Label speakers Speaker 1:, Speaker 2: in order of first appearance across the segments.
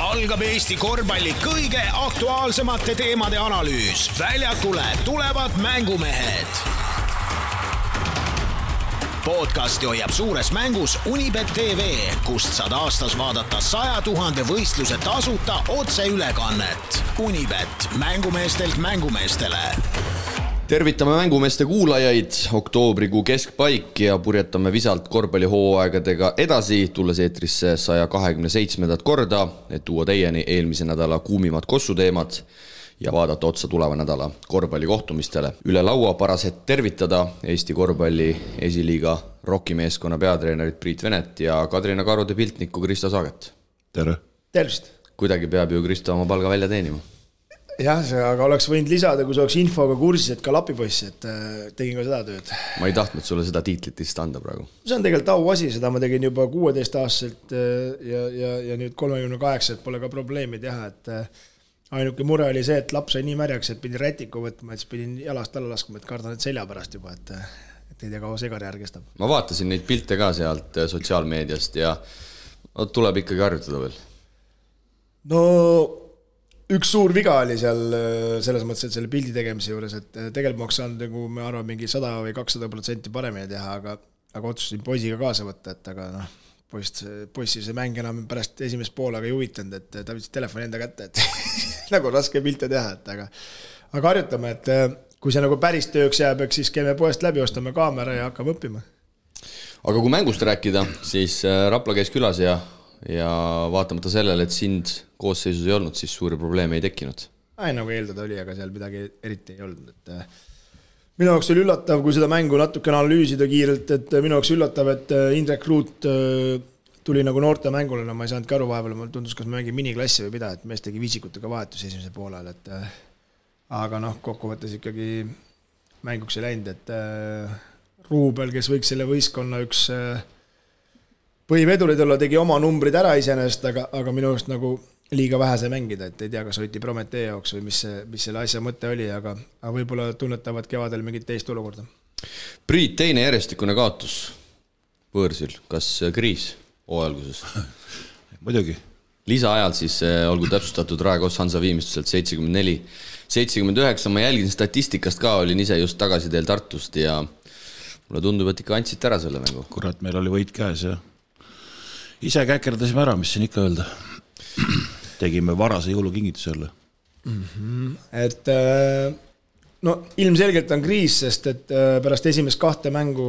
Speaker 1: algab Eesti korvpalli kõige aktuaalsemate teemade analüüs. Väljakule tulevad mängumehed. Podcasti hoiab suures mängus Unibet TV, kust saad aastas vaadata 100 000 võistluse tasuta otseülekannet. Unibet, mängumeestelt mängumeestele.
Speaker 2: Tervitame mängumeeste kuulajaid, oktoobrikuu keskpaik ja purjetame visalt korvpallihooaegadega edasi, tulles eetrisse 127. korda, et tuua teieni eelmise nädala kuumimad kossuteemad ja vaadata otsa tuleva nädala korvpallikohtumistele. Üle laua paras hetk tervitada Eesti korvpalli esiliiga rockimeeskonna peatreenerit Priit Venet ja Kadrina Karude piltnikku Kristo Saaget.
Speaker 3: Tere!
Speaker 4: Tervist!
Speaker 2: Kuidagi peab ju Kristo oma palga välja teenima.
Speaker 4: Jah, aga oleks võinud lisada, kui see oleks infoga kursis, et ka lapipoiss, et tegin ka seda tööd.
Speaker 2: Ma ei tahtnud sulle seda tiitlit vist anda praegu.
Speaker 4: See on tegelikult auasi, seda ma tegin juba 16-aastaselt ja nüüd 38, et pole ka probleemi teha, et ainuke mure oli see, et laps sai nii märjaks, et pidin rätiku võtma, et pidin jalast alla laskma, et kardan, et selja pärast juba, et ei tea, kaua see karjäär kestab.
Speaker 2: Ma vaatasin neid pilte ka sealt sotsiaalmeediast ja tuleb ikkagi harjutada veel.
Speaker 4: No üks suur viga oli seal selles mõttes, et selle pildi tegemise juures, et tegelikult ma oleks saanud, nagu me arvan, mingi 100 või 200% paremini teha, aga otsustasin poisiga kaasa võtta, et aga poissi see mäng enam pärast esimest poolega ei huvitanud, et ta võttis telefoni enda kätte, et nagu raske pilte teha, et aga harjutame, et kui see nagu päris tööks jääb, siis käime poest läbi, ostame kaamera ja hakkame õppima.
Speaker 2: Aga kui mängust rääkida, siis Rapla käis külas ja vaatamata sellele, et sind koosseisus ei olnud, siis suuri probleeme ei tekkinud.
Speaker 4: Nagu eeldada oli, aga seal midagi eriti ei olnud. Minu jaoks oli üllatav, kui seda mängu natukene analüüsida kiirelt, et minu jaoks üllatav, et Indrek Ruut tuli nagu noorte mängule, ma ei saanud aru vahepeal, mul tundus, kas ma mängin miniklassi või mida, et mees tegi viisikutega vahetus esimese poolel, aga kokkuvõttes ikkagi mänguks ei läinud, et Ruubel, kes võiks selle võistkonna üks põhivedurid olla, tegi oma numbrid ära iseenesest, aga minu arust nagu liiga vähe sai mängida, et ei tea, kas hoiti Prometee jaoks või mis selle asja mõte oli, aga võib-olla tunnetavad kevadel mingit teist olukorda.
Speaker 2: Priit, teine järjestikune kaotus võõrsil, kas kriis hooajalguses?
Speaker 3: Muidugi.
Speaker 2: Lisaajal siis olgu täpsustatud Raekos Hansa viimistluselt 74-79, ma jälgin statistikast ka, olin ise just tagasi teel Tartust ja mulle tundub, et ikka andsite ära selle mängu.
Speaker 3: Kurat, meil oli võit käes ja ise käkerdasime ära, mis siin ikka öelda. Tegime varase jõulukingituse jälle.
Speaker 4: Et ilmselgelt on kriis, sest et pärast esimest 2 mängu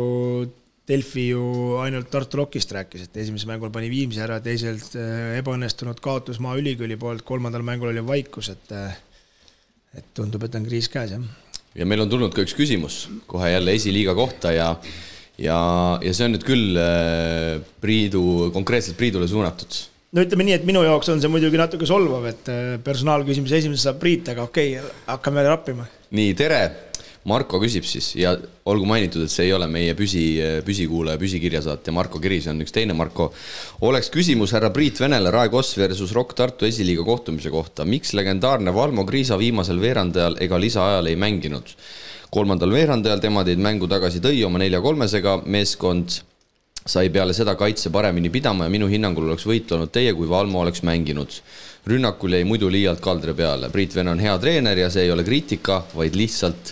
Speaker 4: Delfi ju ainult Tartu Rockist rääkis, et esimese mängul pani Viimsi ära, teiselt ebaõnnestunud kaotus Maa Ülikooli poolt, 3. mängul oli vaikus, et tundub, et on kriis käes, jah.
Speaker 2: Ja meil on tulnud ka üks küsimus kohe jälle esiliiga kohta ja see on nüüd küll konkreetselt Priidule suunatud.
Speaker 4: No ütleme nii, et minu jaoks on see muidugi natuke solvav, et personaalküsimus esimese saab Priit, aga okei, hakkame rappima.
Speaker 2: Nii, tere! Marko küsib siis ja olgu mainitud, et see ei ole meie püsikuulaja, püsikirjasaat ja Marko Kiris on üks teine Marko. Oleks küsimus härra Priit Venele Raekos versus Rock Tartu esiliiga kohtumise kohta. Miks legendaarne Valmo Kriisa viimasel veerandajal ega lisaajal ei mänginud? 3. veerandajal tema teid mängu tagasi tõi oma 4-3-sega, meeskond sai peale seda kaitse paremini pidama ja minu hinnangul oleks võit olnud teie, kui Valmo oleks mänginud. Rünnakul jäi muidu liialt kaldre peale. Priit Vene on hea treener ja see ei ole kriitika, vaid lihtsalt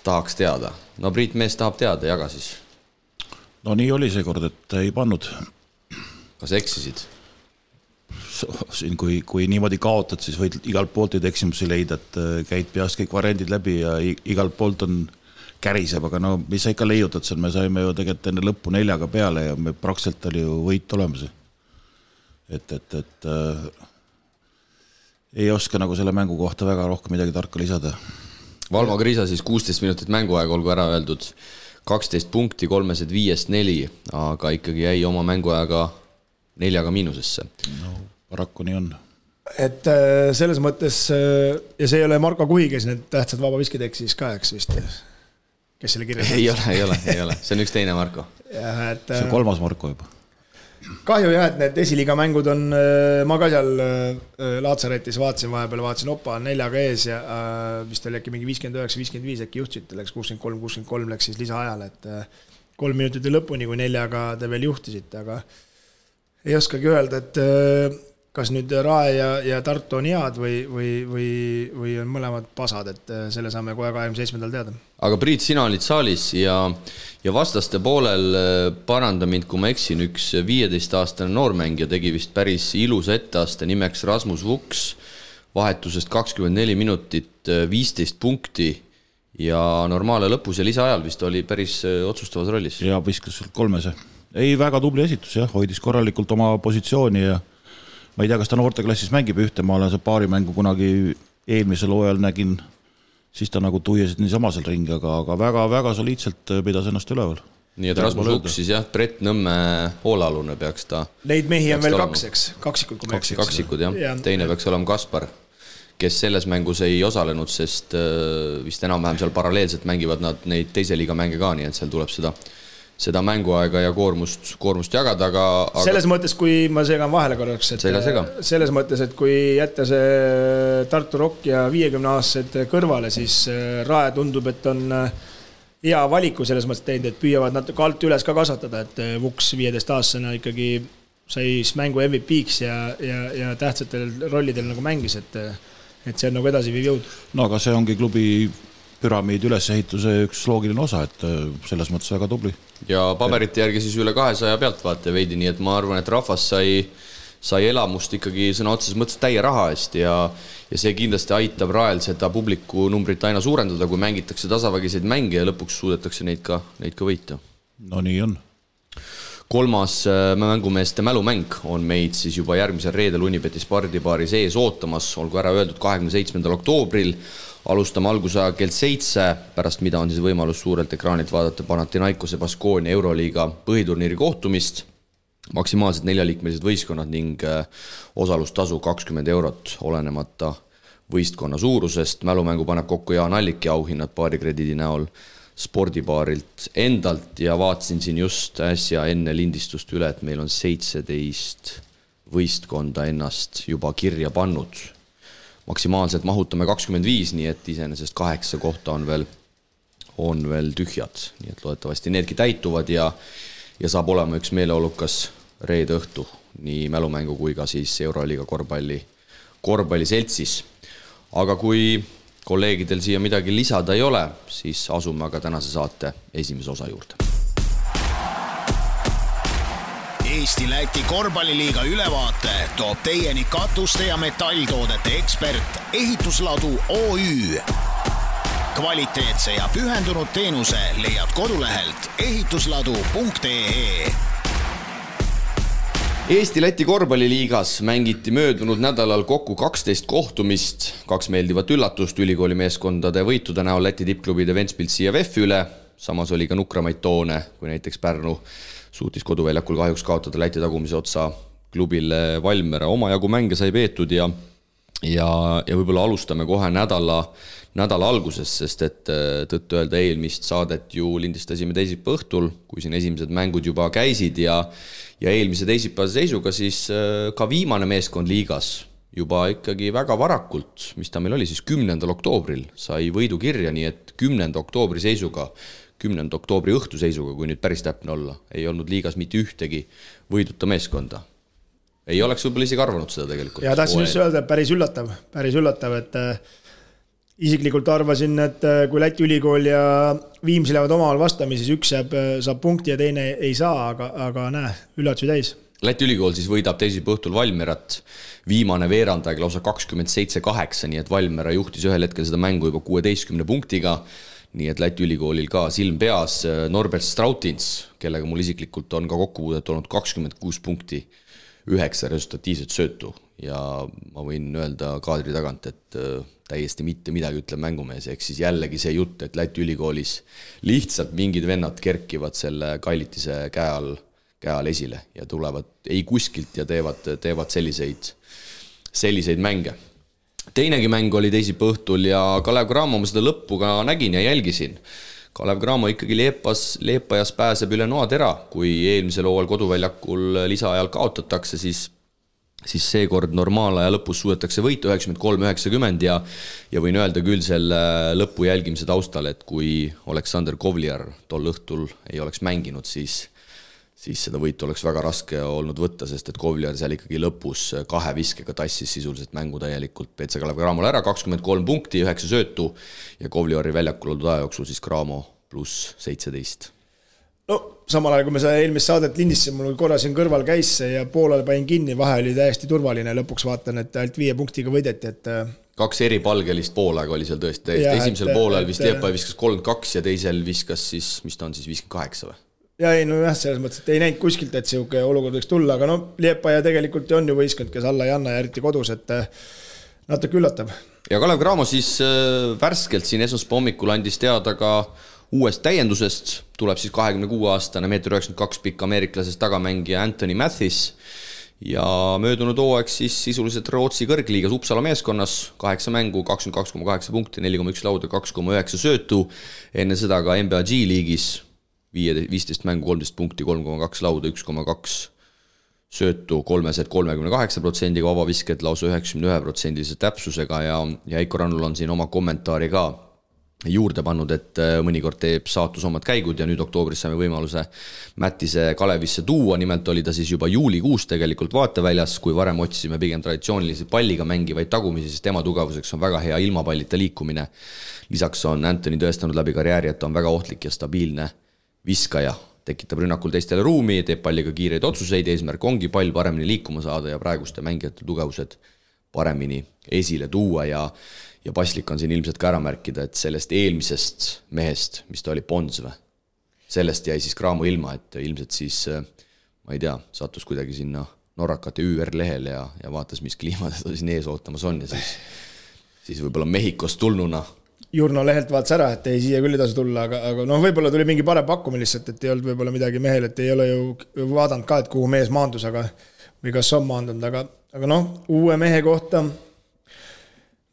Speaker 2: tahaks teada. No Priit mees tahab teada, jaga siis.
Speaker 3: No nii oli see kord, et ei pannud.
Speaker 2: Kas eksisid?
Speaker 3: Siin, kui niimoodi kaotad, siis võid igalt poolt eksimusi leida, et käid peast kõik variandid läbi ja igalt poolt on käriseb, aga no mis sa ikka leiutad seal, me saime ju tegelikult enne lõppu 4 peale ja me praktiliselt oli ju võit olemas. Et ei oska nagu selle mängu kohta väga rohkem midagi tarka lisada.
Speaker 2: Valmo Kriisa siis 16 minutit mänguaega, olgu ära öeldud 12 punkti, 3-5-4, aga ikkagi jäi oma mänguaega 4 miinusesse.
Speaker 3: No, paraku nii on.
Speaker 4: Et selles mõttes, ja see ei ole Marko Kuhi, kes need tähtsad vabaviskid eksis ka, eks vist, kes selle kirjas?
Speaker 2: Ei ole, see on üks teine Marko.
Speaker 3: See on 3. Marko juba.
Speaker 4: Kahju jah, et need esiliiga mängud on, ma ka seal Laatsaretis vaatasin opa 4 ees ja vist oli äkki mingi 59-55 äkki juhtisid, läks 63-63 läks siis lisaajal, et 3 minutit lõpuni, kui 4 te veel juhtisite, aga ei oskagi öelda, et kas nüüd Rae ja Tartu on head või on mõlemad pasad, et selle saame kohe 27. teada.
Speaker 2: Aga Priit, sina olid saalis ja vastaste poolel, paranda mind, kui ma eksin, üks 15-aastane noormängija tegi vist päris ilusa etteaste nimeks Rasmus Vuks, vahetusest 24 minutit, 15 punkti ja normaale lõpus ja lisaajal vist oli päris otsustavas rollis.
Speaker 3: Ja viskas 3. Ei, väga tubli esitus, jah, hoidis korralikult oma positsiooni ja ma ei tea, kas ta noorteklassis mängib ühte, ma olen see paarimängu kunagi eelmisel hooajal nägin, siis ta nagu tuiesid niisama seal ringi, aga väga soliidselt pidas ennast üleval.
Speaker 2: Nii et Rasmus Vuks siis jah, Brett Nõmme hoolealune peaks ta.
Speaker 4: Neid mehi on veel kaks, eks? Kaksikud, kui
Speaker 2: me kaksikud, jah. Teine peaks olema Kaspar, kes selles mängus ei osalenud, sest vist enam-vähem seal paralleelselt mängivad nad neid teise liiga mänge ka, nii et seal tuleb seda mänguaega ja koormust jagada, aga
Speaker 4: selles mõttes, kui ma segan vahele korraks, et selles mõttes, et kui jätta see Tartu Rock ja 50-aastased kõrvale, siis Rae tundub, et on hea valiku selles mõttes teinud, et püüavad natuke alt üles ka kasvatada, et Vuks 15-aastasena ikkagi sai mängu MVP-ks ja tähtsatel rollidel nagu mängis, et see on nagu edasi viiv jõud.
Speaker 3: No aga see ongi klubi püramiid ülesehituse üks loogiline osa, et selles mõttes väga tubli.
Speaker 2: Ja paberite järgi siis üle 200 pealtvaate veidi, nii et ma arvan, et rahvas sai elamust ikkagi sõna otseses mõttes täie raha eest ja see kindlasti aitab Rael seda publiku numbrit aina suurendada, kui mängitakse tasavägiseid mänge ja lõpuks suudetakse neid ka võita.
Speaker 3: No nii on.
Speaker 2: 3. mängumeeste mälumäng on meid siis juba järgmisel reedel Unibeti spordibaari sees ootamas, olgu ära öeldud 27. oktoobril. Alustame algusaja kell 7, pärast mida on siis võimalus suurelt ekraanilt vaadata Panathinaikose Baskonia Euroliiga põhiturniiri kohtumist. Maksimaalselt 4-liikmelised võistkonnad ning osalustasu 20 €, olenemata võistkonna suurusest. Mälumängu paneb kokku Jaan Allik ja auhinnad paarikrediidi näol spordibaarilt endalt ja vaatasin siin just äsja enne lindistust üle, et meil on 17 võistkonda ennast juba kirja pannud. Maksimaalselt mahutame 25, nii et iseenesest 8 kohta on veel tühjad. Nii et loodetavasti needki täituvad ja saab olema üks meeleolukas reede õhtu nii mälumängu kui ka siis Euroliiga korvpalliseltsis. Aga kui kolleegidel siia midagi lisada ei ole, siis asume aga tänase saate esimese osa juurde.
Speaker 1: Eesti-Läti korvpalliliiga ülevaate toob teieni katuste ja metalltoodete ekspert Ehitusladu OÜ. Kvaliteetse ja pühendunud teenuse leiad kodulehelt ehitusladu.ee.
Speaker 2: Eesti-Läti korvpalliliigas mängiti möödunud nädalal kokku 12 kohtumist, 2 meeldivat üllatust ülikooli meeskondade võitude näol Läti tippklubide Ventspils CFF üle, samas oli ka nukramaid toone, kui näiteks Pärnu suutis koduväljakul kahjuks kaotada Läti tagumise otsa klubile Valmiera. Omajagu mänge sai peetud ja võib-olla alustame kohe nädala alguses, sest et tõtt öelda eelmist saadet ju lindistasime teisipäeva õhtul, kui siin esimesed mängud juba käisid ja eelmise teisipäeva seisuga siis ka viimane meeskond liigas juba ikkagi väga varakult, mis ta meil oli siis 10. oktoobril, sai võidu kirja, nii et 10. oktoobri seisuga 10. oktoobri õhtu seisuga, kui nüüd päris täpne olla, ei olnud liigas mitte ühtegi võiduta meeskonda. Ei oleks võib-olla isegi arvanud seda tegelikult.
Speaker 4: Ja tahtsin just öelda, päris üllatav, et isiklikult arvasin, et kui Läti ülikool ja Viimsi lähevad omavahel vastami, siis üks saab punkti ja teine ei saa, aga näe, üllatusi täis.
Speaker 2: Läti ülikool siis võidab teisipäeva õhtul Valmierat, viimane veerandaeg lausa 27-8, nii et Valmiera juhtis ühel hetkel seda mängu juba 16 punktiga. Nii et Läti ülikoolil ka silm peas. Norbert Strautins, kellega mul isiklikult on ka kokkupuudet olnud 26 punkti, 9 resultatiivset söötu ja ma võin öelda kaadri tagant, et täiesti mitte midagi ütleb mängumees, ehk siis jällegi see jutt, et Läti ülikoolis lihtsalt mingid vennad kerkivad selle Kailitise käe all esile ja tulevad ei kuskilt ja teevad selliseid mänge. Teinegi mäng oli teisipäeva õhtul ja Kalev Cramo ma seda lõppu ka nägin ja jälgisin. Kalev Cramo ikkagi Leepajas pääseb üle noatera, kui eelmisel hooajal koduväljakul lisaajal kaotatakse, siis seekord normaalaja lõpus suudetakse võita 93-90 ja võin öelda küll selle lõpu jälgimise taustal, et kui Aleksander Kovliar tol õhtul ei oleks mänginud, siis siis seda võitu oleks väga raske olnud võtta, sest et Kovliar seal ikkagi lõpus 2 viskega tassis sisuliselt mängu täielikult PC Kalev Cramole ära, 23 punkti, 9 söötu ja Kovliari väljakul oldud aja jooksul siis Cramo pluss 17.
Speaker 4: No samal ajal, kui me seda eelmist saadet lindistasime, mul korra siin kõrval käis ja poolel panin kinni, vahe oli täiesti turvaline, lõpuks vaatan, et ainult 5 punktiga võideti, et
Speaker 2: 2 eripalgelist poolaega oli seal tõesti, esimesel poolel vist Liepaja viskas 32 ja teisel viskas siis, mis ta on siis, 58 või?
Speaker 4: Ja ei, no jah, selles mõttes, et ei näinud kuskilt, et sihuke olukord võiks tulla, aga no Liepaja tegelikult on ju võistkond, kes alla ei anna ja eriti kodus, et natuke üllatav.
Speaker 2: Ja Kalev Cramo siis värskelt siin esmaspäeva hommikul andis teada ka uuest täiendusest, tuleb siis 26-aastane, 1,92 m pikk ameeriklasest tagamängija Anthony Mathis ja möödunud hooaeg siis sisuliselt Rootsi kõrgliigas Uppsala meeskonnas, 8 mängu, 22,8 punkti, 4,1 lauda, 2,9 söötu, enne seda ka NBA G-liigis 15 mängu, 13 punkti, 3,2 lauda, 1,2 söötu, 38% vabavisked lausa 91% täpsusega ja Heiko Rannul on siin oma kommentaari ka juurde pannud, et mõnikord teeb saatus omad käigud ja nüüd oktoobris saime võimaluse Mättise Kalevisse tuua, nimelt oli ta siis juba juulikuus tegelikult vaateväljas, kui varem otsisime pigem traditsioonilisi palliga mängivaid tagumisi, sest tema tugevuseks on väga hea ilmapallita liikumine. Lisaks on Anthony tõestanud läbi karjääri, et ta on väga ohtlik ja stabiilne viskaja, tekitab rünnakul teistele ruumi, teeb palliga kiireid otsuseid, eesmärk ongi pall paremini liikuma saada ja praeguste mängijate tugevused paremini esile tuua ja paslik on siin ilmselt ka ära märkida, et sellest eelmisest mehest, mis ta oli Pons või, sellest jäi siis Cramo ilma, et ilmselt siis, ma ei tea, sattus kuidagi sinna Norrakate ÜR lehele ja vaatas, mis kliima teda siin ees ootamas on ja siis võib-olla Mehhikost tulnuna
Speaker 4: Jurno lehelt vaatas ära, et ei, siia küll ei tasu tulla, aga noh, võib-olla tuli mingi parem pakkumine lihtsalt, et ei olnud võib-olla midagi mehel, et ei ole ju vaadanud ka, et kuhu mees maandus, või kas on maandunud, aga noh, uue mehe kohta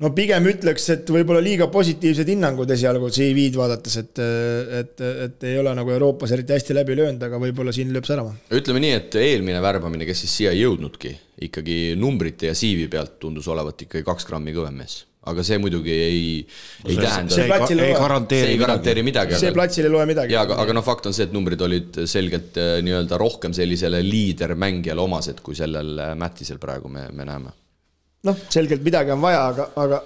Speaker 4: no pigem ütleks, et võib-olla liiga positiivsed hinnangud esialgu CV-d vaadates, et ei ole nagu Euroopas eriti hästi läbi löönud, aga võib-olla siin lööb särama.
Speaker 2: Ütleme nii, et eelmine värbamine, kes siis siia ei jõudnudki, ikkagi numbrite ja CV pealt tundus olevat ikkagi 2 grammi kõvem mees. Aga see muidugi ei tähenda...
Speaker 3: See ei
Speaker 2: garanteeri midagi.
Speaker 4: See platsil ei loe midagi.
Speaker 2: Ja, aga no fakt on see, et numbrid olid selgelt nii-öelda rohkem sellisele liidermängijale omased, kui sellel Mättisel praegu me näeme.
Speaker 4: Noh, selgelt midagi on vaja,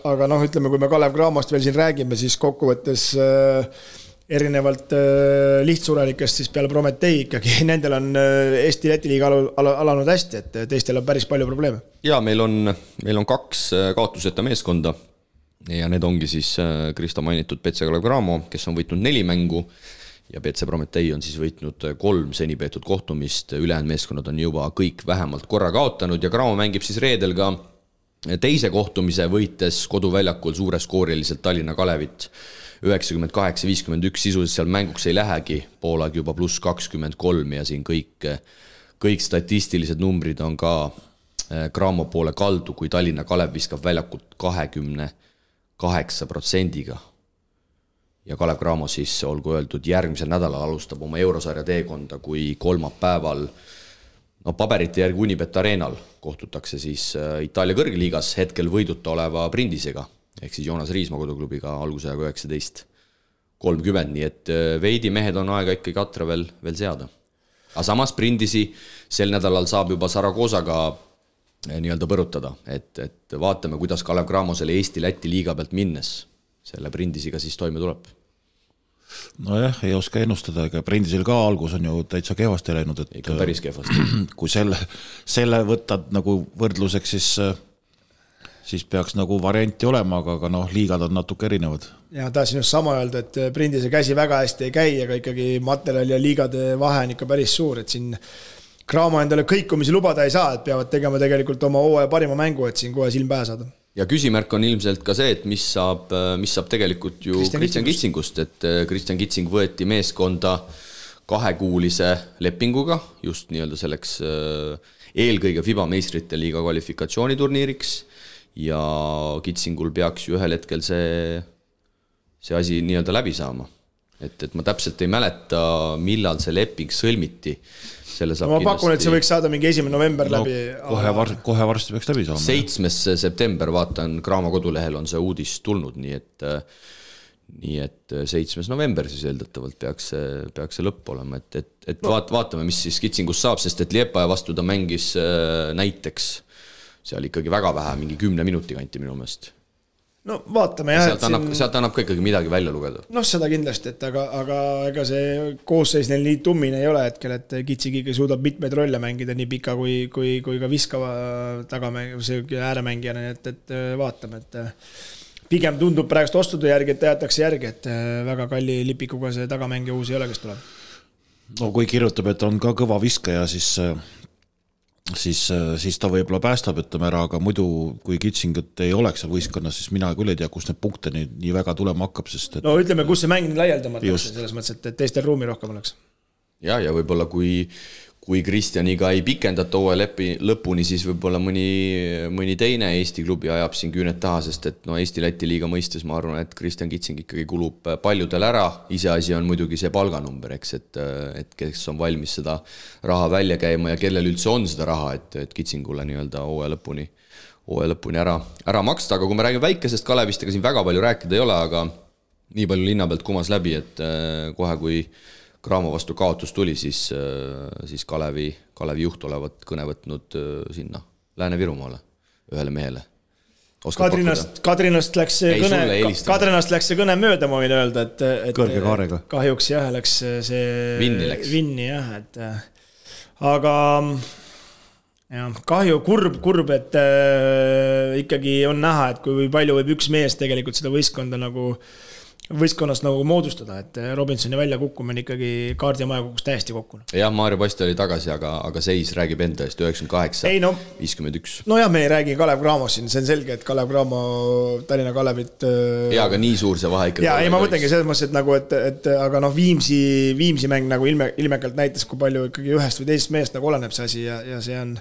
Speaker 4: aga noh, ütleme, kui me Kalev Cramost veel siin räägime, siis kokkuvõttes erinevalt lihtsurelikest siis peale Prometei ikkagi, nendel on Eesti Läti liiga alanud hästi, et teistel on päris palju probleeme.
Speaker 2: Ja meil on 2 kaotuseta meeskonda ja need ongi siis Krista mainitud PC Kalev Cramo, kes on võitnud 4 mängu ja PC Prometei on siis võitnud 3 seni peetud kohtumist, ülejäänud meeskonnad on juba kõik vähemalt korra kaotanud ja Cramo mängib siis reedel ka teise kohtumise võites koduväljakul suureskooriliselt Tallinna Kalevit 98-51, sisuliselt seal mänguks ei lähegi, poolaeg juba pluss 23 ja siin kõik statistilised numbrid on ka Cramo poole kaldu, kui Tallinna Kalev viskab väljakult 28%. Ja Kalev Cramo siis, olgu öeldud, järgmisel nädalal alustab oma eurosarja teekonda, kui kolmapäeval paberite järgi Unibet Arenal kohtutakse siis Itaalia kõrgliigas hetkel võiduta oleva Brindisega, ehk siis Joonas Riismaa koduklubiga algusajaga 19:30, nii et veidi mehed on aega ikkagi katra veel seada. Aga samas Brindisi sel nädalal saab juba Saragoosaga nii-öelda põrutada, et vaatame, kuidas Kalev Cramo selle Eesti-Läti liiga pealt minnes selle Brindisiga siis toime tuleb.
Speaker 3: Nojah, ei oska ennustada, ega Brindisel ka algus on ju täitsa kehvasti läinud, et
Speaker 2: ikka päris kehvasti.
Speaker 3: Kui selle võtad nagu võrdluseks, siis peaks nagu varianti olema, aga noh, liigad on natuke erinevad.
Speaker 4: Ja tahasin just sama öelda, et Brindise käsi väga hästi ei käi, aga ikkagi materjali ja liigade vahe on ikka päris suur, et siin Cramo endale kõikumisi lubada ei saa, et peavad tegema tegelikult oma hooaja parima mängu, et siin kohe silm pähe saada.
Speaker 2: Ja küsimärk on ilmselt ka see, et mis saab tegelikult ju Kristjan Kitsingust, et Kristjan Kitsing võeti meeskonda 2-kuulise lepinguga, just nii-öelda selleks eelkõige FIBA meistrite liiga kvalifikatsiooniturniiriks ja Kitsingul peaks ju ühel hetkel see asi nii-öelda läbi saama. Et ma täpselt ei mäleta, millal see leping sõlmiti.
Speaker 4: Ma pakun, et see võiks saada mingi 1. november läbi.
Speaker 3: Kohe varsti peaks läbi saama.
Speaker 2: 7. september, vaatan, Cramo kodulehel on see uudis tulnud, nii nii et 7. november siis eeldatavalt peaks see lõpp olema, et vaatame, mis siis Kitsingus saab, sest et Liepaja vastu ta mängis näiteks seal ikkagi väga vähe, mingi 10 minuti kanti minu meelest.
Speaker 4: No vaatame jah.
Speaker 2: Sealt annab ka ikkagi midagi välja lugeda.
Speaker 4: No seda kindlasti, et aga ega see koosseis neil nii tummine ei ole hetkel, et Kitsingigi suudab mitmeid rolle mängida nii pika kui ka viskava ääremängijana, et vaatame, et pigem tundub praegust ostude järgi, et jäetakse järgi, et väga kalli lipikuga see tagamängija uus ei ole, kes tuleb.
Speaker 3: No kui kirjutab, et on ka kõva viskaja, siis ta võib-olla päästab, ütleme ära, aga muidu kui Kitsingut ei oleks seal võistkonnas, siis mina küll ei tea, kus need punkte nii väga tulema hakkab, sest
Speaker 4: no ütleme, kus see mäng laialdamatakse selles mõttes, et teistel ruumi rohkem oleks.
Speaker 2: Ja võib-olla kui Kristjaniga ei pikendata hooaja lõpuni, siis võib-olla mõni teine Eesti klubi ajab siin küüned taha, sest et Eesti-Läti liiga mõistes ma arvan, et Kristjan Kitsing ikkagi kulub paljudel ära. Iseasi on muidugi see palganumber, eks, et kes on valmis seda raha välja käima ja kellel üldse on seda raha, et Kitsingule nii-öelda hooaja lõpuni ära maksta. Aga kui me räägime väikesest Kalevist, ega siin väga palju rääkida ei ole, aga nii palju linna pealt kumas läbi, et kohe kui Graamo vastu kaotus tuli, siis Kalevi juht olevat kõne võtnud sinna Lääne-Virumaale ühele mehele.
Speaker 4: Kadrinast läks see kõne mööda, ma võin öelda, et
Speaker 3: kõrge kaarega.
Speaker 4: Kahjuks jah, läks see vinni jah, et aga jah, kahju, kurb, et ikkagi on näha, et kui palju võib üks mees tegelikult seda võistkonnast nagu moodustada, et Robinsoni välja kukkumine ikkagi kaardi ja maja kukkus täiesti kokku.
Speaker 2: Jah, Maarja Posti oli tagasi, aga seis räägib enda eest 98-51.
Speaker 4: No jah, me ei räägi Kalev Cramos siin, see on selge, et Kalev Cramo Tallinna Kalevit
Speaker 2: ja, aga nii suur see vahe ikkagi.
Speaker 4: Ja ei, ma mõtlengi selles mõttes, et nagu, et aga Viimsi mäng nagu ilmekalt näitas, kui palju ikkagi ühest või teisest meest nagu oleneb see asi ja see on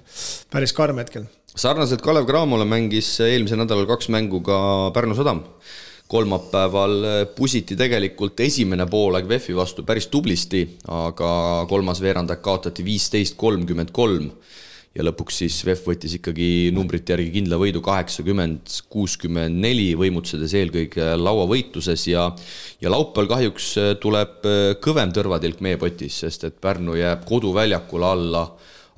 Speaker 4: päris karm hetkel.
Speaker 2: Sarnaselt Kalev Cramole mängis eelmise nädalal 2 mängu ka Pärnu Sadam. Kolmapäeval pusiti tegelikult esimene poolaeg VEF-i vastu päris tublisti, aga kolmas veerandak kaotati 15-33 ja lõpuks siis VEF võttis ikkagi numbrite järgi kindla võidu 80-64, võimutsedes eelkõige lauavõitluses ja laupäeval kahjuks tuleb kõvem tõrvatilk meie potis, sest et Pärnu jääb koduväljakule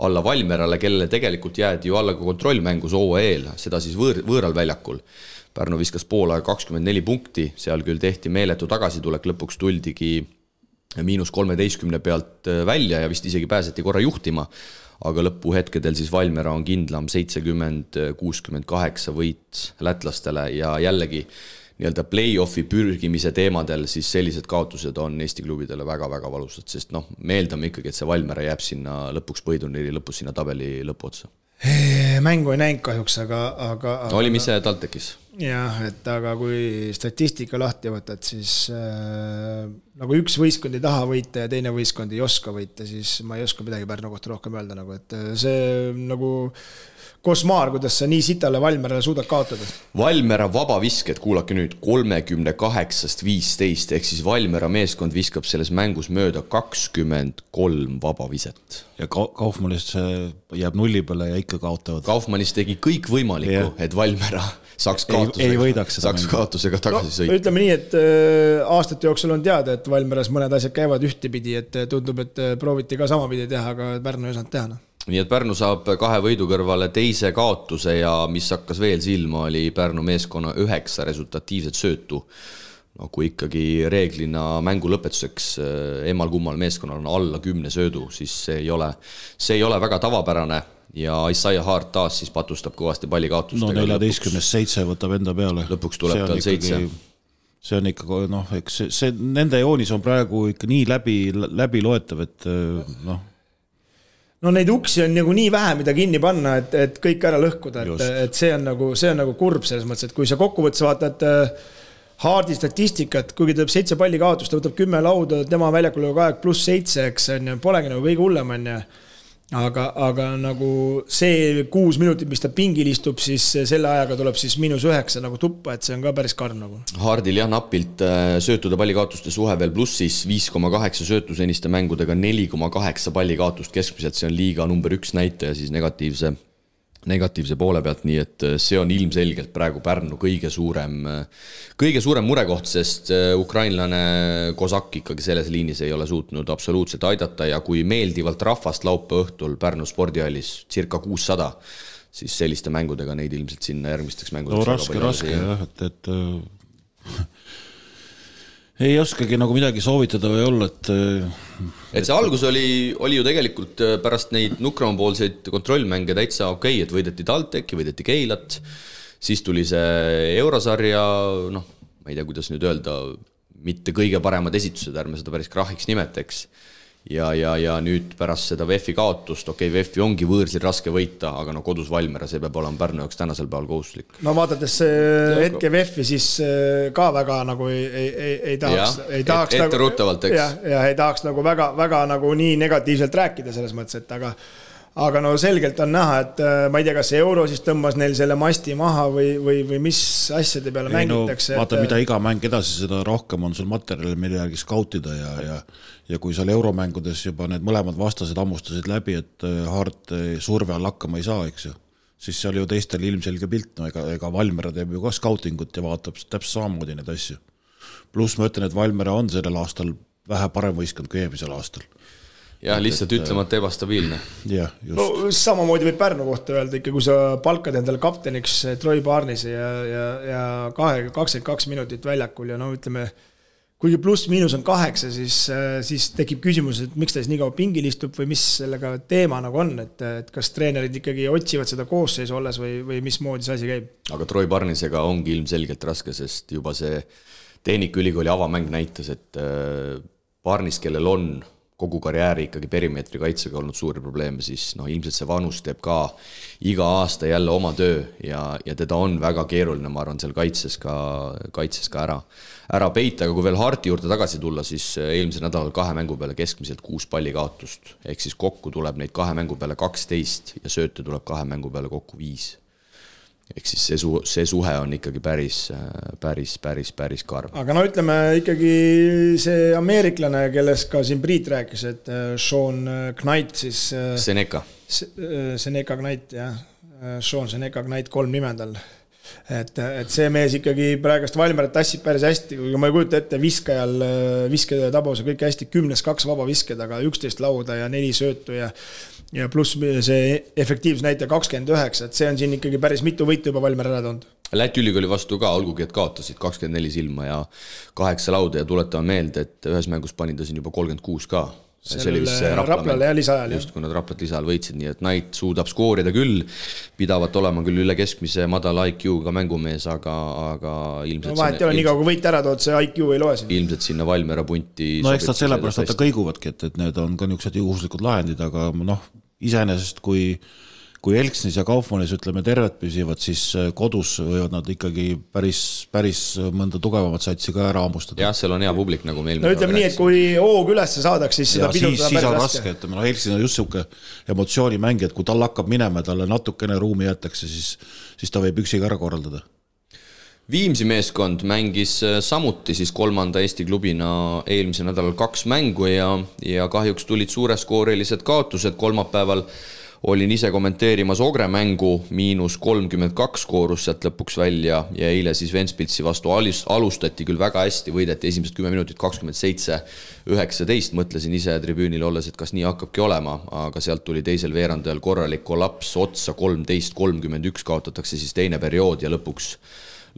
Speaker 2: alla Valmerale, kellele tegelikult jäädi ju alla ka kontrollmängus OEL, seda siis võõral väljakul. Pärnu viskas poolaega 24 punkti, seal küll tehti meeletu tagasitulek, lõpuks tuldigi -13 pealt välja ja vist isegi pääseti korra juhtima, aga lõpuhetkedel siis Valmera on kindlam 70-68 võit lätlastele ja jällegi nii-öelda play-offi pürgimise teemadel siis sellised kaotused on Eesti klubidele väga-väga valusad, sest me eeldame ikkagi, et see Valmera jääb sinna lõpuks põhiturniiri lõpus sinna tabeli lõpuotsa.
Speaker 4: Mängu ei näinud kahjuks, aga
Speaker 2: oli mis see TalTechis?
Speaker 4: Jah, et aga kui statistika lahti võtad, siis nagu üks võistkond ei taha võita ja teine võistkond ei oska võita, siis ma ei oska midagi Pärnu kohta rohkem öelda, nagu, et see nagu kosmaar, kuidas sa nii sitale Valmerale suudad kaotada.
Speaker 2: Valmera vabavisked, kuulake nüüd, 38-15, ehk siis Valmera meeskond viskab selles mängus mööda 23 vabaviset.
Speaker 3: Ja Kaufmannist jääb nulli peale ja ikka kaotavad.
Speaker 2: Kaufmannist tegi kõik võimalikku, et Valmera saaks kaotusega tagasi sõita.
Speaker 4: Ütleme nii, et aastate jooksul on teada, et Valmeras mõned asjad käivad ühtepidi, et tundub, et prooviti ka samapidi teha, aga Pärnu ei osanud teha.
Speaker 2: Nii et Pärnu saab 2 võidu kõrvale teise kaotuse ja mis hakkas veel silma, oli Pärnu meeskonna 9 resultatiivset söötu. No, kui ikkagi reeglina mängu lõpetuseks emal kummal meeskonnal on alla 10 söödu, siis see ei ole väga tavapärane ja Isaiah Hart taas siis patustab kõvasti pallikaotustega.
Speaker 3: No 14-7 võtab enda peale.
Speaker 2: Lõpuks tuleb tal 7.
Speaker 3: See on ikka, eks see nende joonis on praegu ikka nii läbi loetav, et
Speaker 4: No neid uksi on nagu nii vähe, mida kinni panna, et kõik ära lõhkuda, et see on nagu kurb selles mõttes, et kui sa kokkuvõttes vaatad Hardi statistikat, kuigi ta 7 palli kaotust, ta võtab 10 lauda, tema väljakul on aeg +7, eks polegi nagu kõige hullem, aga nagu see 6 minutit, mis ta pingil istub, siis selle ajaga tuleb siis -9 nagu tuppa, et see on ka päris karm nagu.
Speaker 2: Hardil jah napilt söötude pallikaotuste suhe veel plussis 5,8 söötu seniste mängudega 4,8 pallikaotust keskmiselt, see on liiga number 1 näitaja siis negatiivse poole pealt, nii et see on ilmselgelt praegu Pärnu kõige suurem murekoht, sest ukrainlane Kozak ikkagi selles liinis ei ole suutnud absoluutselt aidata ja kui meeldivalt rahvast laupäeva õhtul Pärnu spordihallis circa 600, siis selliste mängudega neid ilmselt sinna järgmisteks mängudeks
Speaker 3: raske jah, et ei oskagi nagu midagi soovitada või olla,
Speaker 2: et see algus oli ju tegelikult pärast neid nukramapoolseid kontrollmänge täitsa okei, et võideti TalTechi, võideti Keilat, siis tuli see Eurosarja, ma ei tea, kuidas nüüd öelda, mitte kõige paremad esitused, ärme seda päris krahiks nimeteks. Ja nüüd pärast seda VEF-i kaotust, VEF-i ongi võõrsil raske võita, aga kodus Valmiera, see peab olema Pärnu jaoks tänasel päeval kohustuslik.
Speaker 4: No vaadates hetke VEF-i, siis ka väga nagu ei tahaks
Speaker 2: etteruttavalt, eks.
Speaker 4: Ja ei tahaks nagu väga nagu nii negatiivselt rääkida selles mõttes, et aga no selgelt on näha, et ma ei tea, kas Euro siis tõmbas neil selle masti maha või mis asjade peale mängitakse.
Speaker 3: Vaata, mida iga mäng edasi, seda rohkem on sul materjali, mille järgi skautida ja kui seal euromängudes juba need mõlemad vastased ammustasid läbi, et Hart surve all hakkama ei saa, eks ju, siis seal ju teistel ilmselge pilt, ega Valmiera teeb ju ka skautingut ja vaatab täpselt samamoodi neid asju. Pluss ma ütlen, et Valmiera on sellel aastal vähe parem võistkond kui eelmisel aastal.
Speaker 2: Jah, lihtsalt ütlemata ebastabiilne.
Speaker 3: Jah, just.
Speaker 4: No samamoodi võib Pärnu kohta öelda ikka, kui sa palkad endale kapteniks Troy Barnesi ja 22 minutit väljakul ja ütleme, kuigi pluss-miinus on 8, siis tekib küsimus, et miks ta siis nii kaua pingil istub või mis sellega teema nagu on, et kas treenerid ikkagi otsivad seda koosseisu olles või mismoodi see asi käib.
Speaker 2: Aga Troy Barnesega ongi ilmselgelt raske, sest juba see Tehnikaülikooli avamäng näitas, et Barnes, kellel on kogu karjääri ikkagi perimeetri kaitsega olnud suuri probleeme, siis ilmselt see vanus teeb ka iga aasta jälle oma töö ja teda on väga keeruline, ma arvan, seal kaitses ka ära peita, aga kui veel Harti juurde tagasi tulla, siis eelmisel nädalal 2 mängu peale keskmiselt 6 palli kaotust, ehk siis kokku tuleb neid 2 mängu peale 12 ja sööte tuleb 2 mängu peale kokku 5. Ehk siis see suhe on ikkagi päris karm.
Speaker 4: Aga ütleme ikkagi see ameeriklane, kellest ka siin Priit rääkis, et Sean Knight siis...
Speaker 2: Seneca
Speaker 4: Knight, jah. Sean Seneca Knight 3 nimendal. Et see mees ikkagi praegust Valmierat tassib päris hästi, kui ma ei kujuta ette viskede tabuse kõik hästi 10-2 vaba visked, aga 11 lauda ja 4 söötu ja pluss see efektiivsus näitaja 29, et see on siin ikkagi päris mitu võitu juba Valmiera ära toonud.
Speaker 2: Läti ülikooli vastu ka, olgugi et kaotasid 24 silma ja 8 lauda ja tuletame meelde, et ühes mängus pani ta siin juba 36 ka. See oli vist
Speaker 4: Raplale ja lisaajal.
Speaker 2: Just, kui nad Raplat lisaajal võitsid, nii et Knight suudab skoorida küll, pidavat olema küll üle keskmise madala IQ-ga mängumees, aga ilmselt...
Speaker 4: No vahet ei ole, nii kaua kui võit ära tood, see IQ ei loe siin.
Speaker 2: Ilmselt sinna Valmiera punti...
Speaker 3: No eks nad sellepärast nad kõiguvadki, et need on ka niisugused juhuslikud lahendid, aga iseenesest kui Elksnis ja Kaufmannis ütleme tervet püsivad, siis kodus võivad nad ikkagi päris mõnda tugevamat satsi ka ära ammustada.
Speaker 2: Jah, seal on hea publik, nagu meil...
Speaker 4: No ütleme nii, et kui hoog ülesse saadaks, siis seda pidutada
Speaker 3: päris raske. Elksnis on just selline emotsioonimängi, et kui tal hakkab minema, talle natukene ruumi jätakse, siis ta võib üksiga ära korraldada.
Speaker 2: Viimsi meeskond mängis samuti siis 3. Eesti klubina eelmisel nädalal 2 mängu ja kahjuks tulid suureskoorilised kaotused. Kolmapäeval olin ise kommenteerimas Ogre mängu, -32 koorus sealt lõpuks välja ja eile siis Ventspilsi vastu alustati küll väga hästi, võideti esimesed 10 minutit 27-19, mõtlesin ise tribüünil olles, et kas nii hakkabki olema, aga sealt tuli teisel veerandajal korralik kollaps otsa, 13-31 kaotatakse siis teine periood ja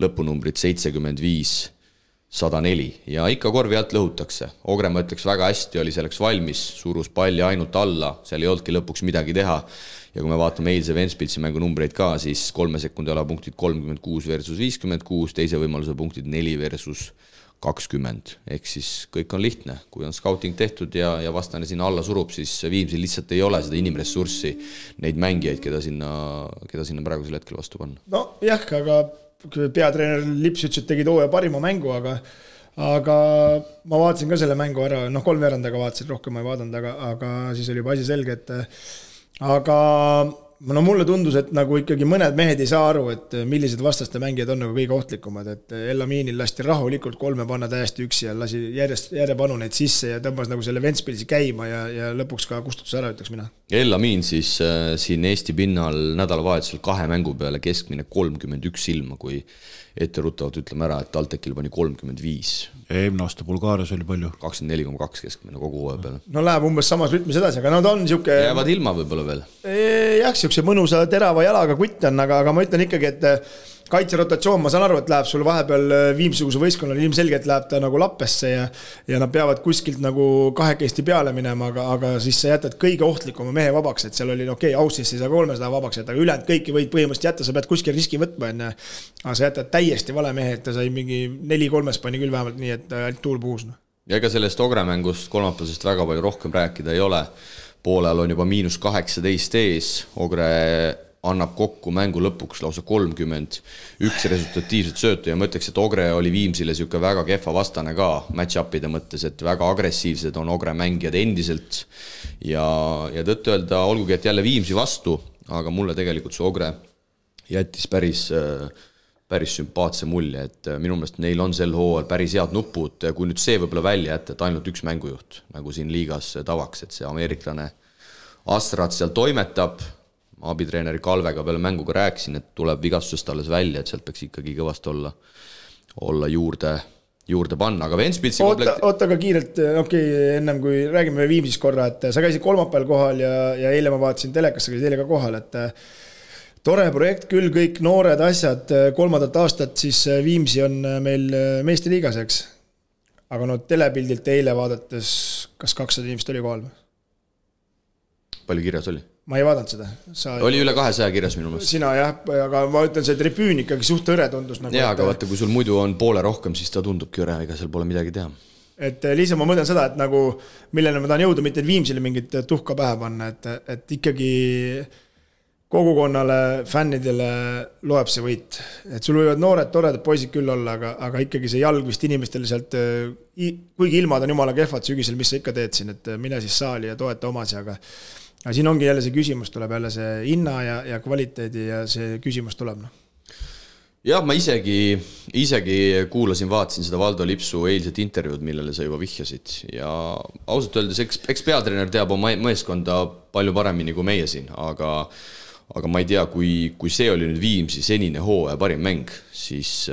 Speaker 2: lõpunumbrid 75-104 ja ikka korvi alt lõhutakse. Ogre, ma ütleks, väga hästi oli selleks valmis, surus palli ainult alla, seal ei olnudki lõpuks midagi teha ja kui me vaatame eilse Ventspilsi mängu numbreid ka, siis 3 sekundi ala punktid 36 versus 56, teise võimaluse punktid 4 versus 20, ehk siis kõik on lihtne, kui on scouting tehtud ja vastane sinna alla surub, siis Viimsil lihtsalt ei ole seda inimressurssi, neid mängijaid, keda sinna praegusel hetkel vastu panna.
Speaker 4: No jah, aga peatreener Lips ütles, et tegid hooaja parima mängu, aga ma vaatasin ka selle mängu ära, 3 veerandaga vaatasin, rohkem ma ei vaadanud, aga siis oli juba asi selge, et aga no mulle tundus, et nagu ikkagi mõned mehed ei saa aru, et millised vastaste mängijad on nagu kõige ohtlikumad, et Elaminil lasti rahulikult 3 panna täiesti üksi ja lasi järjepanu neid sisse ja tõmbas nagu selle Ventspilsi käima ja lõpuks ka kustutus ära, ütleks mina.
Speaker 2: Elamin siis siin Eesti pinnal nädalavahetusel 2 mängu peale keskmine 31 silma, kui etteruttavalt ütleme ära, et TalTechil pani 35.
Speaker 3: Eelmine aasta Bulgaarias oli palju.
Speaker 2: 24,2 keskmine kogu hooaja peale.
Speaker 4: No läheb umbes samas rütmis edasi, aga no ta on siuke...
Speaker 2: Jäävad ilma võib-olla veel.
Speaker 4: Jah, siukse mõnusa terava jalaga kutt on, aga ma ütlen ikkagi, et kaitserotatsioon, ma saan aru, et läheb sul vahepeal Viimsuguse võistkonnal ilmselgelt läheb ta nagu lappesse ja nad peavad kuskilt nagu kahekesti peale minema, aga siis sa jätad kõige ohtlikuma mehe vabaks, et seal oli Aussis ei saa 300 vabaks jätta, aga ülejäänud kõiki võid põhimõtteliselt jätta, sa pead kuskil riski võtma enne, aga sa jätad täiesti vale mehe, et ta sai mingi 4-3 pani küll vähemalt nii, et ainult tuul puhus.
Speaker 2: Ja ega sellest Ogre mängust kolmapäevasest väga palju rohkem rääkida ei ole. Poolel on juba -18 ees, Ogre annab kokku mängu lõpuks lausa 31 resultatiivset söötu ja ma ütleks, et Ogre oli Viimsile siuke väga kehva vastane ka match-upide mõttes, et väga agressiivsed on Ogre mängijad endiselt ja tõtt öelda, olgugi et jälle Viimsi vastu, aga mulle tegelikult see Ogre jättis päris sümpaatse mulje, et minu meelest neil on sel hooajal päris head nupud, kui nüüd see võibolla välja jätta, et ainult üks mängujuht, nagu siin liigas tavaks, et see ameeriklane Astrat seal toimetab, abitreeneri Kalvega peale mänguga rääkisin, et tuleb vigastusest alles välja, et sealt peaks ikkagi kõvast olla juurde panna, aga Ventspilsi
Speaker 4: oota ka kiirelt, ennem kui räägime Viimsist korra, et sa käisid kolmapäeval kohal ja eile ma vaatasin telekasse, käisid eile ka kohal, et tore projekt küll, kõik noored asjad, 3. aastat siis Viimsi on meil meeste liigas, eks? Aga no telepildilt eile vaadates, kas 200 inimest oli kohal?
Speaker 2: Palju kirjas oli?
Speaker 4: Ma ei vaadanud seda.
Speaker 2: Oli üle 200 kirjas minu meelest.
Speaker 4: Sina jah, aga ma ütlen, see tribüün ikkagi suht õre tundus. Nagu,
Speaker 2: jaa, aga vaata, kui sul muidu on poole rohkem, siis ta tundubki õre, ega seal pole midagi teha.
Speaker 4: Et lihtsalt ma mõtlen seda, et nagu, millele ma tahan jõuda, mitte Viimsile mingit tuhka pähe panna, et ikkagi kogukonnale, fännidele loeb see võit. Et sul võivad noored, toredad poisid küll olla, aga ikkagi see jalg vist inimestele sealt, kuigi ilmad on jumala kehvad sügisel, mis sa ikka teed siin, et mine siis saali ja toeta omasi, aga siin ongi jälle see küsimus, tuleb jälle see hinna ja kvaliteedi ja see küsimus tuleb.
Speaker 2: Jah, ma isegi kuulasin, vaatasin seda Valdo Lipsu eilset intervjuud, millele sa juba vihjasid ja ausalt öeldes, eks peatreener teab oma meeskonda palju paremini kui meie siin, aga ma ei tea, kui see oli nüüd Viimsi senine hooaja parim mäng, siis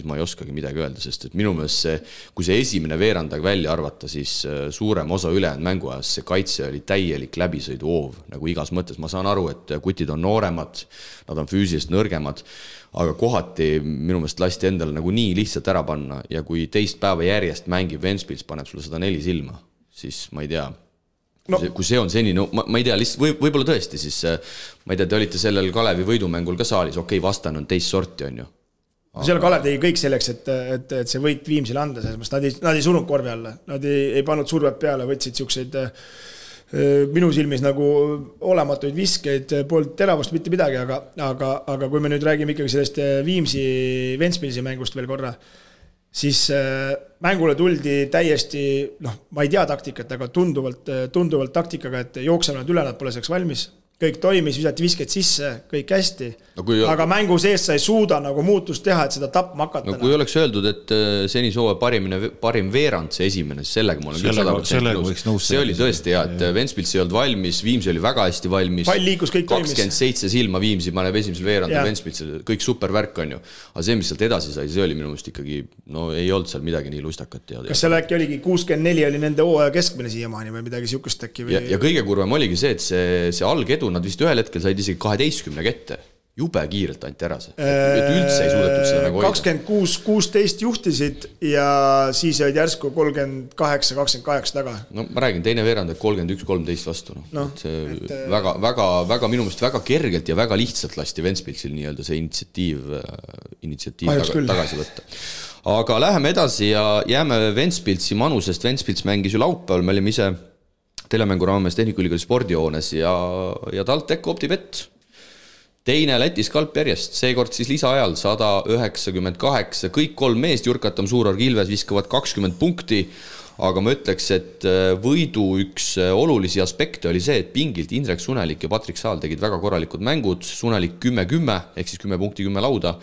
Speaker 2: ma ei oskagi midagi öelda, sest et minu meelest kui see esimene veerandag välja arvata, siis suurem osa ülejäänud mänguajas see kaitse oli täielik läbisõidu hoov, nagu igas mõttes. Ma saan aru, et kutid on nooremad, nad on füüsiliselt nõrgemad, aga kohati minu meelest lasti endale nagu nii lihtsalt ära panna ja kui teist päeva järjest mängib Ventspils, paneb sulle 104 silma, siis ma ei tea, kui see on senini, ma ei tea, lihtsalt võib-olla tõesti, siis ma ei tea, te olite sellel Kalevi võidumängul ka saalis, vastane on teist sorti, on ju.
Speaker 4: Seal Kalev tegi kõik selleks, et see võit Viimsile anda, nad ei sunud korvi alla, nad ei pannud survet peale, võtsid siukseid minu silmis nagu olematuid viskeid, poolt teravust mitte midagi, aga kui me nüüd räägime ikkagi sellest Viimsi Ventspilsi mängust veel korra, siis mängule tuldi täiesti, ma ei tea taktikat, aga tunduvalt taktikaga, et jookseme nad üle, nad pole selleks valmis. Kõik toimis, visati visked sisse, kõik hästi, aga mängu sees sa ei suuda nagu muutust teha, et seda tapma hakata.
Speaker 2: Kui oleks öeldud, et senis hooaja parim veerand see esimene, siis sellega ma olen küll 100% nõus. See oli tõesti hea, et Ventspils ei olnud valmis, Viimsi oli väga hästi valmis.
Speaker 4: Pall liikus, kõik toimis.
Speaker 2: 27 silma Viimsi paneb esimesel veerand ja Ventspils, kõik supervärk on ju. Aga see, mis sealt edasi sai, see oli minu meelest ikkagi, ei olnud seal midagi nii lustakat.
Speaker 4: Kas seal äkki oligi 64 oli nende hooaja keskmine siiamaani või midagi siukest äkki?
Speaker 2: Ja kõige kurvem oligi see, et see algedu nad vist ühel hetkel said isegi 12 kette. Jube kiirelt anti ära see. Et üldse ei suudetud seda nagu
Speaker 4: 26-16 juhtisid ja siis olid järsku 38-28 taga.
Speaker 2: No ma räägin, teine veerand 31-13 vastu. Väga minu meelest väga kergelt ja väga lihtsalt lasti Ventspilsil nii-öelda see initsiatiiv tagasi võtta. Aga läheme edasi ja jääme Ventspilsi manusest. Ventspils mängis ju laupäeval, me olime ise telemängu raames Tehnikaülikooli spordihoones ja TalTech OpTibet. Teine Lätis kalp järjest, seekord siis lisaajal 198, kõik 3 meest, Jurkatam, Suurorg, Ilves viskavad 20 punkti, aga ma ütleks, et võidu üks olulisi aspekte oli see, et pingilt Indrek Sunelik ja Patrik Saal tegid väga korralikud mängud, Sunelik 10-10 ehk siis 10 punkti 10 lauda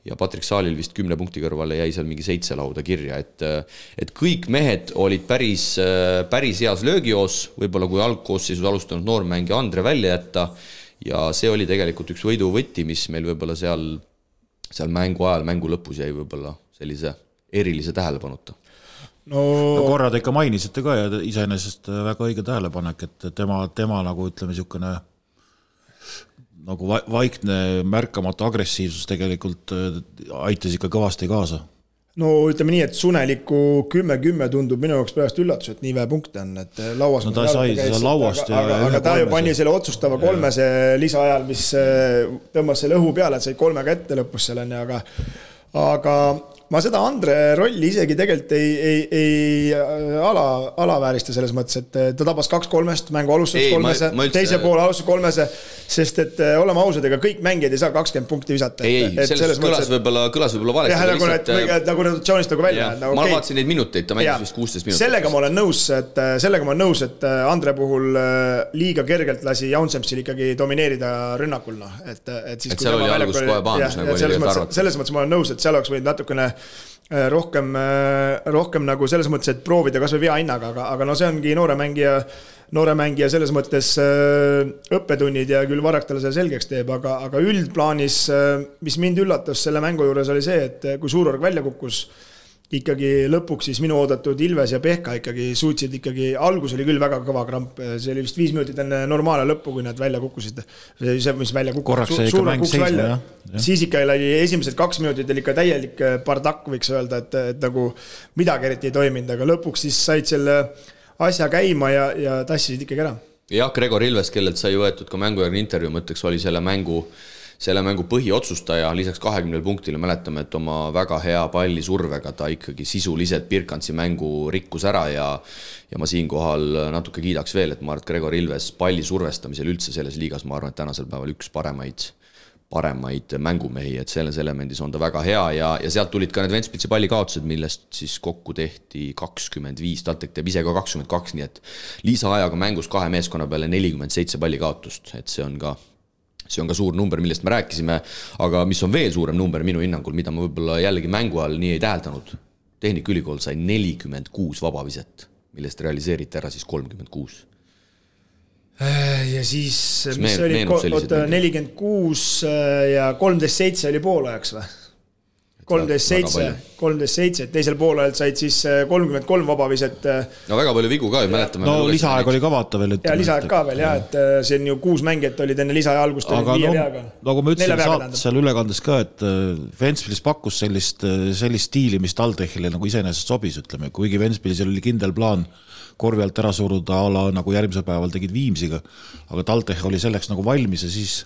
Speaker 2: ja Patrik Saalil vist 10 punkti kõrvale jäi seal mingi 7 lauda kirja, et kõik mehed olid päris heas löögijoos, võib-olla kui algkoosseisus alustanud noormängija Andre välja jätta ja see oli tegelikult üks võidu võti, mis meil võib-olla seal mängu ajal, mängu lõpus jäi võib-olla sellise erilise tähelepanuta.
Speaker 3: No korra te ikka mainisite ka ja iseenesest väga õige tähelepanek, et tema nagu ütleme niisugune nagu vaikne märkamatu agressiivsus tegelikult aitas ikka kõvasti kaasa.
Speaker 4: No ütleme nii, et Suneliku 10-10 tundub minu jaoks pärast üllatus, et nii vähe punkte on, et lauas
Speaker 3: no ta sai seda lauast
Speaker 4: aga ta ju pani selle otsustava kolmese lisaajal, mis tõmbas selle õhu peale, et sai 3 ette lõpus selleni, aga ma seda Andre rolli isegi tegelikult ei alaväärista selles mõttes, et ta tabas 2-3, mängu alustas 3, teise poole alustas 3, sest et oleme ausad, ega kõik mängijad ei saa 20 punkti visata.
Speaker 2: Selles kõlas võib-olla valesti.
Speaker 4: Nagu rotatsioonist nagu välja.
Speaker 2: Ma vaatasin neid minuteid, ta mängis vist 16 minutit.
Speaker 4: Sellega ma olen nõus, et Andre puhul liiga kergelt lasi Jaunsemsil ikkagi domineerida rünnakul. Et
Speaker 2: seal oli algus kohe paandus, nagu oli arvata.
Speaker 4: Selles mõttes ma olen nõus, et seal oleks võinud natukene rohkem nagu selles mõttes, et proovida kas või vea hinnaga, aga no see ongi noore mängija selles mõttes õppetunnid ja küll Varrak talle selle selgeks teeb, aga üldplaanis, mis mind üllatas selle mängu juures oli see, et kui Suurorg välja kukkus, ikkagi lõpuks siis minu oodatud Ilves ja Pehka ikkagi suutsid ikkagi, algus oli küll väga kõva kramp, see oli vist 5 minutit enne normaalne lõppu, kui nad välja kukkusid. See, mis välja kukkusid, Suurorg kukkus välja. Siis ikka oli esimesed 2 minutit oli ikka täielik bardakk, võiks öelda, et nagu midagi eriti ei toiminud, aga lõpuks siis said selle asja käima ja tassisid ikkagi ära.
Speaker 2: Jah, Gregor Ilves, kellelt sai võetud ka mängujärgne intervjuu, mõtteks oli selle mängu põhiotsustaja, lisaks 20 punktile mäletame, et oma väga hea palli survega ta ikkagi sisuliselt Birkantsi mängu rikkus ära ja ma siinkohal natuke kiidaks veel, et ma arvan, et Gregor Ilves palli survestamisel üldse selles liigas, ma arvan, et tänasel päeval üks paremaid mängumehi, et selles elemendis on ta väga hea ja sealt tulid ka need Ventspilsi pallikaotused, millest siis kokku tehti 25, TalTech teeb ise ka 22, nii et lisaajaga mängus 2 meeskonna peale 47 pallikaotust, et see on ka suur number, millest me rääkisime, aga mis on veel suurem number minu hinnangul, mida ma võib-olla jällegi mängu all nii ei täheldanud. Tehnikaülikool sai 46 vabaviset, millest realiseeriti ära siis 36.
Speaker 4: Ja siis, mis oli 46 ja 13-7 oli poolajaks või? 13-7, teisel poolel said siis 33 vabaviset.
Speaker 2: No väga palju vigu ka, mäletame.
Speaker 3: No lisaaeg oli ka vaata veel.
Speaker 4: Ja lisaaeg ka veel, et see on ju 6 mängijat olid enne lisaaja algust.
Speaker 3: Aga nagu ma ütlesin seal ülekandes ka, et Ventspilis pakkus sellist stiili, mis TalTechile nagu iseenesest sobis, ütleme. Kuigi Ventspilis oli kindel plaan korvi alt ära suruda ala nagu järgmisel päeval tegid Viimsiga, aga TalTech oli selleks nagu valmis ja siis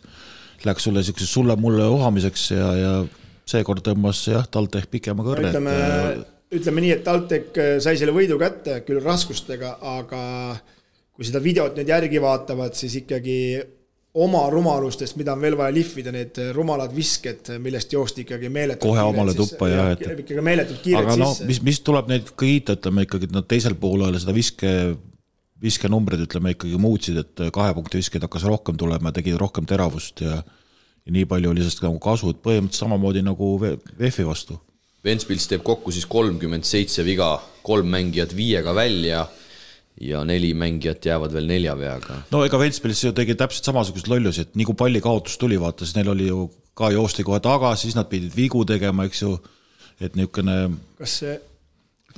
Speaker 3: läks sulle mulle ohamiseks ja seekord tõmbas TalTech pikema kõrre.
Speaker 4: Ütleme nii, et TalTech sai selle võidu kätte küll raskustega, aga kui seda videot nüüd järgi vaatavad, siis ikkagi oma rumalustest, mida on veel vaja lihvida, need rumalad visked, millest joosti ikkagi meeletult
Speaker 3: kohe omale tuppa ja
Speaker 4: ikkagi meeletult kiired
Speaker 3: aga
Speaker 4: sisse.
Speaker 3: Mis tuleb neid kiita, ütleme ikkagi, et nad teisel poolel seda viske numbrid, ütleme ikkagi muutsid, et 2 punkti visked hakkas rohkem tulema, tegid rohkem teravust ja nii palju oli sellest nagu kasu, et põhimõtteliselt samamoodi nagu VF-i vastu.
Speaker 2: Ventspils teeb kokku siis 37 viga, 3 mängijat 5-ga välja ja 4 mängijat jäävad veel 4 veaga.
Speaker 3: No ega Ventspils ju tegi täpselt samasugust lollusi, et nii kui palli kaotus tuli, vaata, siis neil oli ju ka joosti kohe tagasi, siis nad pidid vigu tegema, eks ju, et niisugune...
Speaker 4: Kas see...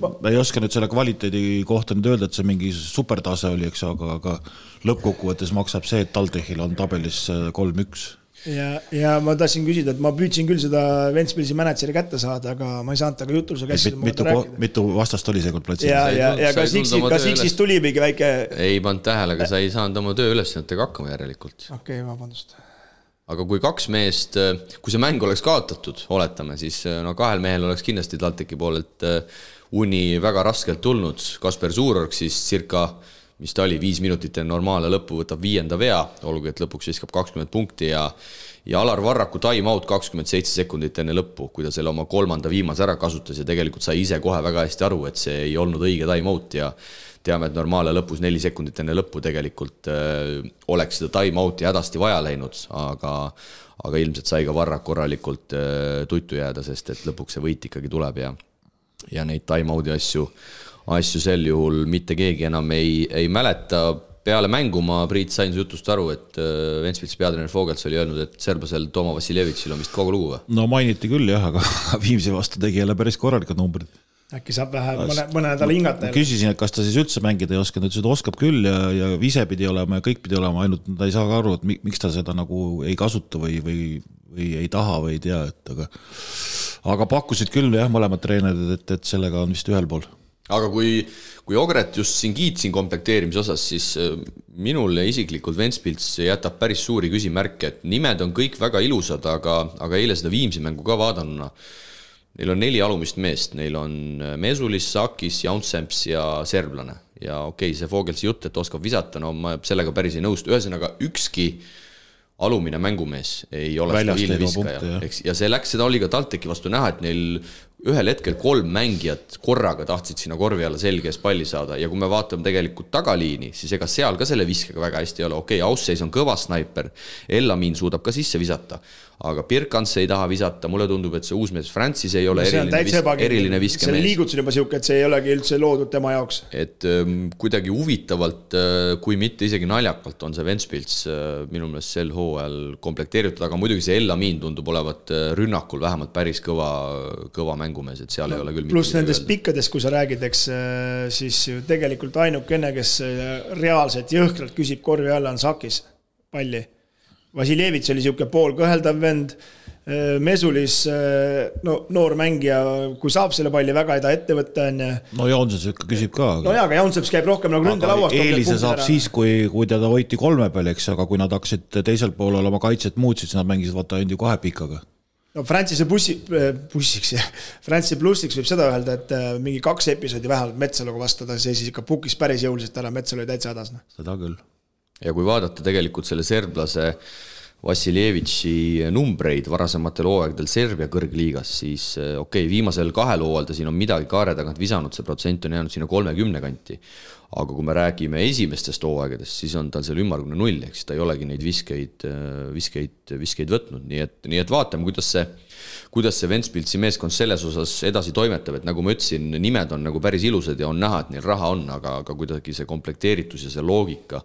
Speaker 3: Ma ei oska nüüd selle kvaliteedi kohta nüüd öelda, et see mingi supertase oli, eks, aga lõppkokkuvõttes maksab see, et TalTechil on tabelis 3-1.
Speaker 4: Ja ma tahtsin küsida, et ma püüdsin küll seda Ventspilsi manatseri kätte saada, aga ma ei saanud taga jutuluse käsida.
Speaker 3: Mitu vastast oli seekord platsil?
Speaker 4: Ja kas X-is tuli mingi väike...
Speaker 2: Ei pannud tähele, aga sa ei saanud oma töö ülesannetega hakkama järelikult.
Speaker 4: Okei, vabandust.
Speaker 2: Aga kui 2 meest, kui see mäng oleks kaotatud, oletame, siis 2 mehel oleks kindlasti TalTechi poolelt uni väga raskelt tulnud. Kasper Suurorg siis circa mis ta oli, 5 minutit enne normaalne lõppu võtab 5. vea, olgu, et lõpuks viskab 20 punkti ja Alar Varraku time-out 27 sekundit enne lõppu, kui ta selle oma 3. viimase ära kasutas ja tegelikult sai ise kohe väga hästi aru, et see ei olnud õige time-out ja teame, et normaalne lõpus 4 sekundit enne lõppu tegelikult oleks seda time-outi hädasti vaja läinud, aga ilmselt sai ka Varrak korralikult tuttu jääda, sest et lõpuks see võit ikkagi tuleb ja neid time-outi asju sel juhul mitte keegi enam ei mäleta. Peale mängu ma Priit sain su jutust aru, et Ventspilsi peatreener Fogels oli öelnud, et serblasel Toma Vassiljevitšil on vist kogu lugu või?
Speaker 3: No mainiti küll jah, aga Viimsi vastu tegi jälle päris korralikud numbrid.
Speaker 4: Äkki saab vähe mõne nädala hingata.
Speaker 3: Küsisin, et kas ta siis üldse mängida ei oska, ta ütles, et oskab küll ja ise pidi olema ja kõik pidi olema, ainult ta ei saa ka aru, et miks ta seda nagu ei kasuta või ei taha või ei tea, aga pakkusid küll jah, mõlemad treenerid, et sellega on vist ühel pool.
Speaker 2: Aga kui Ogret just siin kiitsin komplekteerimise osas, siis minule isiklikult Ventspils jätab päris suuri küsimärke, et nimed on kõik väga ilusad, aga eile seda Viimsi mängu ka vaadanuna. Neil on 4 alumist meest, neil on Mesulis, Sakis, Jaunsemps ja serblane. Ja okei, see Fogelsi jutt, et oskab visata, no ma sellega päris ei nõustu. Ühesõnaga, ükski alumine mängumees ei ole stabiilne viskaja. Ja seda oli ka TalTechi vastu näha, et neil ühel hetkel 3 mängijat korraga tahtsid sinna korvi alla selge ees palli saada ja kui me vaatame tegelikult tagaliini, siis ega seal ka selle viskega väga hästi ei ole. Okei, Ausseis on kõva snaiper, Ellamin suudab ka sisse visata, aga Pirkans ei taha visata, mulle tundub, et see uusmees Francis ei ole eriline viskemees.
Speaker 4: See liigutus on juba siuke, et see ei olegi üldse loodud tema jaoks.
Speaker 2: Et kuidagi huvitavalt, kui mitte isegi naljakalt on see Ventspils minu meelest sel hooajal komplekteeritud, aga muidugi see Ellamin tundub olevat rünnakul vähemalt päris kõva mängumees, et seal ei ole küll
Speaker 4: pluss nendest pikkadest, kui sa räägid, eks siis tegelikult ainukene, kes reaalselt jõhkralt küsib korvi alla on Sakis palli. Vassiljevitš oli siuke pool kõheldav vend, Mesulis noor mängija, kui saab selle palli väga ei ta ette võtta on.
Speaker 3: No Jaunseps ikka küsib ka.
Speaker 4: No jaa, aga Jaunseps käib rohkem nagu ründelauast.
Speaker 3: Eelise saab siis, kui teda hoiti 3 peal, eks, aga kui nad hakkasid teisel poolel oma kaitset muutsid, siis nad mängisid vaata ainult 2 pikaga.
Speaker 4: No Francis plussiks võib seda öelda, et mingi 2 episoodi vähemalt Metsaluga vastada, see siis ikka pukis päris jõuliselt ära, Metsalu oli täitsa hädas.
Speaker 3: Seda küll.
Speaker 2: Ja kui vaadata tegelikult selle serblase Vassiljevitši numbreid varasematel hooaegdel Serbia kõrgliigas, siis okei, viimasel 2 hooajal ta siin on midagi kaare tagant visanud, see protsent on jäänud sinna 30 kanti. Aga kui me räägime esimestest hooaegadest, siis on tal seal ümmargune 0, eks ta ei olegi neid viskeid võtnud. Nii et vaatame, kuidas see Ventspilsi meeskond selles osas edasi toimetab, et nagu ma ütlesin, nimed on nagu päris ilusad ja on näha, et neil raha on, aga kuidagi see komplekteeritus ja see loogika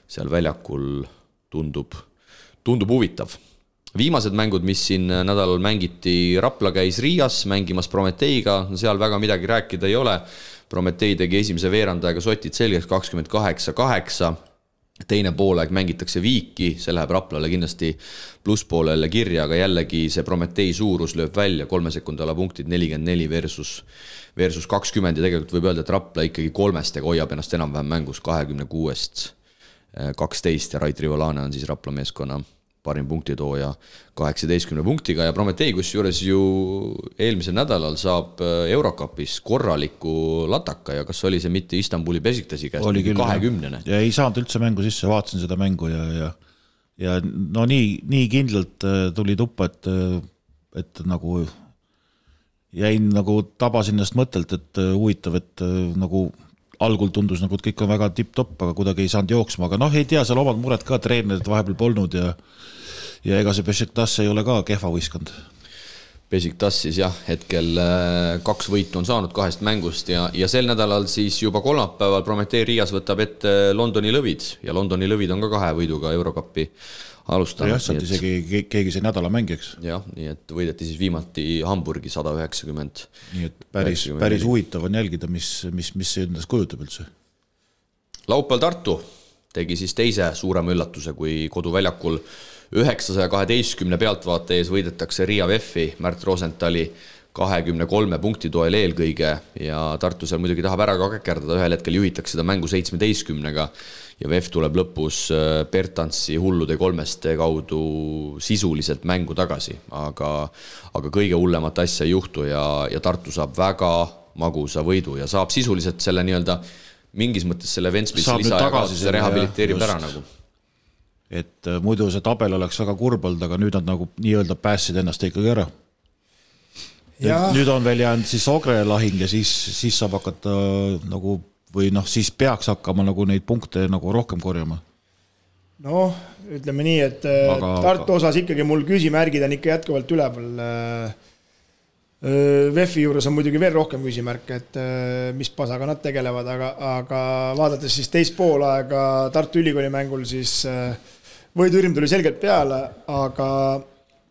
Speaker 2: seal väljakul tundub huvitav. Viimased mängud, mis siin nädalal mängiti, Rapla käis Riias mängimas Prometeiga, seal väga midagi rääkida ei ole. Prometei tegi esimese veerandajaga sotid selgeks 28-8, teine poolaeg mängitakse Viiki, see läheb Raplale kindlasti plusspoolele kirja, aga jällegi see Prometei suurus lööb välja, 3 sekundala punktid 44 versus 20 ja tegelikult võib öelda, et Rapla ikkagi 3 hoiab ennast enam-vähem mängus 26-12 ja Rait Rivolane on siis Rapla meeskonna parim punktitooja 18 punktiga ja Prometei, kus juures ju eelmisel nädalal saab Eurocupis korraliku lataka ja kas oli see mitte Istanbuli Beşiktaşi käest 20.
Speaker 3: Ja ei saanud üldse mängu sisse, vaatasin seda mängu ja no nii kindlalt tuli tuppa, et nagu jäin nagu tabasin ennast mõttelt, et huvitav, et nagu algul tundus nagu, et kõik on väga tipp-topp, aga kuidagi ei saanud jooksma, aga ei tea, seal omad mured ka treenerid vahepeal polnud ja ega see Beşiktaş ei ole ka kehva võistkond.
Speaker 2: Beşiktaş siis jah, hetkel 2 võitu on saanud 2 mängust ja sel nädalal siis juba kolmapäeval Prometei Riias võtab ette Londoni lõvid ja Londoni lõvid on ka 2 võiduga Eurocupi alustanud.
Speaker 3: Jah, sealt isegi keegi see nädala mängiks.
Speaker 2: Jah, nii et võideti siis viimati Hamburgi 190.
Speaker 3: Nii et päris huvitav on jälgida, mis see endast kujutab üldse.
Speaker 2: Laupäeval Tartu tegi siis teise suurema üllatuse, kui koduväljakul 912 pealtvaate ees võidetakse Riia VEF-i Märt Rosenthali 23 punkti toel eelkõige ja Tartu seal muidugi tahab ära ka käkerdada, ühel hetkel juhitakse seda mängu 17-ga ja VEF tuleb lõpus Bertansi hullude 3 kaudu sisuliselt mängu tagasi, aga kõige hullemat asja ei juhtu ja Tartu saab väga magusa võidu ja saab sisuliselt selle nii-öelda mingis mõttes selle Ventspilsi
Speaker 3: Saab nüüd
Speaker 2: lisa ja
Speaker 3: tagasi
Speaker 2: kaotuse
Speaker 3: selle,
Speaker 2: rehabiliteerib
Speaker 3: jah,
Speaker 2: ära
Speaker 3: just.
Speaker 2: nagu.
Speaker 3: Et muidu see tabel oleks väga kurb olnud, aga nüüd nad nagu nii-öelda päässid ennast ikkagi ära. Nüüd on veel jäänud siis Ogre lahing ja siis saab hakata nagu, või noh, siis peaks hakkama nagu neid punkte nagu rohkem korjama.
Speaker 4: Noh, ütleme nii, et Tartu osas ikkagi mul küsimärgid on ikka jätkuvalt üleval. VEF-i juures on muidugi veel rohkem küsimärk, et mis pasaga nad tegelevad, aga vaadates siis teist poolaega Tartu Ülikooli mängul, siis võidurm tuli selgelt peale, aga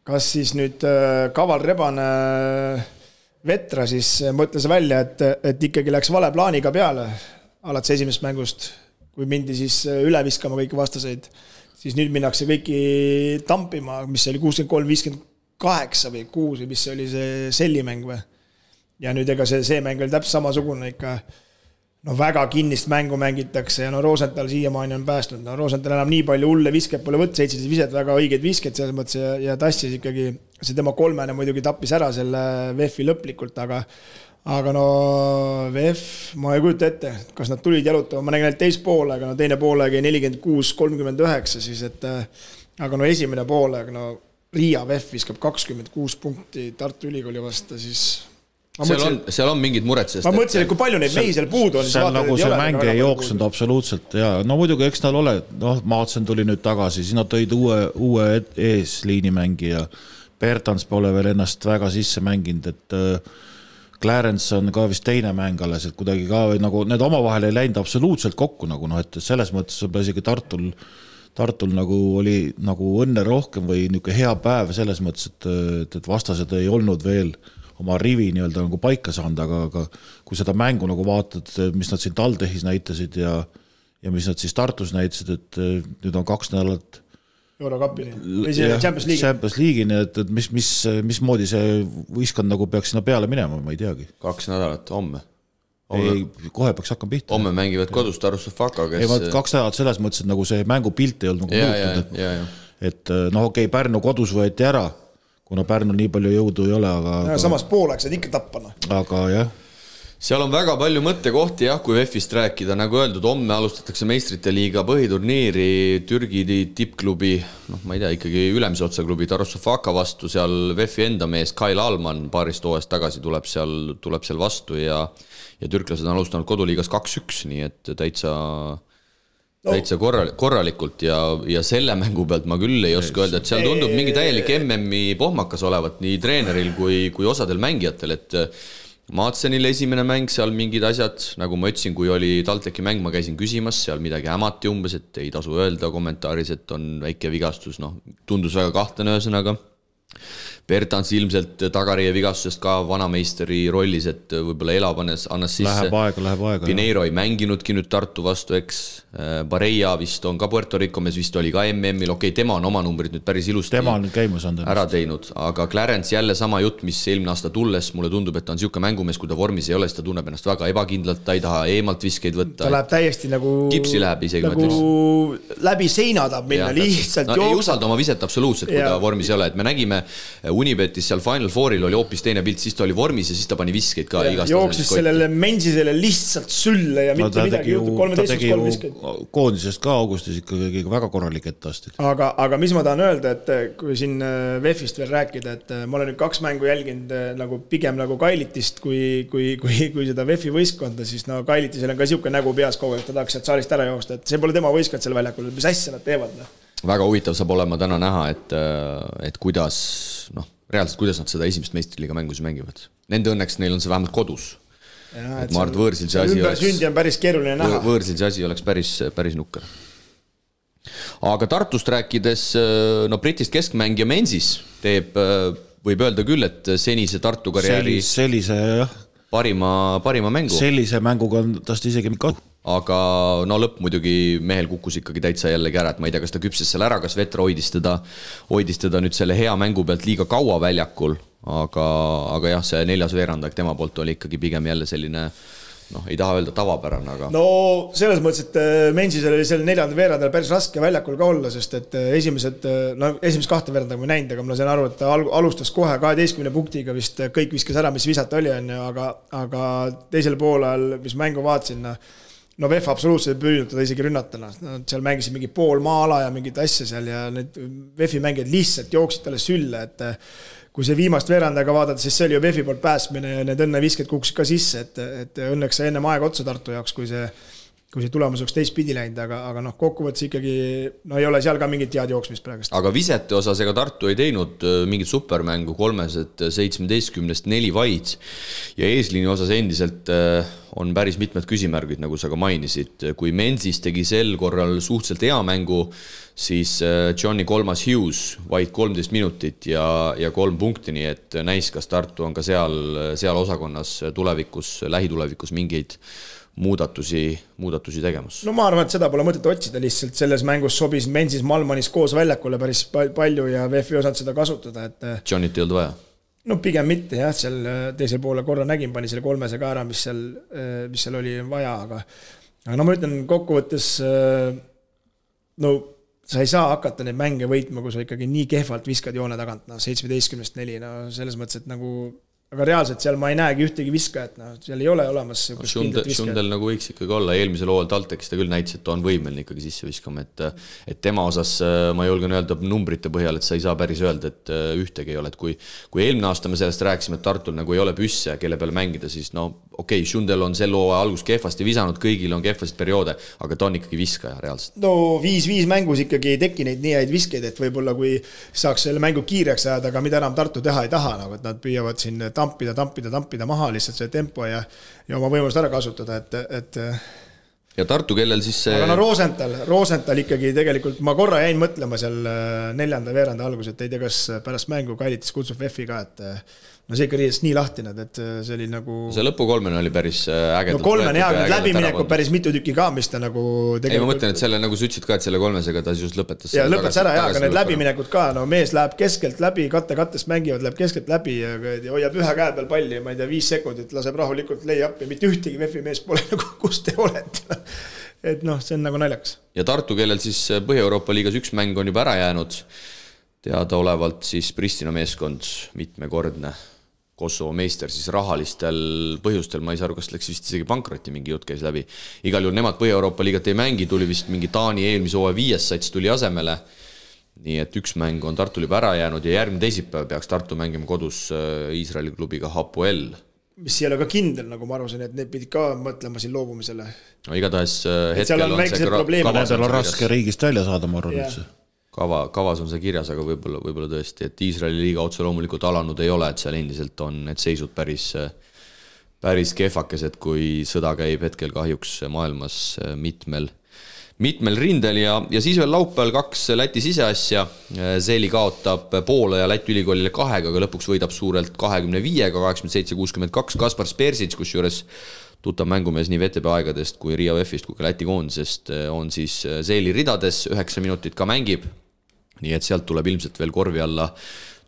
Speaker 4: kas siis nüüd Kaval Rebane Vetra siis mõtles välja, et ikkagi läks vale plaaniga peale alates esimesest mängust, kui mindi siis üle viskama kõiki vastaseid, siis nüüd minnakse kõiki tampima, mis oli 63-58 või 6 või mis oli see sellimäng või. Ja nüüd ega see mäng oli täpselt samasugune ikka, no väga kinnist mängu mängitakse ja no Rosenthal siiamaani on päästnud. No Rosenthal enam nii palju hulle visket pole võtta, 17 viset, väga õigeid visket selles mõttes ja tassis ikkagi, see tema kolmene muidugi tappis ära selle VEF-i lõplikult, aga no VEF, ma ei kujuta ette, kas nad tulid jalutama, ma nägin teist poolega, no teine poolega 46-39 siis, et aga no esimene poolega, no Riia VEF viskab 26 punkti Tartu Ülikooli vastu, siis
Speaker 2: seal on mingid mured, sest
Speaker 4: ma mõtlesin, et kui palju neid mehi seal puudu on.
Speaker 3: Seal nagu see mäng ei jooksnud absoluutselt ja no muidugi eks tal ole, noh Maatsen tuli nüüd tagasi, siis nad tõid uue eesliinimängija, Bertans pole veel ennast väga sisse mänginud, et Clarence on ka vist teine mäng alles, et kuidagi ka nagu need omavahel ei läinud absoluutselt kokku nagu noh, et selles mõttes võib isegi Tartul nagu oli nagu õnne rohkem või niisugune hea päev selles mõttes, et vastased ei olnud veel oma rivi nii-öelda nagu paika saanud, aga kui seda mängu nagu vaatad, mis nad siin Taldehis näitasid ja mis nad siis Tartus näitasid, et nüüd on 2 nädalat
Speaker 4: Eurokapini või see Champions
Speaker 3: League'ini, et mismoodi see võistkond nagu peaks sinna peale minema, ma ei teagi.
Speaker 2: 2 nädalat homme.
Speaker 3: Kohe peaks hakkama pihta.
Speaker 2: Homme mängivad kodus Tarussofaka, kes...
Speaker 3: Ei, 2 nädalat selles mõttes, et nagu see mängupilt ei olnud nagu muutunud, et noh, okei, Pärnu kodus võeti ära, kuna Pärnu nii palju jõudu ei ole, aga...
Speaker 4: Samas pooleks saad ikka tappana.
Speaker 3: Aga jah.
Speaker 2: Seal on väga palju mõttekohti, jah, kui VEF-ist rääkida, nagu öeldud, homme alustatakse meistrite liiga põhiturniiri Türgi tippklubi, noh, ma ei tea, ikkagi ülemise otsa klubi Tarussofaka vastu, seal VEF-i enda mees Kail Alman paarist hooajast tagasi tuleb seal vastu ja türklased on alustanud koduliigas 2-1, nii et täitsa korralikult ja selle mängu pealt ma küll ei oska öelda, et seal tundub mingi täielik MM-i pohmakas olevat nii treeneril kui osadel mängijatel, et Maatsenil esimene mäng, seal mingid asjad, nagu ma ütlesin, kui oli TalTechi mäng, ma käisin küsimas, seal midagi hämati umbes, et ei tasu öelda kommentaaris, et on väike vigastus, noh, tundus väga kahtlane ühesõnaga. Bertans ilmselt tagarie vigastusest ka vanameisteri rollis, et võib-olla elab annas sisse.
Speaker 3: Läheb aega.
Speaker 2: Pineiro ei mänginudki nüüd Tartu vastu, eks. Bareja vist on ka Puerto Rico mees, vist oli ka MM-il, okei, tema on oma numbrid nüüd päris ilusti ära teinud, aga Clarence jälle sama jutt, mis eelmine aasta tulles, mulle tundub, et ta on siuke mängumees, kui ta vormis ei ole, siis ta tunneb ennast väga ebakindlalt, ta ei taha eemalt viskeid võtta.
Speaker 4: Ta läheb täiesti nagu
Speaker 2: kipsi läheb isegi
Speaker 4: nagu läbi seina tahab minna, lihtsalt
Speaker 2: no, ei usalda oma viset absoluutselt, kui ta vormis ei ole, et me nägime Unibetis seal Final Fouril oli hoopis teine pilt, siis ta oli vormis ja siis ta pani viskeid ka igast.
Speaker 4: Jooksis sellele Mensisele lihtsalt sülle ja mitte midagi juhtub, 13-3 viskeid.
Speaker 3: Koondisest ka augustis ikkagi väga korralik etteastid.
Speaker 4: Aga mis ma tahan öelda, et kui siin VEF-ist veel rääkida, et ma olen nüüd 2 mängu jälginud nagu pigem nagu Kailitist kui seda VEF-i võistkonda, siis no Kailitisel on ka siuke nägu peas kogu, et ta tahaks sealt saalist ära joosta, et see pole tema võistkond seal väljakul, mis asja nad teevad.
Speaker 2: Väga huvitav saab olema täna näha, et kuidas, noh, reaalselt kuidas nad seda esimest meistriliiga mängus mängivad. Nende õnneks neil on see vähemalt kodus. Ja, et ma arvan, võõrsil see asi oleks...
Speaker 4: Sündi on päris keeruline näha.
Speaker 2: Võõrsil see asi oleks päris nukker. Aga Tartust rääkides, no Britist keskmängija Mensis teeb, võib öelda küll, et senise Tartu karjääri parima mängu.
Speaker 3: Sellise mänguga on tast isegi mikka.
Speaker 2: Aga no lõpp muidugi mehel kukkus ikkagi täitsa jällegi ära, et ma ei tea, kas ta küpses seal ära, kas Vetra hoidis teda nüüd selle hea mängu pealt liiga kaua väljakul, aga jah, see 4. veerandaeg tema poolt oli ikkagi pigem jälle selline, noh, ei taha öelda tavapärane, aga...
Speaker 4: No selles mõttes, et Mensisel oli selle 4. veerandajal päris raske väljakul ka olla, sest et esimesed 2 veerandaga ma näinud, aga ma sain aru, et ta alustas kohe 12 punktiga vist kõik viskas ära, mis visata oli, aga teisel poolel, mis mängu vaatasin, no VEF absoluutselt ei püüdnud teda isegi rünnatana. Nad seal mängisid mingi pool maala ja mingit asja seal ja need VEF-i mängijad lihtsalt jooksid talle sülle, et kui see viimast veerandaga vaadata, siis see oli ju VEF-i poolt päästmine ja need õnnevisked kuksid ka sisse, et õnneks see ennem aega otsa Tartu jaoks, kui see tulemus oleks teistpidi läinud, aga noh, kokkuvõttes ikkagi no ei ole seal ka mingit head jooksmist praegust.
Speaker 2: Aga visete osas ega Tartu ei teinud mingit supermängu 17-st 4 vaid ja eesliini osas endiselt on päris mitmed küsimärgid, nagu sa ka mainisid. Kui Menzies tegi sel korral suhteliselt hea mängu, siis Johnny Kolmas Hughes vaid 13 minutit ja 3 punkti, nii et näis, kas Tartu on ka seal osakonnas lähitulevikus mingeid muudatusi tegemas.
Speaker 4: No ma arvan, et seda pole mõtet otsida, lihtsalt selles mängus sobis Menzies Malmanis koos väljakule päris palju ja VEF-i osad seda kasutada, et
Speaker 2: Johnnyt ei olnud vaja?
Speaker 4: No pigem mitte jah, seal teisel poole korra nägin, pani selle 3 ka ära, mis seal oli vaja, aga no ma ütlen kokkuvõttes, no sa ei saa hakata neid mänge võitma, kui sa ikkagi nii kehvalt viskad joone tagant, 17-st 4, no selles mõttes, et nagu aga reaalselt seal ma ei näegi ühtegi viskajat, seal ei ole olemas
Speaker 2: Šundel nagu võiks ikkagi olla, eelmisel hooajal TalTechis ta küll näitas, et ta on võimeline ikkagi sisse viskama, et tema osas ma julgen öelda numbrite põhjal, et sa ei saa päris öelda, et ühtegi ei ole, et kui eelmine aasta me sellest rääkisime, et Tartul nagu ei ole püsse, kelle peale mängida, siis no okei, Šundel on sel hooaja algus kehvasti visanud, kõigil on kehvasid perioode, aga ta on ikkagi viskaja reaalselt.
Speaker 4: No 5-5 mängus ikkagi ei teki neid nii häid viskeid, et võib-olla kui saaks selle mängu kiireks ajada, aga mida enam Tartu teha ei taha, nagu et nad püüavad siin tampida maha lihtsalt see tempo ja oma võimalust ära kasutada, et
Speaker 2: ja Tartu, kellel siis see
Speaker 4: aga no Rosenthal ikkagi tegelikult ma korra jäin mõtlema seal 4. veeranda algus, et ei tea, kas pärast mängu Kailitis kutsub VEF-i ka, et no see ikka riidest nii lahtine, et see oli nagu
Speaker 2: see lõpu 3 oli päris ägedalt
Speaker 4: no 3 hea, need läbiminekud päris mitu tükki ka, mis ta nagu
Speaker 2: tegelikult... Ei, ma mõtlen, et selle nagu sa ütlesid ka, et selle 3-sega ta just lõpetas
Speaker 4: ja lõpetas ära, aga need läbiminekud ka, no mees läheb keskelt läbi, kattest mängivad, läheb keskelt läbi ja hoiab ühe käe peal palli, ma ei tea, 5 sekundit, laseb rahulikult lay-up'i, mitte ühtegi VEF-i mees pole nagu, kus te olete. Et noh, see on nagu naljakas.
Speaker 2: Ja Tartu, kellel siis Põhja-Euroopa liigas 1 mäng on juba ära jäänud, teada olevalt siis Pristina meeskond mitmekordne Kosovo meister siis rahalistel põhjustel, ma ei saa aru, kas läks vist isegi pankrotti, mingi jutt käis läbi. Igal juhul nemad Põhja-Euroopa liigat ei mängi, tuli vist mingi Taani eelmise hooaja 5. sats tuli asemele. Nii et 1 mäng on Tartul juba ära jäänud ja järgmine teisipäev peaks Tartu mängima kodus Iisraeli klubiga Hapoel.
Speaker 4: Mis ei ole ka kindel, nagu ma arvasin, et need pidid ka mõtlema siin loobumisele.
Speaker 2: No igatahes
Speaker 4: hetkel on see
Speaker 3: kavas on raske riigist välja saada, ma arvan üldse.
Speaker 2: Kavas on see kirjas, aga võib-olla tõesti, et Iisraeli liiga otse loomulikult alanud ei ole, et seal endiselt on need seisud päris kehvakesed, kui sõda käib hetkel kahjuks maailmas mitmel rindel ja siis veel laupäeval 2 Läti siseasja. Zeli kaotab Poola ja Läti ülikoolile 2, aga lõpuks võidab suurelt 25-ga, 87-62. Kaspar Spersic, kus juures tuttav mängumees nii VTB aegadest kui Riia VEF-ist kui ka Läti koondisest on siis Zeli ridades, 9 minutit ka mängib. Nii et sealt tuleb ilmselt veel korvi alla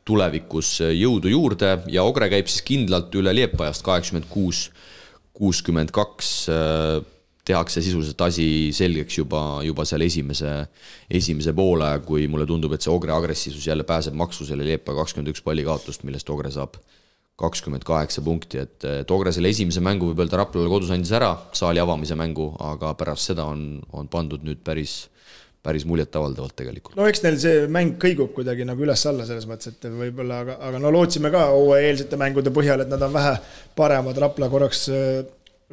Speaker 2: tulevikus jõudu juurde ja Ogre käib siis kindlalt üle Liepajast 86-62. Tehakse sisuliselt asi selgeks juba seal esimese poole, kui mulle tundub, et see Ogre agressiivsus jälle pääseb maksu selle Liepaja 21 palli kaotust, millest Ogre saab 28 punkti, et Ogre selle esimese mängu võib öelda Raplale kodus andis ära, saali avamise mängu, aga pärast seda on pandud nüüd päris muljet avaldavalt tegelikult.
Speaker 4: No eks neil see mäng kõigub kuidagi nagu üles-alla selles mõttes, et võib-olla, aga no lootsime ka eelsete mängude põhjal, et nad on vähe paremad, Rapla korraks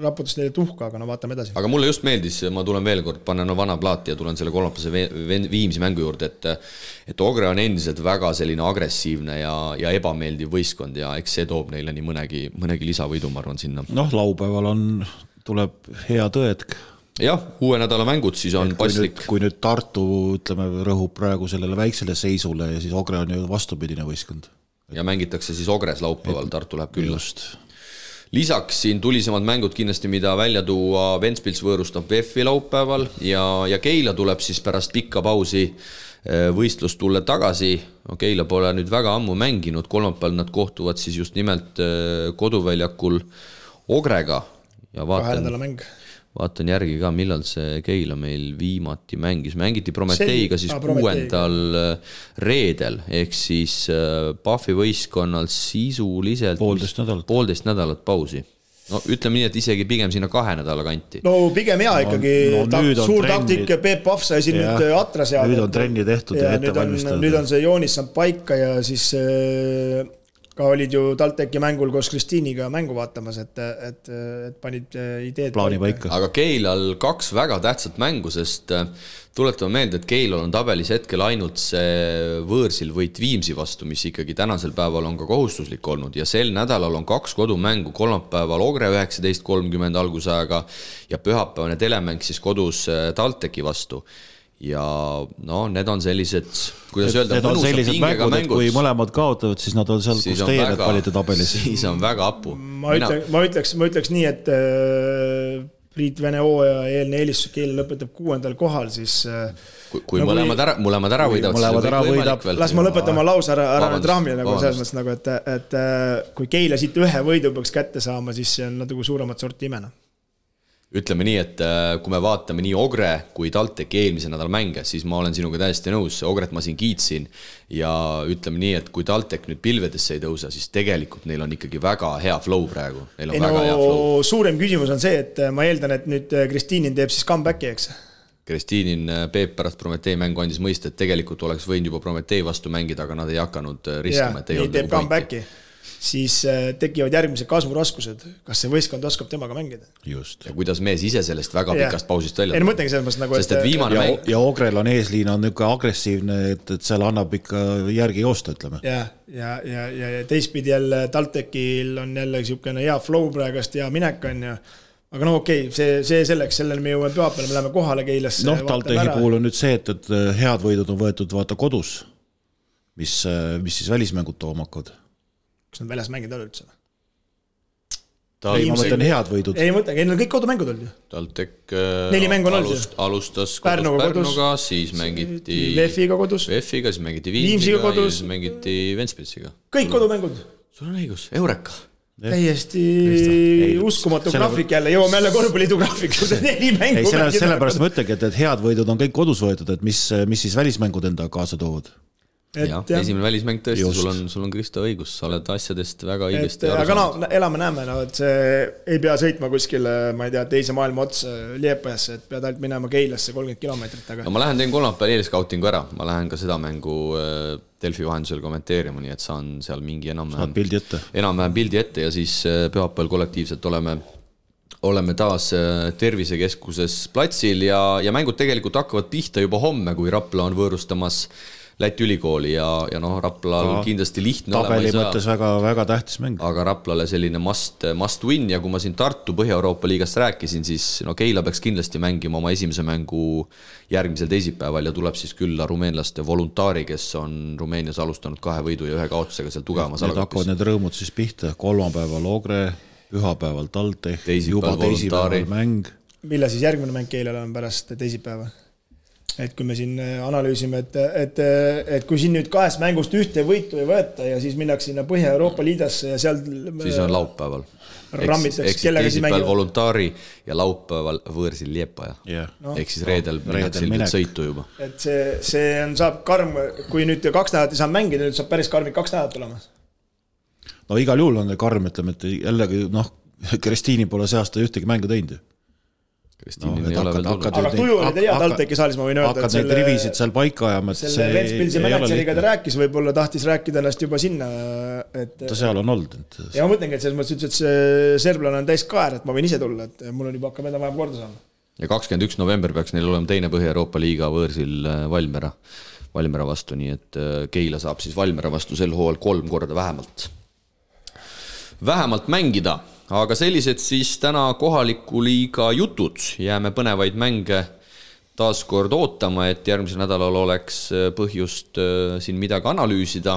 Speaker 4: raputas neile tuhka, aga no vaatame edasi.
Speaker 2: Aga mulle just meeldis, ma tulen veel kord, panen vana plaati ja tulen selle kolmapase Viimsi mängu juurde, et Ogre on endiselt väga selline agressiivne ja ebameeldiv võistkond ja eks see toob neile nii mõnegi lisavõidu, ma arvan, sinna.
Speaker 3: Noh, laupäeval tuleb hea tõetk.
Speaker 2: Jah, uue nädala mängud siis on paslik.
Speaker 3: Kui nüüd Tartu, ütleme, rõhub praegu sellele väiksele seisule ja siis Ogre on ju vastupidine võistkond.
Speaker 2: Ja mängitakse siis Ogres laupäeval, Tartu läheb külla. Lisaks siin tulisemad mängud kindlasti, mida välja tuua, Ventspils võõrustab VEF-i laupäeval ja Keila tuleb siis pärast pikka pausi võistlust tulla tagasi. No, Keila pole nüüd väga ammu mänginud, kolmapäeval nad kohtuvad siis just nimelt koduväljakul Ogrega ja vaatan järgi ka, millal see Keila meil viimati mängiti Prometeiga siis 6. reedel, ehk siis Pahvi võistkonnal sisuliselt
Speaker 3: 1,5
Speaker 2: nädalat pausi. no ütleme nii, et isegi pigem sinna 2 nädala kanti.
Speaker 4: No pigem hea ikkagi, suur taktik, Peep Pahv sai siin nüüd atra seada.
Speaker 3: Nüüd on trenni tehtud ja ette valmistatud.
Speaker 4: Nüüd on see joonis saanud paika ja siis ka olid ju TalTechi mängul koos Kristiiniga mängu vaatamas, et panid ideed
Speaker 3: plaani paika.
Speaker 2: Aga Keilal 2 väga tähtsat mängu, sest tuletame meelde, et Keilal on tabelis hetkel ainult see võõrsil võit Viimsi vastu, mis ikkagi tänasel päeval on ka kohustuslik olnud ja sel nädalal on 2 kodumängu, kolmapäeval Ogre 19.30 algusajaga ja pühapäevane telemäng siis kodus TalTechi vastu. Ja no, need on sellised, kuidas öelda,
Speaker 3: need on sellised mängud, et kui mõlemad kaotavad, siis nad on seal, kus teie need panite tabelis.
Speaker 2: Siis on väga apu.
Speaker 4: Ma ütleks nii, et Priit Vene hooaja eelne eelistus Keila lõpetab 6. kohal, siis
Speaker 2: kui mõlemad ära võidavad,
Speaker 4: las ma lõpetama lause ära trahmi nagu selles mõttes, nagu, et kui Keila siit 1 võidu peaks kätte saama, siis see on natuke suuremat sorti imena.
Speaker 2: Ütleme nii, et kui me vaatame nii Ogre kui TalTechi eelmise nädal mänge, siis ma olen sinuga täiesti nõus, Ogret ma siin kiitsin ja ütleme nii, et kui TalTech nüüd pilvedesse ei tõusa, siis tegelikult neil on ikkagi väga hea flow praegu.
Speaker 4: Suurem küsimus on see, et ma eeldan, et nüüd Kristiinin teeb siis comebacki, eks?
Speaker 2: Kristiinin Peep pärast Prometee mängu andis mõista, et tegelikult oleks võinud juba Prometee vastu mängida, aga nad ei hakanud riskama.
Speaker 4: Ja, nii teeb comebacki. Siis tekivad järgmised kasvuraskused. Kas see võistkond oskab temaga mängida?
Speaker 3: Just.
Speaker 2: Ja kuidas mees ise sellest väga pikast pausist välja?
Speaker 4: Ei, mõtlengi selles mõttes nagu,
Speaker 2: sest et viimane mäng...
Speaker 3: Ja Ogrel on eesliin on niisugune agressiivne, et seal annab ikka järgi joosta, ütleme.
Speaker 4: Ja teistpidi jälle TalTechil on jälle niisugune hea flow praegast ja minek on ja aga no okei, see selleks, sellele me jõuame pühapäeval, me läheme kohale Keilasse.
Speaker 3: Noh, TalTechi puhul on nüüd see, et head võidud on võetud vaata kodus, mis siis välismängud tooma hakkavad.
Speaker 4: Kas nad väljas mängid ole üldse?
Speaker 3: Ei, ma mõtlen head võidud.
Speaker 4: Ei mõtlen, neil on kõik kodumängud olnud ju.
Speaker 2: TalTech
Speaker 4: 4 mängu on olnud.
Speaker 2: Alustas Pärnuga, siis mängiti
Speaker 4: VF-iga kodus.
Speaker 2: VF-iga, siis mängiti Viimsiga ja siis mängiti Ventspilsiga.
Speaker 4: Kõik kodumängud.
Speaker 2: Sul on õigus, Eureka.
Speaker 4: Täiesti uskumatu graafik jälle, jõuame jälle korvpalliidu graafiku, see 4 mängu.
Speaker 3: Ei, sellepärast ma ütlengi, et head võidud on kõik kodus võetud, et mis siis välismängud enda kaasa toovad.
Speaker 2: Ja, esimene välismäng tõesti, sul on Kristo õigus, sa oled asjadest väga õigesti aru
Speaker 4: aga no, elame-näeme, no, et see ei pea sõitma kuskile, ma ei tea, teise maailma ots Liepajasse, et pead ainult minema Keilasse 30 kilomeetrit. Aga...
Speaker 2: No ma lähen teen kolmapäeval eelskautingu ära, ma lähen ka seda mängu Delfi vahendusel kommenteerima, nii et saan seal mingi enam-vähem pildi ette ja siis pühapäeval kollektiivselt oleme taas tervisekeskuses platsil ja mängud tegelikult hakkavad pihta juba homme, kui Rapla on võõrustamas Läti ülikooli ja noh, Raplal kindlasti lihtne
Speaker 3: tabeli mõttes väga tähtis mäng.
Speaker 2: Aga Raplale selline must win ja kui ma siin Tartu Põhja-Euroopa liigast rääkisin, siis no Keila peaks kindlasti mängima oma esimese mängu järgmisel teisipäeval ja tuleb siis külla rumeenlaste Voluntari, kes on Rumeenias alustanud 2 võidu ja 1 kaotusega seal tugevamas
Speaker 3: alagapis. Need hakkavad need rõõmud siis pihta, kolmapäeval Ogre, pühapäeval TalTech, juba teisipäeval mäng.
Speaker 4: Millal siis järgmine mäng Keilale on pärast teisipäeva? Et kui me siin analüüsime, et kui siin nüüd 2 mängust 1 võitu ei võeta ja siis minnakse sinna Põhja-Euroopa liidasse ja seal
Speaker 2: siis on laupäeval.
Speaker 4: Rammitaks,
Speaker 2: kellega siis mängib Voluntari ja laupäeval võõrsil Liepaja. Ehk siis reedel minnakse sõitu juba.
Speaker 4: Et see saab karm, kui nüüd 2 nädalat ei saa mängida, nüüd saab päris karmid 2 nädalat olema.
Speaker 3: No igal juhul on karm, ütleme, et jällegi Kristiini pole see aasta ühtegi mängu teinud.
Speaker 4: Aga tuju oli hea TalTechi saalis, ma võin öelda.
Speaker 3: Hakkad neid rivisid seal paika ajama.
Speaker 4: Selle Ventspilsi mänetseriga ta rääkis, võib-olla tahtis rääkida ennast juba sinna.
Speaker 3: Ta seal on olnud.
Speaker 4: Ja ma mõtlengi, et selles mõttes ütles, et see serblane on täis kaer, et ma võin ise tulla, et mul on juba hakkab enda vaja korda saama.
Speaker 2: Ja 21. november peaks neil olema teine Põhja-Euroopa liiga võõrsil Valmera vastu, nii et Keila saab siis Valmera vastu sel hooajal 3 korda vähemalt mängida. Aga sellised siis täna kohaliku liiga jutud, jääme põnevaid mänge taas kord ootama, et järgmisel nädalal oleks põhjust siin midagi analüüsida.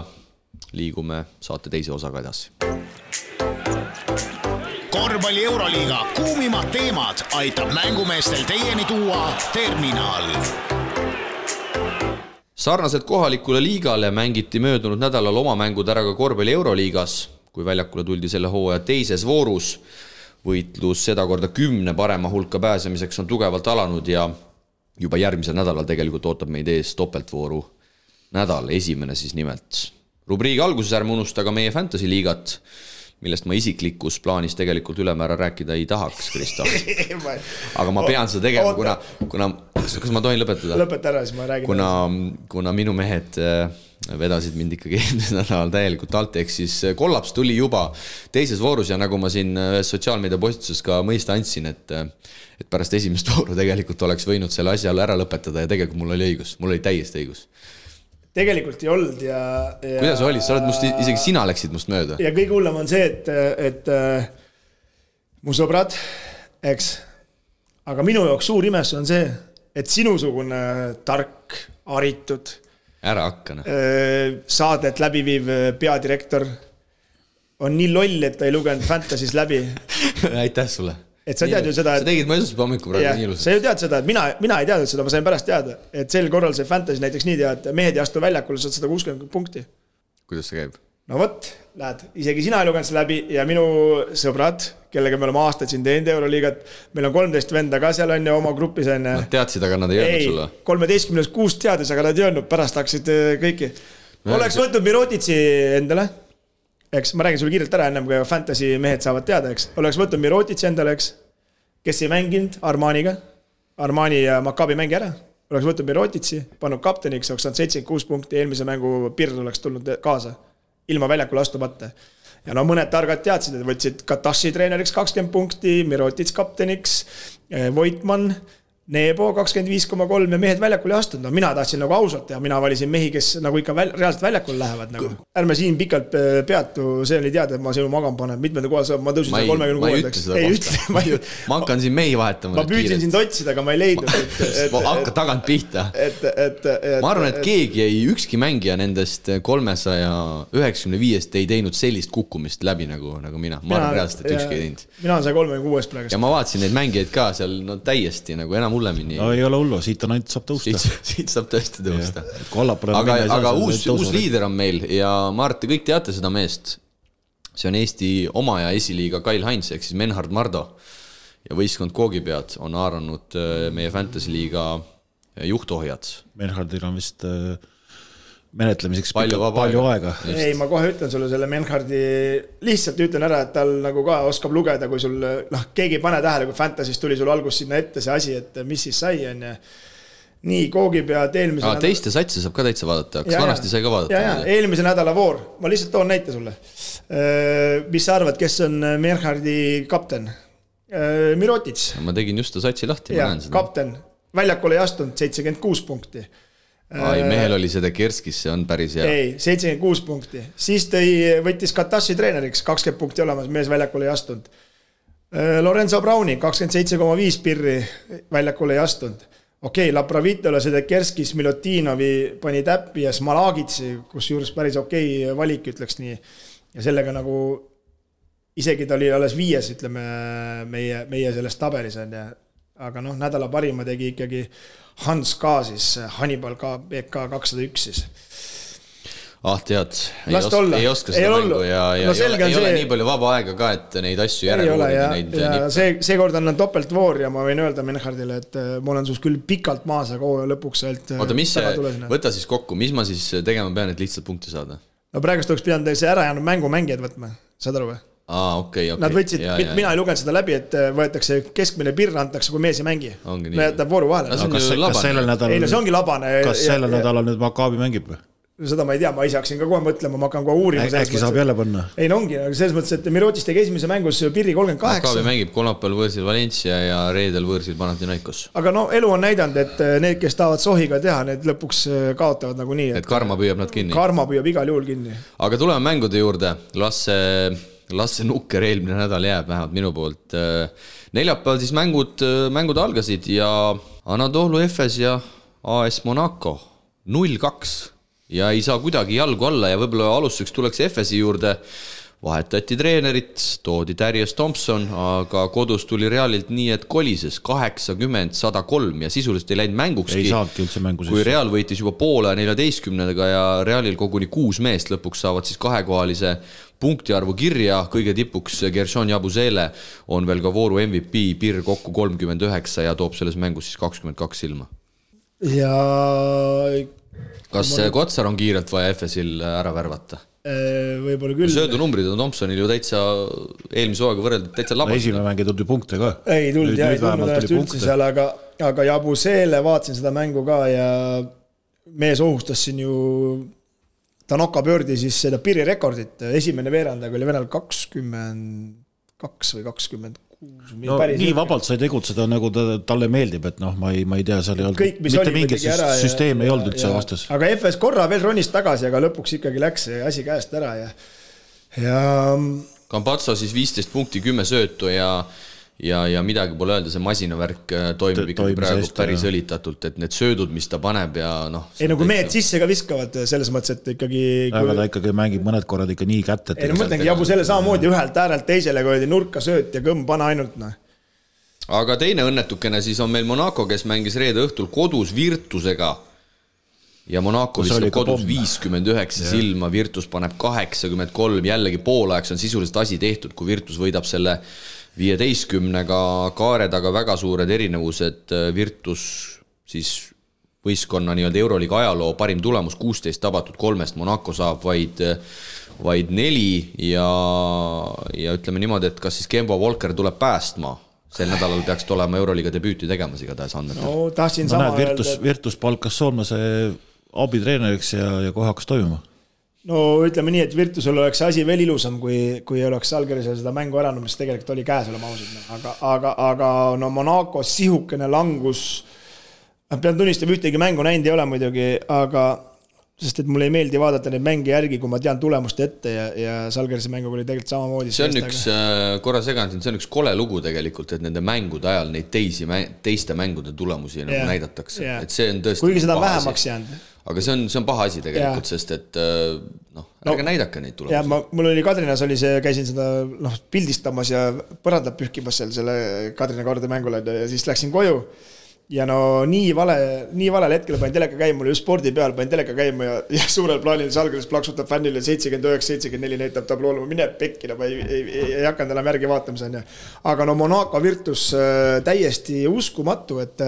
Speaker 2: Liigume saate teise osaga edasi.
Speaker 1: Korvpalli Euroliiga kuumimad teemad aitab mängumeestel teieni tuua Terminal.
Speaker 2: Sarnaselt kohalikule liigale mängiti möödunud nädalal oma mängud ära ka Korvpalli Euroliigas. Kui väljakule tuldi selle hooaja teises voorus, võitlus seda korda 10 parema hulka pääsemiseks on tugevalt alanud ja juba järgmisel nädalal tegelikult ootab meid ees topeltvooru nädal, esimene siis nimelt. Rubriigi alguses ärme unusta ka meie Fantasy liigat, millest ma isiklikus plaanis tegelikult ülemäära rääkida ei tahaks, Kristo. Aga ma pean seda tegema, kuna kas ma tohin lõpetada?
Speaker 4: Lõpeta ära, siis ma räägin.
Speaker 2: Kuna minu mehed vedasid mind ikkagi eelmisel nädalal täielikult alt, ehk siis kollaps tuli juba teises voorus ja nagu ma siin sotsiaalmeedia postituses ka mõista andsin, et pärast esimest vooru tegelikult oleks võinud selle asja ära lõpetada ja tegelikult mul oli õigus, mul oli täiesti õigus.
Speaker 4: Tegelikult ei olnud ja
Speaker 2: kuidas oli? Sa oled isegi sina läksid must mööda.
Speaker 4: Ja kõige hullem on see, et mu sõbrad, eks, aga minu jaoks suur imes on see, et sinusugune tark, haritud
Speaker 2: ära hakkana.
Speaker 4: Saadet läbiviiv peadirektor on nii loll, et ta ei lugenud Fantasy's läbi.
Speaker 2: Aitäh sulle.
Speaker 4: Et sa tead ju seda,
Speaker 2: sa tegid mõjusus hommiku praegu nii ilusalt.
Speaker 4: Sa ju tead seda, et mina ei teadnud seda, ma sain pärast teada, et sel korral see Fantasy näiteks nii tead, et mehed ei astu väljakule, saad 160 punkti.
Speaker 2: Kuidas see käib?
Speaker 4: No võt, lähed, isegi sina ei lugenud see läbi ja minu sõbrad, kellega me oleme aastaid siin teinud Euroliigat, meil on 13 venda ka seal on ja oma grupis on.
Speaker 2: Nad teadsid, aga nad ei öelnud sulle.
Speaker 4: 13-6 teadis, aga nad ei öelnud, pärast hakkasid kõiki. Oleks võtnud Mirotitsi endale, eks, ma räägin sulle kiirelt ära ennem, kui Fantasy mehed saavad teada, eks. Oleks võtnud Mirotitsi endale, eks, kes ei mänginud Armaniga, Armani ja Maccabi mängi ära. Oleks võtnud Mirotitsi, pannud kapteniks, oleks saanud 76 punkti, eelmise mängu Pird oleks tulnud kaasa. Ilma väljakule astumata. Ja no mõned targad teadsid, et võtsid Katashi treeneriks 20 punkti, Mirotits kapteniks, Voitman, Nebo 25,3 ja mehed väljakule ei astunud. No mina tahtsin nagu ausalt ja mina valisin mehi, kes nagu ikka reaalselt väljakule lähevad. Nagu. Ärme siin pikalt peatu, see oli teada, et ma sinu magam panen. Mitmenda kohal saab, ma tõusin 36.
Speaker 2: Ma ei ütle seda kohta. Ma hakkan siin mehi vahetama.
Speaker 4: Ma püüdsin sind otsida, aga ma ei leidnud.
Speaker 2: Hakka tagant pihta. Ma arvan, et keegi ei, ükski mängija nendest 395 ei teinud sellist kukkumist läbi nagu mina. Ma arvan reaalselt, et ükski ei teinud.
Speaker 4: Mina on 36 praegu.
Speaker 2: Ja ma vaatasin neid mängijaid ka seal täiesti nagu enam hullemini.
Speaker 3: No ei ole hullu, siit on ainult saab tõusta.
Speaker 2: Siit saab tõesti tõusta.
Speaker 3: Aga
Speaker 2: uus liider on meil ja ma arvan, te kõik teate seda meest. See on Eesti oma ja esiliiga Kyle Heinz, ehk siis Menhard Mardo. Ja võistkond Koogipead on haaranud meie Fantasy liiga juhtohjad.
Speaker 3: Menhardil on vist menetlemiseks palju aega.
Speaker 4: Ei, ma kohe ütlen sulle selle Menhardi, lihtsalt ütlen ära, et tal nagu ka oskab lugeda, kui sul, keegi ei pane tähele, kui Fantasy's tuli sul algus sinna ette see asi, et mis siis sai on ja nii Koogipead eelmise
Speaker 2: nädala... Teiste satsi saab ka täitsa vaadata, kas vanasti sai ka vaadata?
Speaker 4: Ja, eelmise nädala voor, ma lihtsalt toon näite sulle. Mis sa arvad, kes on Menhardi kapten? Mirotits.
Speaker 2: Ma tegin just ta satsi lahti.
Speaker 4: Ja, kapten, väljakule ei astunud 76 punkti.
Speaker 2: Mehel oli seda Kerskis, see on päris hea.
Speaker 4: Ei, 76 punkti. Siis võttis Katashi treeneriks, 20 punkti olemas, mees väljakule ei astunud. Lorenzo Browni, 27,5 pirri väljakule ei astunud. Okei, Lapravitole seda Kerskis, Milotinovi pani täppi ja Smalagitsi, kus juures päris okei valik, ütleks nii. Ja sellega nagu, isegi ta oli alles 5, ütleme, meie selles tabelis on ja aga nädala parima tegi ikkagi Hans K. siis, Hannibal K. BK 201 siis.
Speaker 2: Tead, ei oska seda mängu ja ei ole nii palju vaba aega ka, et neid asju järele
Speaker 4: see kord on topeltvoor ja ma võin öelda Menhardile, et ma olen sus küll pikalt maas, aga lõpuks
Speaker 2: võta siis kokku, mis ma siis tegema pean, et lihtsalt punkti saada?
Speaker 4: No praegust oleks pidanud see ära jäänud mängijad võtma, saad aru või?
Speaker 2: Okay.
Speaker 4: Nad võtsid, mina ei lugenud seda läbi, et võetakse keskmine pirr, antakse, kui mees ei mängi. Jätab vooru vahele.
Speaker 3: Kas sellel nädalal nüüd Maccabi mängib või?
Speaker 4: Seda ma ei tea, ma ise hakkasin ka kohe mõtlema, ma hakkan kohe uurima.
Speaker 3: Äkki saab jälle panna?
Speaker 4: Ei, ongi, selles mõttes, et Mirotis tegi esimese mängus pirri 38.
Speaker 2: Maccabi mängib kolmapäeval võõrsil Valencia ja reedel võõrsil Panathinaikos.
Speaker 4: Aga elu on näidanud, et need, kes tahavad sohiga teha, need lõpuks kaotavad nagu nii.
Speaker 2: Et karma püüab nad kinni.
Speaker 4: Karma püüab igal juhul kinni.
Speaker 2: Aga tuleme mängude juurde. Lasse nukker eelmine nädal jääb vähemalt minu poolt. Neljapäeval siis mängud algasid ja Anadolu Efes ja AS Monaco 0-2 ja ei saa kuidagi jalgu alla ja võib-olla alustuseks tuleks Efesi juurde. Vahetati treenerit, toodi Darius Thompson, aga kodus tuli Realilt nii, et kolises 80-103 ja sisuliselt ei läinud mängukski.
Speaker 3: Ei saadki üldse mängu.
Speaker 2: Kui Real võitis juba poole 14-ga ja Realil koguni 6 meest lõpuks saavad siis kahekohalise punktiarvu kirja. Kõige tipuks Gershon Jabusele on veel ka vooru MVP, Pirr kokku 39 ja toob selles mängus siis 22 silma.
Speaker 4: Ja...
Speaker 2: Kas Kotsar on kiirelt vaja Efesil ära värvata?
Speaker 4: võib-olla küll.
Speaker 2: Söödunumbrid on Thompsonil ju täitsa eelmise hooaega võrreldes täitsa labas.
Speaker 3: Esimene mäng ei tulnud ju punkte ka.
Speaker 4: Ei tulnud ennast üldse seal, aga Jabuseele vaatasin seda mängu ka ja mees ohustas siin ju Tanaka pöördi siis seda piirirekordit. Esimene veerandaga oli Venel 22 või 26.
Speaker 3: No, nii vabalt sai tegutseda, nagu talle meeldib, et ma ei tea, seal ei olnud mitte mingit süsteem ei olnud üldse vastas.
Speaker 4: Aga FS korra veel ronis tagasi, aga lõpuks ikkagi läks see asi käest ära ja
Speaker 2: Campazzo siis 15 punkti, 10 söötu ja midagi pole öelda, see masinavärk toimib ikkagi praegu päris õlitatult, et need söödud, mis ta paneb ja
Speaker 4: Ei, nagu mehed sisse ka viskavad selles mõttes, et ikkagi
Speaker 3: aga ta ikkagi mängib mõned korrad ikka nii kätt, et
Speaker 4: Ei, mõtlengi Jabu selle samamoodi ühelt äärelt teisele, kui oli nurka sööt ja kõmm pana ainult
Speaker 2: Aga teine õnnetukene siis on meil Monaco, kes mängis reede õhtul kodus Virtusega ja Monaco viskab kodus 59 silma, Virtus paneb 83, jällegi poolajaks on sisuliselt asi tehtud, kui Virtus võidab selle 15-ga kaare taga väga suured erinevused, Virtus siis võistkonna nii-öelda Euroliiga ajaloo parim tulemus 16 tabatud 3, Monaco saab vaid 4 ja ütleme niimoodi, et kas siis Kemba Walker tuleb päästma, sel nädalal peaks olema Euroliiga debüüti tegemas igatahes andmetel.
Speaker 4: No, tahtsin sama
Speaker 3: Virtus palkas Soolmase abitreeneriks ja kohe hakkas toimuma.
Speaker 4: No ütleme nii, et Virtusel oleks asi veel ilusam, kui oleks Žalgirisel seda mängu ära, mis tegelikult oli käes olema ausalt. Aga no Monaco sihukene langus, pean tunnistama, ühtegi mängu näinud ei ole muidugi, aga sest et mulle ei meeldi vaadata neid mänge järgi, kui ma tean tulemust ette ja Žalgirise mänguga oli tegelikult samamoodi.
Speaker 2: See on üks, korra segan, see on üks kole lugu tegelikult, et nende mängude ajal neid teiste mängude tulemusi nagu näidatakse. Et see on tõesti
Speaker 4: kuigi seda vähemaks jäänud.
Speaker 2: Aga see on paha asi tegelikult, sest et ärge näidake neid tulemusi.
Speaker 4: Ja mul oli Kadrinas oli see, käisin seda pildistamas ja põrandab pühkimas seal selle Kadrina kaarde mängule ja siis läksin koju ja no nii valel hetkel panin teleka käima, mul just spordi peal panin teleka käima ja suurel plaanil Žalgiris plaksutab fännile 79-74 näitab tablool, ma mine pekki, ma ei hakanud enam järgi vaatamise. Aga no Monaco Virtus täiesti uskumatu, et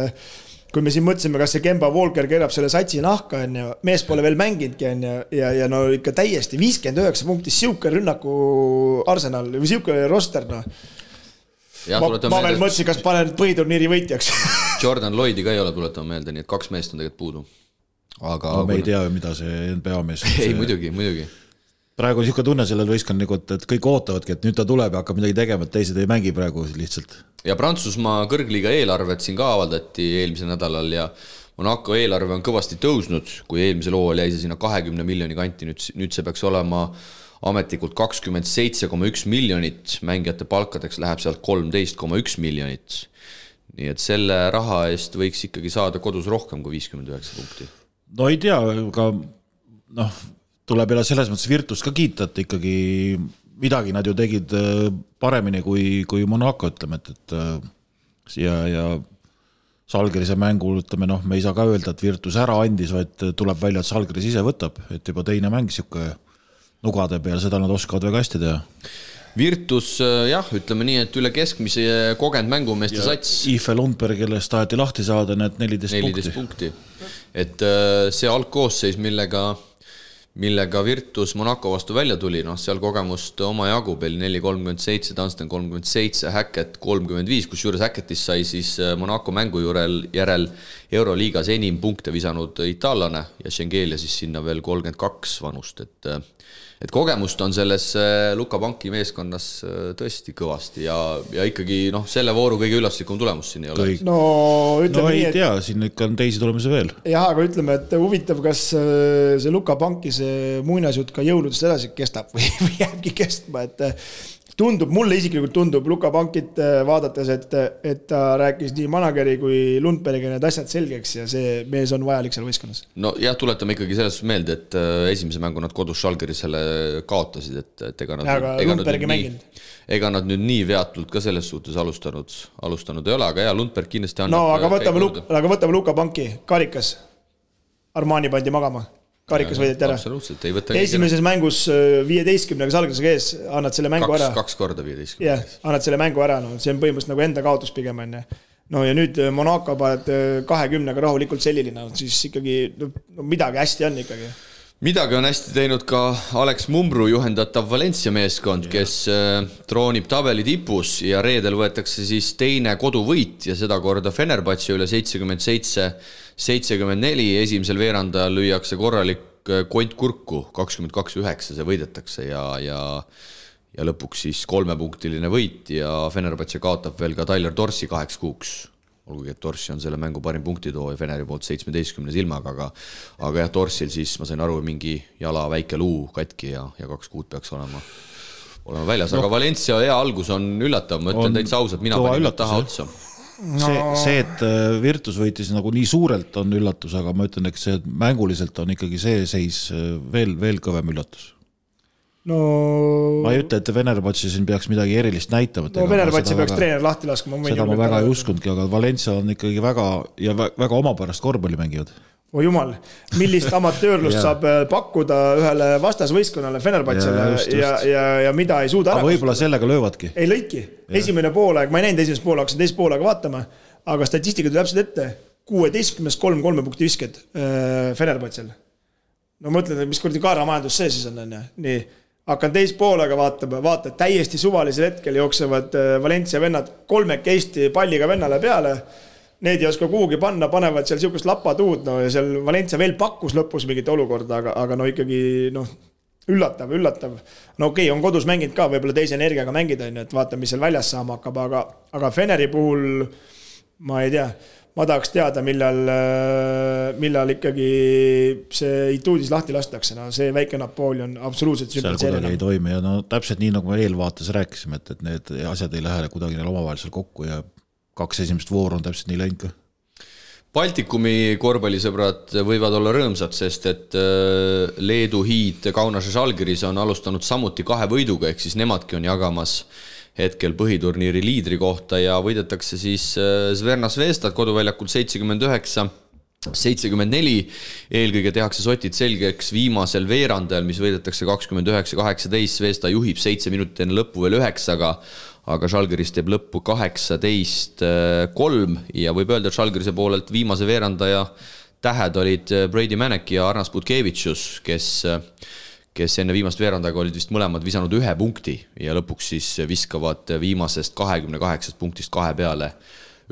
Speaker 4: kui me siin mõtlesime, kas see Kemba Walker keerab selle satsi nahka, mees pole veel mänginudki ja no ikka täiesti 59 punktis siuke rünnaku Arsenal või siuke roster. Ma veel mõtlesin, kas panen põhiturniiri võitjaks.
Speaker 2: Jordan Lloydi ka ei ole tuletama meelde, nii et 2 meest on tegelikult puudu. Aga
Speaker 3: me ei tea, mida see NBA mees
Speaker 2: Ei, muidugi.
Speaker 3: Praegu on niisugune tunne sellel võistkond, et kõik ootavadki, et nüüd ta tuleb ja hakkab midagi tegema, et teised ei mängi praegu lihtsalt.
Speaker 2: Ja Prantsusmaa kõrgliiga eelarvet siin ka avaldati eelmisel nädalal ja Monaco eelarve on kõvasti tõusnud, kui eelmisel hooajal jäi see sinna 20 miljoni kanti, nüüd see peaks olema ametlikult 27,1 miljonit, mängijate palkadeks läheb sealt 13,1 miljonit. Nii et selle raha eest võiks ikkagi saada kodus rohkem kui 59 punkti.
Speaker 3: No ei tea, aga tuleb jälle selles mõttes Virtus ka kiita, et ikkagi midagi nad ju tegid paremini kui Monaco, ütleme, et ja Žalgirise mängul, ütleme, me ei saa ka öelda, et Virtus ära andis, vaid tuleb välja, et Žalgiris ise võtab, et juba teine mäng siuke nugade peal, seda nad oskavad väga hästi teha.
Speaker 2: Virtus, ütleme nii, et üle keskmise kogenud mängumeeste sats.
Speaker 3: Ife Lundberg, kellest taheti lahti saada, need 14 punkti.
Speaker 2: Et see algkoosseis, millega Virtus Monaco vastu välja tuli, seal kogemust oma jagu peal 4-37, Dunstan 37, Hackett 35, kus juures Hackettist sai siis Monaco mängu järel Euroliigas enim punkte visanud itaallane ja Schengelia siis sinna veel 32 vanust, et kogemust on selles Luka Banki meeskonnas tõesti kõvasti ja ikkagi selle vooru kõige üllatuslikum tulemus siin ei ole.
Speaker 4: Ütleme
Speaker 3: ei tea, siin ikka on teisi tulemusi veel.
Speaker 4: Jah, aga ütleme, et huvitav, kas see Luka Banki see muinasjutt ka jõuludest edasi kestab või jääbki kestma, et mulle isiklikult tundub Luka Bankit vaadates, et ta rääkis nii manageri kui Lundbergi need asjad selgeks ja see mees on vajalik seal võistkonnas.
Speaker 2: No jah, tuletame ikkagi selles meelde, et esimese mängu nad kodus Žalgirisele kaotasid, et ega nad nüüd nii veatult ka selles suhtes alustanud ei ole, aga Lundberg kindlasti annab.
Speaker 4: Aga võtame Luka Banki, karikas, Armani pandi magama. Karikas võideti ära.
Speaker 2: Absoluutselt,
Speaker 4: esimeses mängus 15-ga Žalgirisega ees annad selle mängu ära.
Speaker 2: 2 korda 15.
Speaker 4: Jah, annad selle mängu ära, see on põhimõtteliselt nagu enda kaotus pigem. No ja nüüd Monaco paned 20-ga rahulikult selliline, siis ikkagi midagi hästi on ikkagi.
Speaker 2: Midagi on hästi teinud ka Alex Mumbruu juhendatav Valencia meeskond, kes troonib tabeli tipus ja reedel võetakse siis teine koduvõit ja seda korda Fenerbahce üle 77-74. Esimesel veerandajal lüüakse korralik kont kurku, 22-9 see võidetakse ja lõpuks siis 3-punktiline võit ja Fenerbahce kaotab veel ka Tyler Dorsi 2 kuuks. Olgugi, et Dorsi on selle mängu parim punktitoo ja Feneri poolt 17 silmaga, aga jah, Dorsil siis ma sain aru, mingi jala väike luu katki ja 2 kuud peaks olema väljas, aga Valencia hea algus on üllatav, ma ütlen täitsa ausalt, mina panin taha otsa.
Speaker 3: See, et Virtus võitis nagu nii suurelt on üllatus, aga ma ütlen, eks see mänguliselt on ikkagi see seis veel kõvem üllatus.
Speaker 4: No
Speaker 3: ma ei ütle, et Fenerbahce siin peaks midagi erilist näitama.
Speaker 4: No Fenerbahce peaks treener lahti laskma.
Speaker 3: Seda ma väga ei uskundki, aga Valencia on ikkagi väga omapärast korvpalli mängivad.
Speaker 4: Oh jumal, millist amatöörlust saab pakkuda ühele vastasvõistkonnale Fenerbahcele ja mida ei suuda ära.
Speaker 3: Aga võib-olla sellega löövadki.
Speaker 4: Ei lõiki. Esimene poolaeg, ma ei näinud esimest poolaeg, hakkasin teist poolaega vaatama, aga statistika tuli täpselt ette. 16-3 punkti visked Fenerbahcele. No mõtlen, mis kurdi kaaramajandus see siis on. Nii. Hakkan teist poolega vaata, täiesti suvalisel hetkel jooksevad Valencia vennad 3 Eesti palliga vennale peale. Need ei oska kuhugi panna, panevad seal siukest lapatuud, no ja seal Valencia veel pakkus lõpus mingit olukorda, aga no ikkagi üllatav. No okei, on kodus mänginud ka, võib-olla teise energiaga mängida, et vaata, mis seal väljas saama hakkab, aga Feneri puhul ma ei tea, ma tahaks teada, millal ikkagi see Ituudis lahti lastakse. No see väike Napoleon absoluutselt
Speaker 3: sümpatseerina. Seal kuidagi ei toimi ja no täpselt nii, nagu me eelvaates rääkisime, et need asjad ei lähe kuidagi neil omavahelisel kokku ja 2 esimest vooru on täpselt nii läinud ka.
Speaker 2: Baltikumi korvpallisõbrad võivad olla rõõmsad, sest et Leedu hiid Kaunase Žalgiris on alustanud samuti 2 võiduga, ehk siis nemadki on jagamas hetkel põhiturniiri liidri kohta ja võidetakse siis Zverna Zvezdat koduväljakul 79-74. Eelkõige tehakse sotid selgeks viimasel veerandajal, mis võidetakse 29-18. Zvezda juhib 7 minutit enne lõppu veel 9, aga Žalgiris teeb lõppu 18-3 ja võib öelda, et Žalgirise poolelt viimase veerandaja tähed olid Brady Manek ja Arnas Butkevitšus, kes enne viimast veerandaga olid vist mõlemad visanud 1 punkti ja lõpuks siis viskavad viimasest 28 punktist 2 peale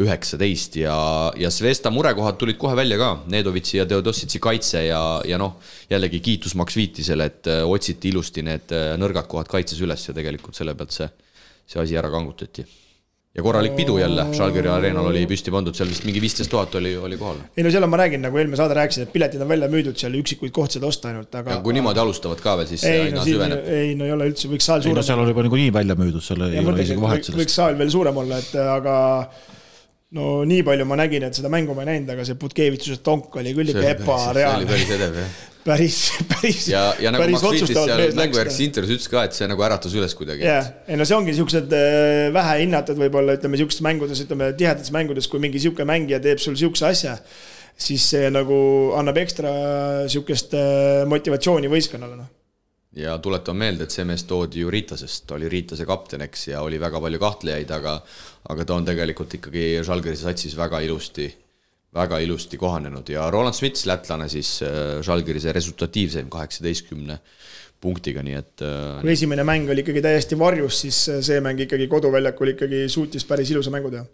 Speaker 2: 19 ja Zvezda murekohad tulid kohe välja ka, Nedovitsi ja Teodositsi kaitse ja noh, jällegi kiitus Max Viitisele, et otsiti ilusti need nõrgad kohad kaitses üles ja tegelikult selle pealt see asi ära kangutati. Ja korralik pidu jälle, Žalgiri areenal oli püsti pandud, seal vist mingi 15 000 oli kohal.
Speaker 4: Ei no seal on, ma räägin, nagu eelmine saade rääkisin, et piletid on välja müüdud, seal üksikuid kohtsid osta ainult. Aga,
Speaker 2: ja kui niimoodi alustavad ka veel, siis aina süveneb.
Speaker 4: Ei, no ei ole üldse, võiks saal suurem.
Speaker 3: No seal oli juba nii välja müüdud, seal ei ole isegi vahet sellest.
Speaker 4: Võiks saal veel suurem olla, aga no nii palju ma nägin, et seda mängu ma ei näinud, aga see Butkevitšuse tonk oli küll ebareaalne.
Speaker 2: See oli päris edev, jah.
Speaker 4: Päris
Speaker 2: ja nagu Max Viitis seal mängujärgses intervjuus ütles ka, et see nagu äratas üles kuidagi.
Speaker 4: Ei no see ongi niisugused vähe hinnatud võib-olla, ütleme niisugustes mängudes, ütleme tihedates mängudes, kui mingi niisugune mängija teeb sul niisuguse asja, siis see nagu annab ekstra niisugust motivatsiooni võistkonnale.
Speaker 2: Ja tuletan meelde, et see mees toodi ju Riitasest, oli Riitase kapteneks ja oli väga palju kahtlejaid, aga ta on tegelikult ikkagi Žalgirise satsis väga ilusti kohanenud ja Roland Smits, lätlane siis Žalgirise resultatiivseim 18 punktiga, nii et
Speaker 4: kui esimene mäng oli ikkagi täiesti varjus, siis see mäng ikkagi koduväljakul ikkagi suutis päris ilusa mängu teha.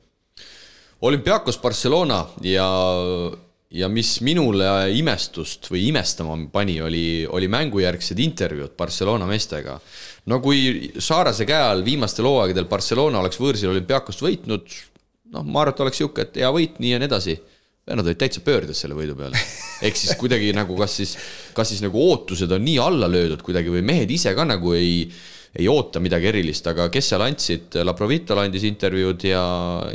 Speaker 2: Olympiakos Barcelona ja mis minule imestust või imestama pani, oli mängujärgsed intervjuud Barcelona meestega. No kui Saarase käe all viimastel hooaegadel Barcelona oleks võõrsil Olympiakost võitnud, noh, ma arvan, et oleks siuke, et hea võit, nii ja nii edasi. Nad olid täitsa pöördes selle võidu peale. Ehk siis kuidagi nagu, kas siis nagu ootused on nii alla löödud kuidagi või mehed ise ka nagu ei oota midagi erilist, aga kes seal andsid, Laprovitol andis intervjuud ja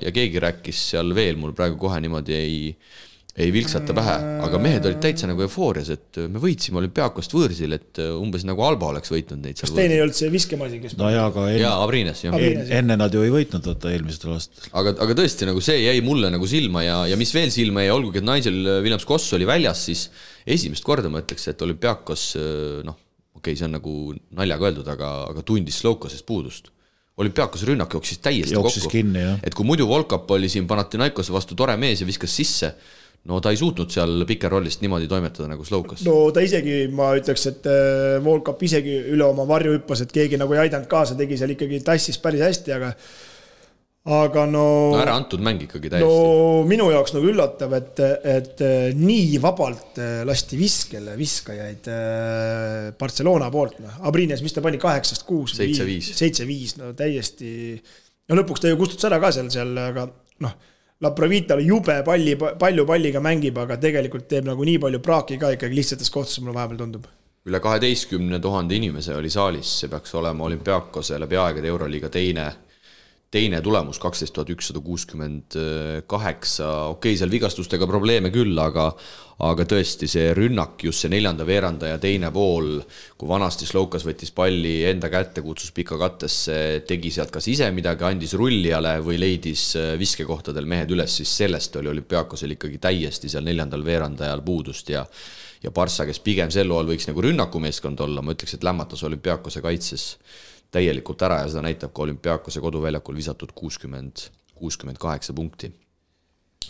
Speaker 2: keegi rääkis seal veel, mul praegu kohe niimoodi ei vilksata pähe, aga mehed olid täitsa nagu eufoorias, et me võitsime Olympiakost võõrsil, et umbes nagu Alba oleks võitnud neid seal.
Speaker 4: Kas teine ei olnud see viskemasi, kes...
Speaker 3: No jaa, aga
Speaker 2: Abrines, jah.
Speaker 3: Enne nad ju ei võitnud eelmistel aastal.
Speaker 2: Aga tõesti, nagu see jäi mulle nagu silma ja mis veel silma jäi, olgugi, et Nigel Williams-Goss oli väljas, siis esimest korda ma ütleks, et Olympiakos, noh, okei, see on nagu naljaga öeldud, aga tundis Sloukasest puudust. Olümpiakose rünnak jooksis täiesti kokku.
Speaker 3: Kinni,
Speaker 2: et kui muidu Volkap oli siin Panathinaikose vastu tore mees ja viskas sisse, no ta ei suutnud seal pikerrollist niimoodi toimetada nagu Slowkas.
Speaker 4: No ta isegi, ma ütleks, et Volkap isegi üle oma varju hüppas, et keegi nagu ei aidanud kaasa, tegi seal ikkagi tassis päris hästi, aga no
Speaker 2: ära antud mäng ikkagi täiesti.
Speaker 4: No minu jaoks nagu üllatav, et nii vabalt lasti viskajaid Barcelona poolt. Abrines, mis ta pani 8-6? 7-5, no täiesti. No lõpuks ta ju kustus ära ka seal, aga noh, La Provita jube palju palliga mängib, aga tegelikult teeb nagu nii palju praaki ka ikkagi lihtsates kohtades, mulle vahepeal tundub.
Speaker 2: Üle 12 000 inimese oli saalis, see peaks olema Olümpiakose läbi aegade Euroliiga teine tulemus, 12 168, okei, seal vigastustega probleeme küll, aga tõesti see rünnak, just see 4. veeranda ja teine pool, kui vanasti Slowkas võttis palli enda kätte, kutsus pika kattesse, tegi sealt kas ise midagi, andis rullijale või leidis viskekohtadel mehed üles, siis sellest oli Olümpiakosel ikkagi täiesti seal 4. veerandajal puudust ja Barssa, kes pigem sel loal võiks nagu rünnakumeeskond olla, ma ütleks, et lämmatas Olümpiakose kaitses täielikult ära ja seda näitab ka Olümpiakose koduväljakul visatud 68 punkti.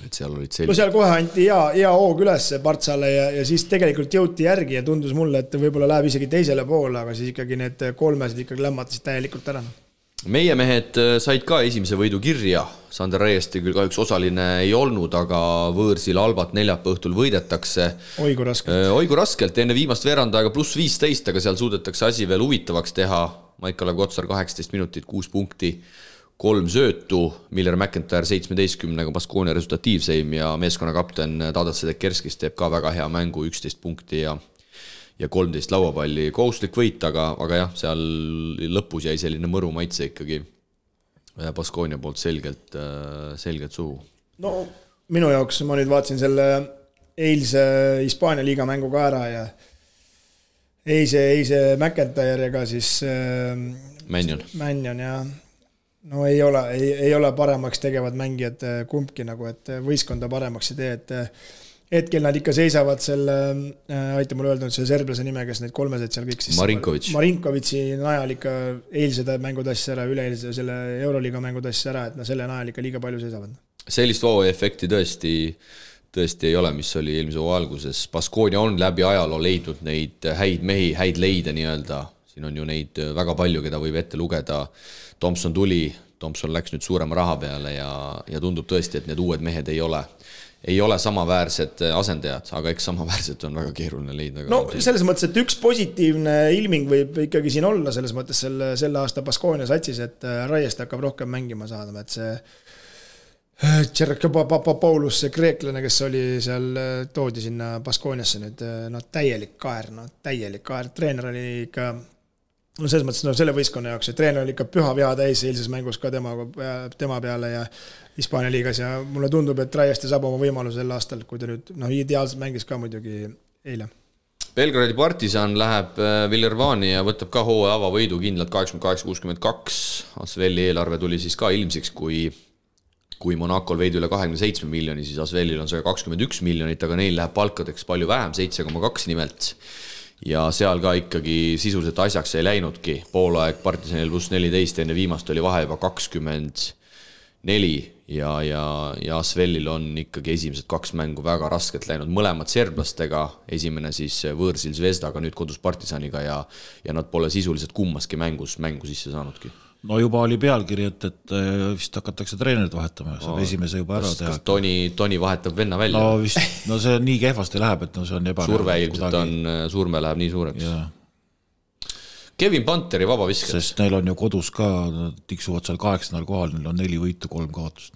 Speaker 2: Et seal olid
Speaker 4: no seal kohe anti hea hoog üles Bartsale ja siis tegelikult jõuti järgi ja tundus mulle, et võib-olla läheb isegi teisele poole, aga siis ikkagi need kolmesed ikkagi lämmatasid täielikult ära.
Speaker 2: Meie mehed said ka esimese võidu kirja. Sander Reiesti küll kahjuks osaline ei olnud, aga võõrsil Albat neljapäeva õhtul võidetakse. Oigu raskelt, enne viimast veerandaega pluss 15, aga seal suudetakse asi veel huvitavaks teha. Maikala Kotsar 18 minutit, 6 punkti, 3 söötu, Miller McIntyre 17-ga Baskonia resultatiivseim ja meeskonna kapten Tadas Sedekerskis teeb ka väga hea mängu, 11 punkti ja 13 lauapalli. Kohustuslik võit, aga jah, seal lõpus jäi selline mõru maitse ikkagi Baskonia poolt selgelt suhu.
Speaker 4: No minu jaoks ma nüüd vaatasin selle eilse Hispaania liiga mängu ka ära ja eise McIntyre ega siis Mannion ja no ei ole paremaks tegevad mängijad kumbki nagu, et võistkonda paremaks ei tee, et hetkel nad ikka seisavad selle, aita mulle öelda, see serblase nime, kes need kolmesed seal kõik siis Marinkovitši najal ikka eilsed mängud asja ära, üleeilse selle Euroliiga mängud asja ära, et nad selle najal ikka liiga palju seisavad.
Speaker 2: Sellist efekti tõesti ei ole, mis oli eelmise hooaja alguses. Baskonia on läbi ajaloo leidnud neid häid mehi, häid leide nii-öelda. Siin on ju neid väga palju, keda võib ette lugeda. Thompson läks nüüd suurema raha peale ja tundub tõesti, et need uued mehed ei ole samaväärsed asendajad, aga eks samaväärsed on väga keeruline leida.
Speaker 4: No selles mõttes, et üks positiivne ilming võib ikkagi siin olla selles mõttes selle aasta Baskonia satsis, et Raiest hakkab rohkem mängima saada, et see Paulus, see kreeklane, kes oli seal, toodi sinna Baskoniasse nüüd, täielik kaer, treener oli ikka, no selles mõttes, selle võistkonna jaoks, treener oli ikka püha viha täis eilses mängus ka tema peale ja Hispaania liigas ja mulle tundub, et Raiesti saab oma võimaluse sel aastal, kui ta nüüd, ideaalselt mängis ka muidugi eile.
Speaker 2: Belgradi Partisan läheb Villervani ja võtab ka hooaja avavõidu kindlalt 88-62. Asveli eelarve tuli siis ka ilmsiks, kui Monacol veidi üle 27 miljoni, siis Asvelil on 121 miljonit, aga neil läheb palkadeks palju vähem, 7,2 nimelt. Ja seal ka ikkagi sisuliselt asjaks ei läinudki. Poolaeg Partisanil pluss 14, enne viimast oli vahe juba 24 ja Asvelil on ikkagi esimesed 2 mängu väga raskelt läinud. Mõlemad serblastega, esimene siis võõrsil Zvezdaga, nüüd kodus Partisaniga ja nad pole sisuliselt kummaski mängu sisse saanudki.
Speaker 3: No juba oli pealkiri, et vist hakatakse treenerit vahetama, saab esimese juba ära teha.
Speaker 2: Kas Toni vahetab venna välja?
Speaker 3: No see nii kehvasti läheb, et see on
Speaker 2: surve ilmselt surme läheb nii suureks. Ja. Kevin Panteri vabavisked.
Speaker 3: Sest neil on ju kodus ka, tiksuvad seal 8. kohal, neil on 4 võitu, 3 kaotust.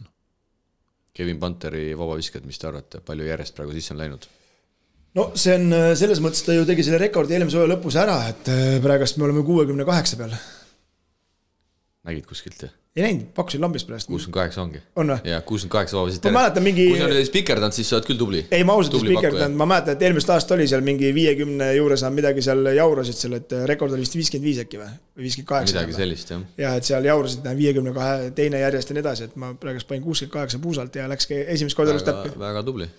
Speaker 2: Kevin Panteri vabavisked, mis te arvate, palju järjest praegu sisse on läinud?
Speaker 4: No see on selles mõttes, ta ju tegi selle rekordi eelmise hooaja lõpus ära, et praegast me oleme 68 peal.
Speaker 2: Nägid kuskilt?
Speaker 4: Ei näinud, pakkusin lambist praegu.
Speaker 2: 68 ongi.
Speaker 4: On või?
Speaker 2: Ja 68 vabavisid.
Speaker 4: Ma mäletan mingi...
Speaker 2: Kui sa oled spikerdanud, siis sa oled küll tubli.
Speaker 4: Ei, ma ausalt spikerdanud. Ma mäletan, et eelmist aasta oli seal mingi 50 juures midagi seal jaurasid seal, et rekord oli vist 55 äkki või 58.
Speaker 2: Midagi sellist, jah.
Speaker 4: Ja, et seal jaurasid 52 teine järjest ja nii edasi, et ma praegu panin 68 puusalt ja läks esimest korda elust täppi.
Speaker 2: Väga tubli.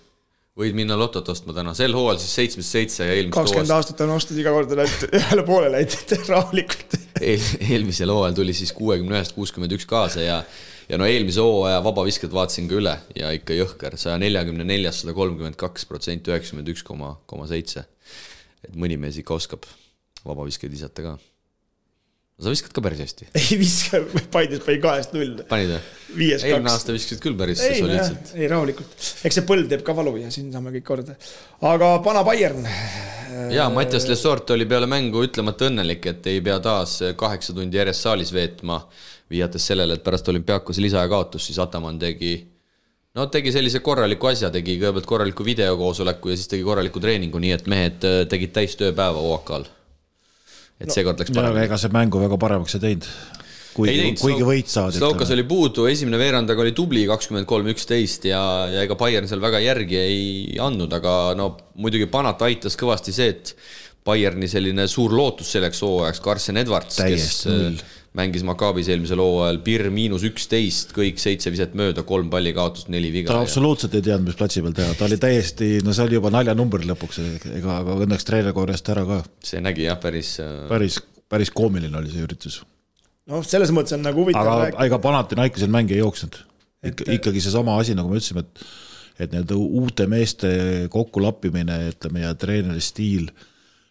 Speaker 2: Võid minna lotot ostma täna. Sel hooajal siis 77 ja eelmist
Speaker 4: 20 aastat on ostud iga korda ühele poole läinud rahulikult.
Speaker 2: eelmisel hooajal tuli siis 61-61 kaasa ja no eelmise hooaja vabavisked vaatasin ka üle ja ikka jõhker, 144, 132%, 91,7. Et mõni mees ikka oskab vabaviskeid visata ka. Sa viskad ka päris hästi.
Speaker 4: Ei viska, Paides pai 2-0.
Speaker 2: Panid või?
Speaker 4: 5-2.
Speaker 2: Eelmine aasta viskasid küll päris soliidselt.
Speaker 4: Ei, rahulikult. Eks see põld teeb ka valu ja siin saame kõik korda. Aga pana Bayern.
Speaker 2: Jaa, Mattias Lesort oli peale mängu ütlemata õnnelik, et ei pea taas 8 tundi järjest saalis veetma, viiates sellele, et pärast Olümpiakos lisaja kaotus, siis Ataman tegi sellise korraliku asja, tegi kõigepealt korraliku videokoosoleku ja siis tegi korraliku treeningu, nii et mehed tegid täis tööpäeva OAK-al. Et seekord läks paremini.
Speaker 3: Ega see mängu väga paremaks ei teinud. Kuigi võit saadi.
Speaker 2: Slovkas oli puudu, esimene veerandaga oli tubli 23-11 ja ega Bayern seal väga järgi ei andnud, aga muidugi Panat aitas kõvasti see, et Bayerni selline suur lootus selleks hooajaks, Carson Edwards, kes mängis Maccabis eelmisel hooajal -11, kõik 7 viset mööda, 3 palli kaotust, 4 viga.
Speaker 3: Ta absoluutselt ei teadnud, mis platsi peal teha. Ta oli täiesti, see oli juba naljanumber lõpuks, aga õnneks treener korjast ära ka.
Speaker 2: See nägi jah,
Speaker 3: päris koomiline oli see üritus.
Speaker 4: Selles mõttes on nagu huvitav
Speaker 3: rääkida. Aga Panathinaikosel mängi ei jooksnud. Ikkagi see sama asi, nagu me ütlesime, et need uute meeste kokkulappimine, ütleme, ja treeneri stiil,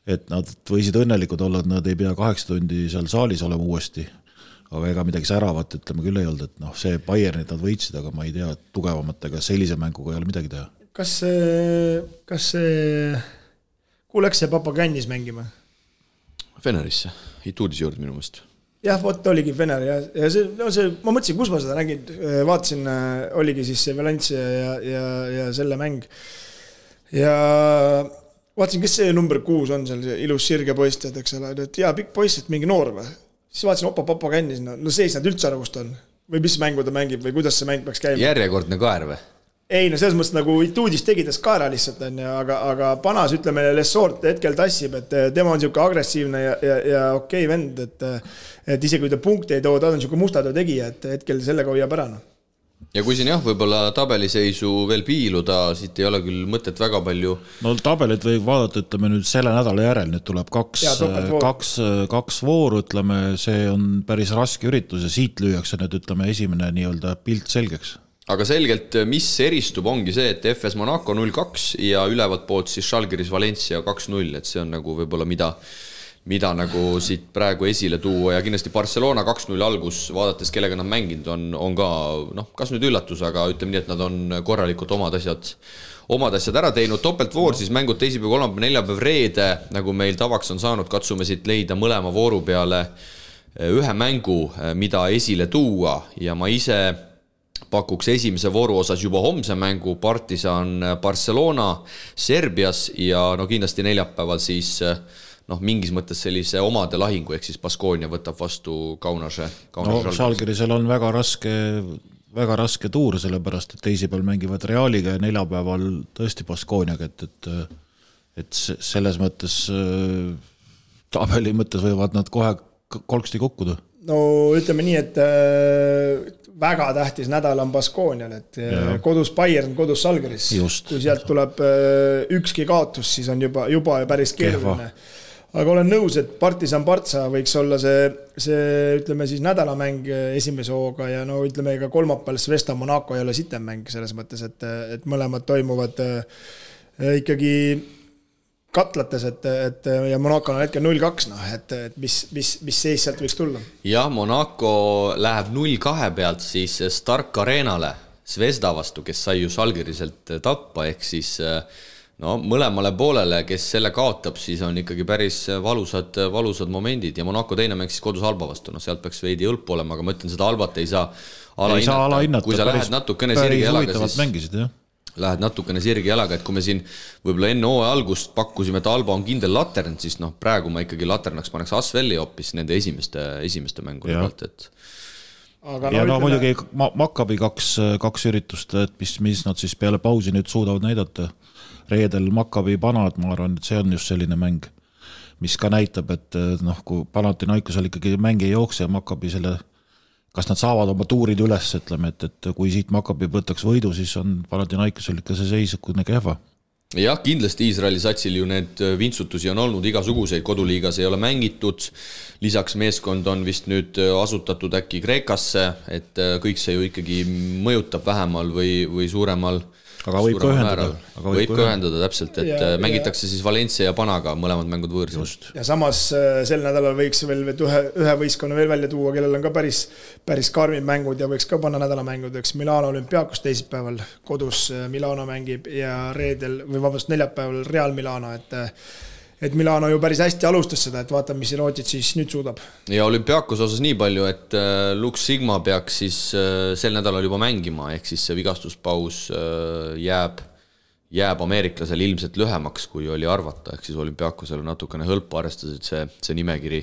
Speaker 3: et nad võisid õnnelikud olla, et nad ei pea 8 tundi seal saalis olema uuesti, aga ega midagi säravat, ütleme küll ei olnud, et see Bayernit nad võitsid, aga ma ei tea, tugevamatega sellise mänguga ei ole midagi teha.
Speaker 4: Kas see kuhu läks see Papagannis mängima?
Speaker 2: Fenerisse, Ituudis juurde minu mõist.
Speaker 4: Jah, vot oligi Fener ja ma mõtlesin, kus ma seda nägin, vaatasin, oligi siis see Valencia ja selle mäng ja vaatasin, kes see number 6 on seal, see ilus sirge poist, eks ole, et jaa, pikk poist, et mingi noor või. Siis vaatasin, Papagannis, sees nad üldse aru, kust on. Või mis mängu ta mängib või kuidas see mäng peaks käima.
Speaker 2: Järjekordne kaer või?
Speaker 4: Ei, selles mõttes nagu Ituudis tegides kaera lihtsalt, aga Panas, ütleme, Lesort hetkel tassib, et tema on niisugune agressiivne ja okei vend, et isegi kui ta punkti ei too, ta on niisugune mustatöö tegija, et hetkel sellega hoiab ära.
Speaker 2: Ja kui siin võib-olla tabeliseisu veel piiluda, siit ei ole küll mõtet väga palju.
Speaker 3: Tabelit võib vaadata, ütleme nüüd selle nädala järel, nüüd tuleb kaks vooru, ütleme, see on päris raske üritus ja siit lüüakse nüüd, ütleme, esimene nii-öelda pilt selgeks.
Speaker 2: Aga selgelt, mis eristub, ongi see, et FS Monaco 0-2 ja ülevalt poolt siis Žalgiris Valencia 2-0, et see on nagu võib-olla mida nagu siit praegu esile tuua ja kindlasti Barcelona 2-0 algus, vaadates kellega nad mänginud on ka, kas nüüd üllatus, aga ütleme nii, et nad on korralikult omad asjad ära teinud. Topeltvoor siis mängud teisipäev, kolmapäev, neljapäev, reede, nagu meil tavaks on saanud, katsume siit leida mõlema vooru peale ühe mängu, mida esile tuua ja ma ise pakuks esimese vooru osas juba homse mängu Partisan Barcelona Serbias ja kindlasti neljapäeval siis mingis mõttes sellise omade lahingu, ehk siis Baskonia võtab vastu Kaunase.
Speaker 3: Žalgirisel on väga raske tuur, sellepärast, et teisipäeval mängivad Realiga ja neljapäeval tõesti Baskoniaga, et selles mõttes tabeli mõttes võivad nad kohe kolksti kukkuda.
Speaker 4: Ütleme nii, et väga tähtis nädal on Baskonial, et kodus Bayern, kodus Žalgiris. Kui sealt tuleb ükski kaotus, siis on juba päris keeruline. Aga olen nõus, et Partisan Partsa võiks olla see ütleme siis nädalamäng esimese hooga ja ütleme ka kolmapäeval Svesta Monaco ei ole sitem mäng selles mõttes, et mõlemad toimuvad ikkagi katlates, et ja Monaco on hetkel 0-2, et mis seis sealt võiks tulla?
Speaker 2: Jah, Monaco läheb 0-2 pealt siis Stark Arenale Svesta vastu, kes sai ju Žalgiriselt tappa, ehk siis mõlemale poolele, kes selle kaotab, siis on ikkagi päris valusad momendid ja Monaco teine mäng siis kodus Alba vastu, sealt peaks veidi õlpu olema, aga ma ütlen, seda Albat ei saa alahinnata. Kui sa lähed natukene sirge jalaga, siis lähed natukene sirge jalaga, et kui me siin võib-olla enne hooaja algust pakkusime, et Alba on kindel latern, siis praegu ma ikkagi laternaks paneks Asvelli hoopis nende esimeste mängude pealt, et
Speaker 3: ja muidugi Maccabi kaks üritust, et mis nad siis peale pausi nüüd suudavad näidata. Reedel Maccabi Panad, ma arvan, et see on just selline mäng, mis ka näitab, et kui Panathinaikosel ikkagi mäng ei jookse ja Maccabi selle, kas nad saavad oma tuurid üles, ütleme, et kui siit Maccabi võtaks võidu, siis on Panathinaikosel ikka see seis kehva.
Speaker 2: jah, kindlasti Iisraeli satsil ju need vintsutusi on olnud igasuguseid, koduliigas ei ole mängitud, lisaks meeskond on vist nüüd asutatud äkki Kreekasse, et kõik see ju ikkagi mõjutab vähemal või suuremal.
Speaker 3: Aga võib ka ühendada.
Speaker 2: Võib ka ühendada täpselt, et mängitakse siis Valencia ja Panaga mõlemad mängud võõrsil.
Speaker 4: Ja samas sel nädalal võiks veel ühe võistkonna veel välja tuua, kellel on ka päris karmid mängud ja võiks ka panna nädalamängud, eks Milano Olümpiakos teisipäeval kodus Milano mängib ja neljapäeval Real Milano, et Milano ju päris hästi alustas seda, et vaatame, mis Rootsid siis nüüd suudab.
Speaker 2: Ja Olümpiakos osas nii palju, et Lux Sigma peaks siis sel nädalal juba mängima, ehk siis see vigastuspaus jääb ameeriklasel ilmselt lühemaks, kui oli arvata, ehk siis Olümpiakosel on natukene hõlpu arvestades, et see nimekiri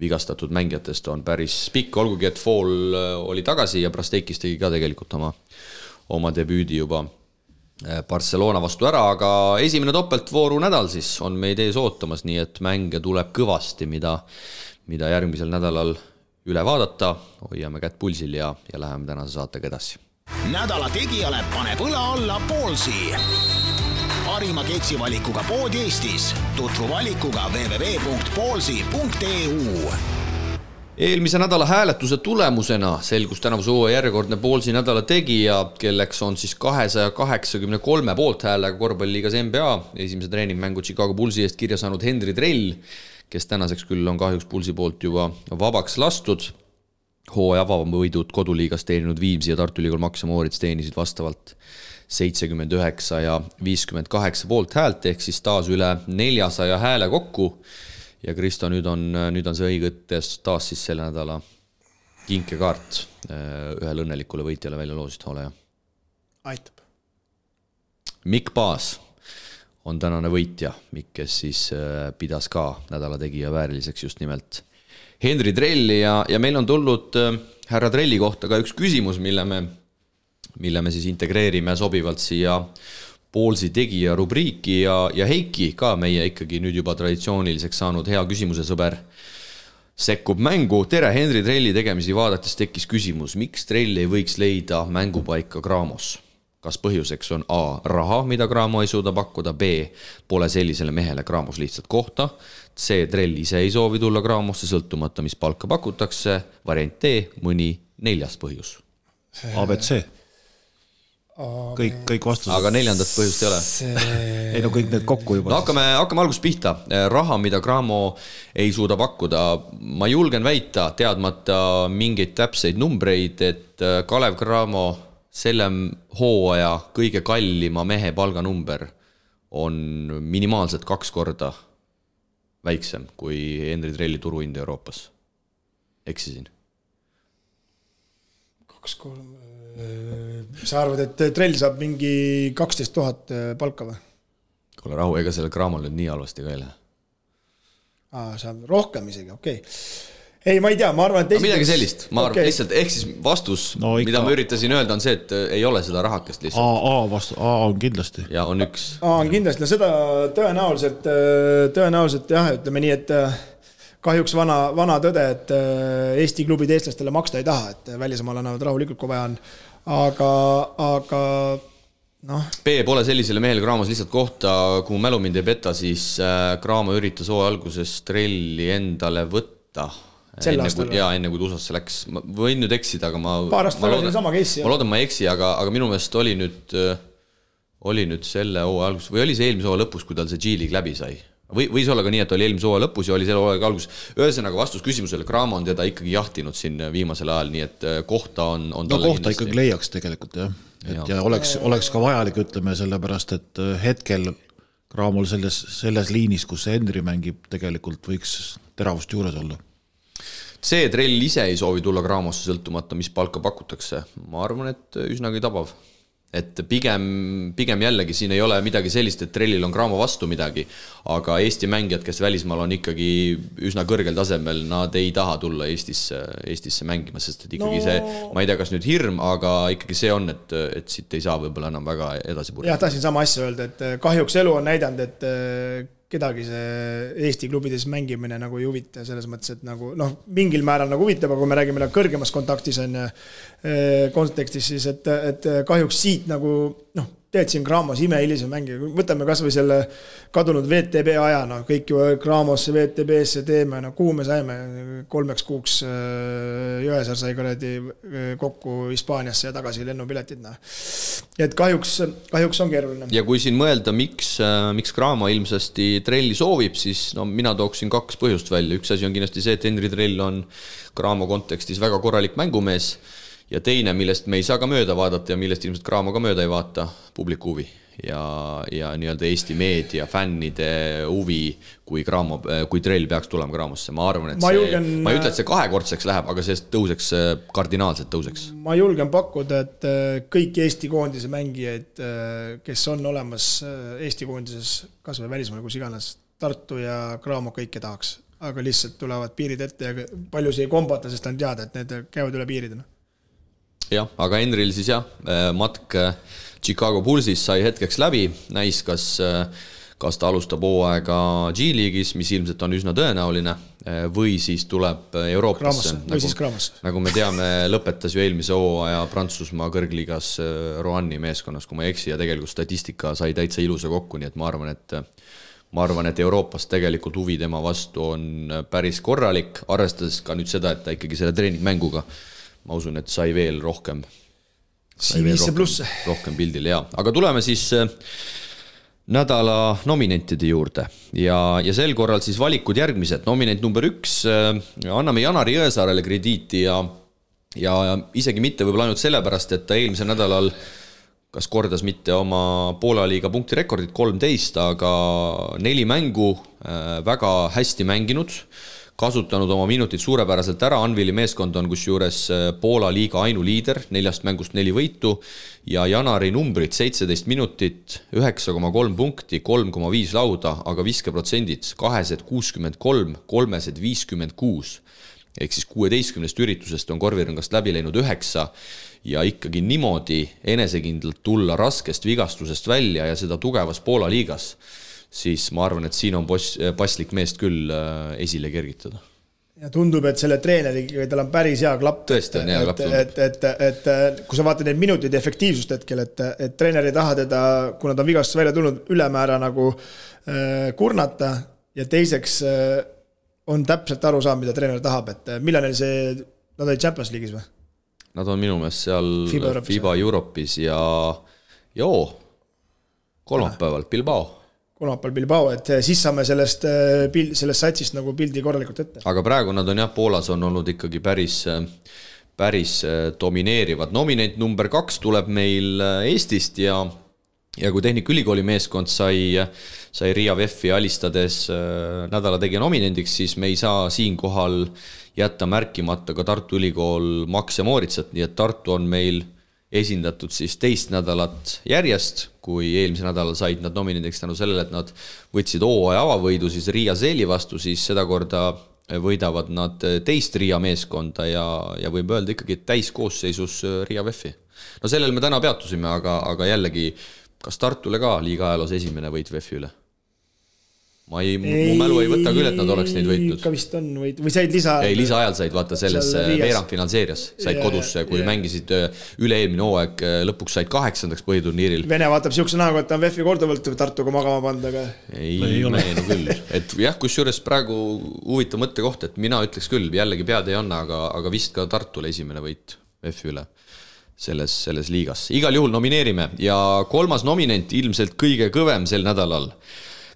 Speaker 2: vigastatud mängijatest on päris pikk, olgugi et Fall oli tagasi ja Prasteikis tegi ka tegelikult oma debüüdi juba Barcelona vastu ära, aga esimene topeltvooru nädal siis on meid ees ootamas, nii et mänge tuleb kõvasti, mida järgmisel nädalal üle vaadata, hoiame kätt pulsil ja läheme tänase saatega edasi.
Speaker 1: Nädala tegijale paneb õla alla Ballsi. Parima ketsivalikuga pood Eestis. Tutvu valikuga www.ballsi.eu.
Speaker 2: Eelmise nädala hääletuse tulemusena selgus tänavuse hooaja järjekordne Ballsi nädala tegija, kelleks on siis 283 poolthäälega korvpalliliigas NBA. Esimese treeningmängu Chicago Bullsi eest kirja saanud Henri Trell, kes tänaseks küll on kahjuks Bullsi poolt juba vabaks lastud. Hooaja avavõidud koduliigas teeninud Viimsi ja Tartu Ülikool Max ja Moorits teenisid vastavalt 79 ja 58 poolthäält, ehk siis taas üle 400 hääle kokku. Ja Kristo, nüüd on see õigetes taas siis selle nädala kinkekaart ühele õnnelikule võitjale välja loosid, ole ja.
Speaker 4: Aitab.
Speaker 2: Mikk Paas on tänane võitja, Mikk, kes siis pidas ka nädala tegija vääriliseks just nimelt Henri Trelli ja meil on tulnud härra Trelli kohta ka üks küsimus, mille me siis integreerime sobivalt siia Ballsi tegija rubriiki ja Heiki ka meie ikkagi nüüd juba traditsiooniliseks saanud hea küsimuse sõber sekkub mängu. Tere, Henri Trelli tegemisi vaadates tekkis küsimus, miks Trell ei võiks leida mängupaika Graamos? Kas põhjuseks on A, raha, mida Graamo ei suuda pakkuda, B, pole sellisele mehele Graamos lihtsalt kohta, C, Trell ise ei soovi tulla Graamosse sõltumata, mis palka pakutakse, variant D, mõni 4. põhjus.
Speaker 3: ABC. Kõik vastused.
Speaker 2: Aga 4. põhjust ei ole.
Speaker 3: Ei no kõik need kokku juba.
Speaker 2: No hakkame algusest pihta. Raha, mida Graamo ei suuda pakkuda. Ma julgen väita, teadmata mingeid täpseid numbreid, et Kalev Cramo selle hooaja kõige kallima mehe palganumber on minimaalselt 2 korda väiksem kui Henri Trelli turuhind Euroopas. Eksisin.
Speaker 4: 2-3... Sa arvad, et Trell saab mingi 12 000 palka või?
Speaker 2: Kuule rahu, ega selle Graamol nüüd nii halvasti ka ei lähe.
Speaker 4: Saab rohkem isegi, okei. Ei, ma ei tea, ma arvan, et...
Speaker 2: midagi sellist, ma arvan lihtsalt, ehk siis vastus, mida ma üritasin öelda, on see, et ei ole seda rahakest lihtsalt.
Speaker 3: A on kindlasti.
Speaker 2: Ja on üks.
Speaker 4: A on kindlasti, no seda tõenäoliselt jah, ütleme nii, et kahjuks vana tõde, et Eesti klubid eestlastele maksta ei taha, et välismaal annavad rahulikult, kui vaja on. Aga noh.
Speaker 2: B pole sellisele mehele Graamos lihtsalt kohta, kui mälu mind ei peta, siis Graamo üritas alguses Trelli endale võtta. Enne kui USA-sse läks. Ma võin nüüd eksida, aga ma loodan, ma ei eksi, aga minu meelest oli nüüd selle hooaja alguses, või oli see eelmise hooaja lõpus, kui tal see G-League läbi sai? Võis olla ka nii, et oli eelmise hooaja lõpus ja oli selle hooaja alguses. Ühesõnaga vastus küsimusele, Graamo on teda ikkagi jahtinud siin viimasel ajal, nii et kohta on talle
Speaker 3: kohta ikkagi leiaks tegelikult, jah. Ja oleks ka vajalik, ütleme, sellepärast, et hetkel Graamol selles liinis, kus see Henri mängib, tegelikult võiks teravust juures olla.
Speaker 2: See Trell ise ei soovi tulla Graamosse sõltumata, mis palka pakutakse. Ma arvan, et üsnagi tabav. Et pigem jällegi siin ei ole midagi sellist, et Trellil on Graamo vastu midagi, aga Eesti mängijad, kes välismaal on ikkagi üsna kõrgel tasemel, nad ei taha tulla Eestisse mängima, sest et ikkagi see, ma ei tea, kas nüüd hirm, aga ikkagi see on, et siit ei saa võib-olla enam väga edasi purjata.
Speaker 4: Jah, tahtsin sama asja öelda, et kahjuks elu on näidanud, et kedagi see Eesti klubides mängimine nagu ei huvita selles mõttes, et nagu, mingil määral nagu huvitab, aga kui me räägime kõrgemas kontaktis on kontekstis, siis et kahjuks siit nagu, teed siin Graamos imehilise mängija, võtame kas või selle kadunud VTB aja, no kõik ju Graamosse, VTB-sse teeme, no kuhu me saime 3 kuuks Jõesaar sai kuradi kokku Hispaaniasse ja tagasi lennupiletid, no. Et kahjuks on keeruline.
Speaker 2: Ja kui siin mõelda, miks Graamo ilmsesti Trelli soovib, siis no mina tooksin 2 põhjust välja. Üks asi on kindlasti see, et Henri Trell on Graamo kontekstis väga korralik mängumees ja teine, millest me ei saa ka mööda vaadata ja millest ilmselt Graamo ka mööda ei vaata, publiku huvi ja nii-öelda Eesti meedia, fännide huvi, kui Trell peaks tulema Graamosse. Ma arvan, et ma ei ütle, et see 2-kordseks läheb, aga see tõuseks, kardinaalselt tõuseks.
Speaker 4: Ma julgen pakkuda, et kõik Eesti koondise mängijaid, kes on olemas Eesti koondises, kas või välismaal, kus iganes, Tartu ja Graamo kõike tahaks, aga lihtsalt tulevad piirid ette ja palju see ei kombata, sest on teada, et need käivad üle piiridena.
Speaker 2: Jah, aga Henril siis matk Chicago Bullsis sai hetkeks läbi, näis, kas ta alustab hooaega G-liigis, mis ilmselt on üsna tõenäoline, või siis tuleb Euroopasse.
Speaker 4: Või siis Graamosse.
Speaker 2: Nagu me teame, lõpetas ju eelmise hooaja Prantsusmaa kõrgliigas Roanni meeskonnas, kui ma ei eksi, ja tegelikult statistika sai täitsa ilusa kokku, nii et ma arvan, et Euroopas tegelikult huvi tema vastu on päris korralik, arvestades ka nüüd seda, et ta ikkagi selle treeningmänguga ma usun, et sai veel rohkem pildil, jaa. Aga tuleme siis nädala nominentide juurde ja sel korral siis valikud järgmised. Nominent number 1, anname Janari Jõesaarele krediiti ja isegi mitte võib-olla ainult sellepärast, et ta eelmisel nädalal kas kordas mitte oma Poola liiga punktirekordit 13, aga 4 mängu väga hästi mänginud, kasutanud oma minutid suurepäraselt ära. Anvili meeskond on kusjuures Poola liiga ainuliider, 4 mängust 4 võitu ja Janari numbrid 17 minutit, 9,3 punkti, 3,5 lauda, aga viskeprotsendid 263, 356 ehk siis 16 üritusest on korvirõngast läbi läinud 9 ja ikkagi niimoodi enesekindlalt tulla raskest vigastusest välja ja seda tugevas Poola liigas, siis ma arvan, et siin on paslik meest küll esile kergitada.
Speaker 4: Ja tundub, et selle treeneriga tal on päris hea klapp.
Speaker 2: Tõesti on hea klapp.
Speaker 4: Et kui sa vaatad neid minutid efektiivsust hetkel, et treener ei taha teda, kuna ta on vigastust välja tulnud, ülemäära nagu kurnata ja teiseks on täpselt aru saanud, mida treener tahab, et millal neil see, nad olid Champions League'is või?
Speaker 2: Nad on minu meelest seal FIBA Euroopis ja kolmapäeval Bilbao, et siis saame sellest satsist nagu pildi korralikult ette. Aga praegu nad on Poolas on olnud ikkagi päris domineerivad. Nominent number 2 tuleb meil Eestist ja kui Tehnikaülikooli meeskond sai Riia VEF-i alistades nädala tegija nominendiks, siis me ei saa siinkohal jätta märkimata ka Tartu Ülikool Max ja Mooritsat, nii et Tartu on meil esindatud siis 2 nädalat järjest, kui eelmise nädalal said nad nominendiks tänu sellele, et nad võtsid hooaja avavõidu siis Riia Seeli vastu, siis seda korda võidavad nad 2 Riia meeskonda ja võib öelda ikkagi täiskoosseisus Riia VEF-i. No sellel me täna peatusime, aga jällegi, kas Tartule ka liiga ajaloos esimene võit VEF-i üle? Mu mälu ei võta küll, et nad oleks neid võitnud.
Speaker 4: Ikka vist on või said
Speaker 2: lisaajal said vaata selles veerandfinaalseerias, said kodusse, kui mängisid üle-eelmine hooaeg, lõpuks said 8. põhiturniiril.
Speaker 4: Vene vaatab siukse näoga, et on VEF-i korduvalt Tartuga magama panda, aga
Speaker 2: ei ole küll. Et jah, kusjuures praegu huvitav mõttekoht, et mina ütleks küll, jällegi pead ei anna, aga vist ka Tartule esimene võit VEF-i üle selles liigas. Igal juhul nomineerime ja 3. nominent ilmselt kõige kõvem sel nädalal.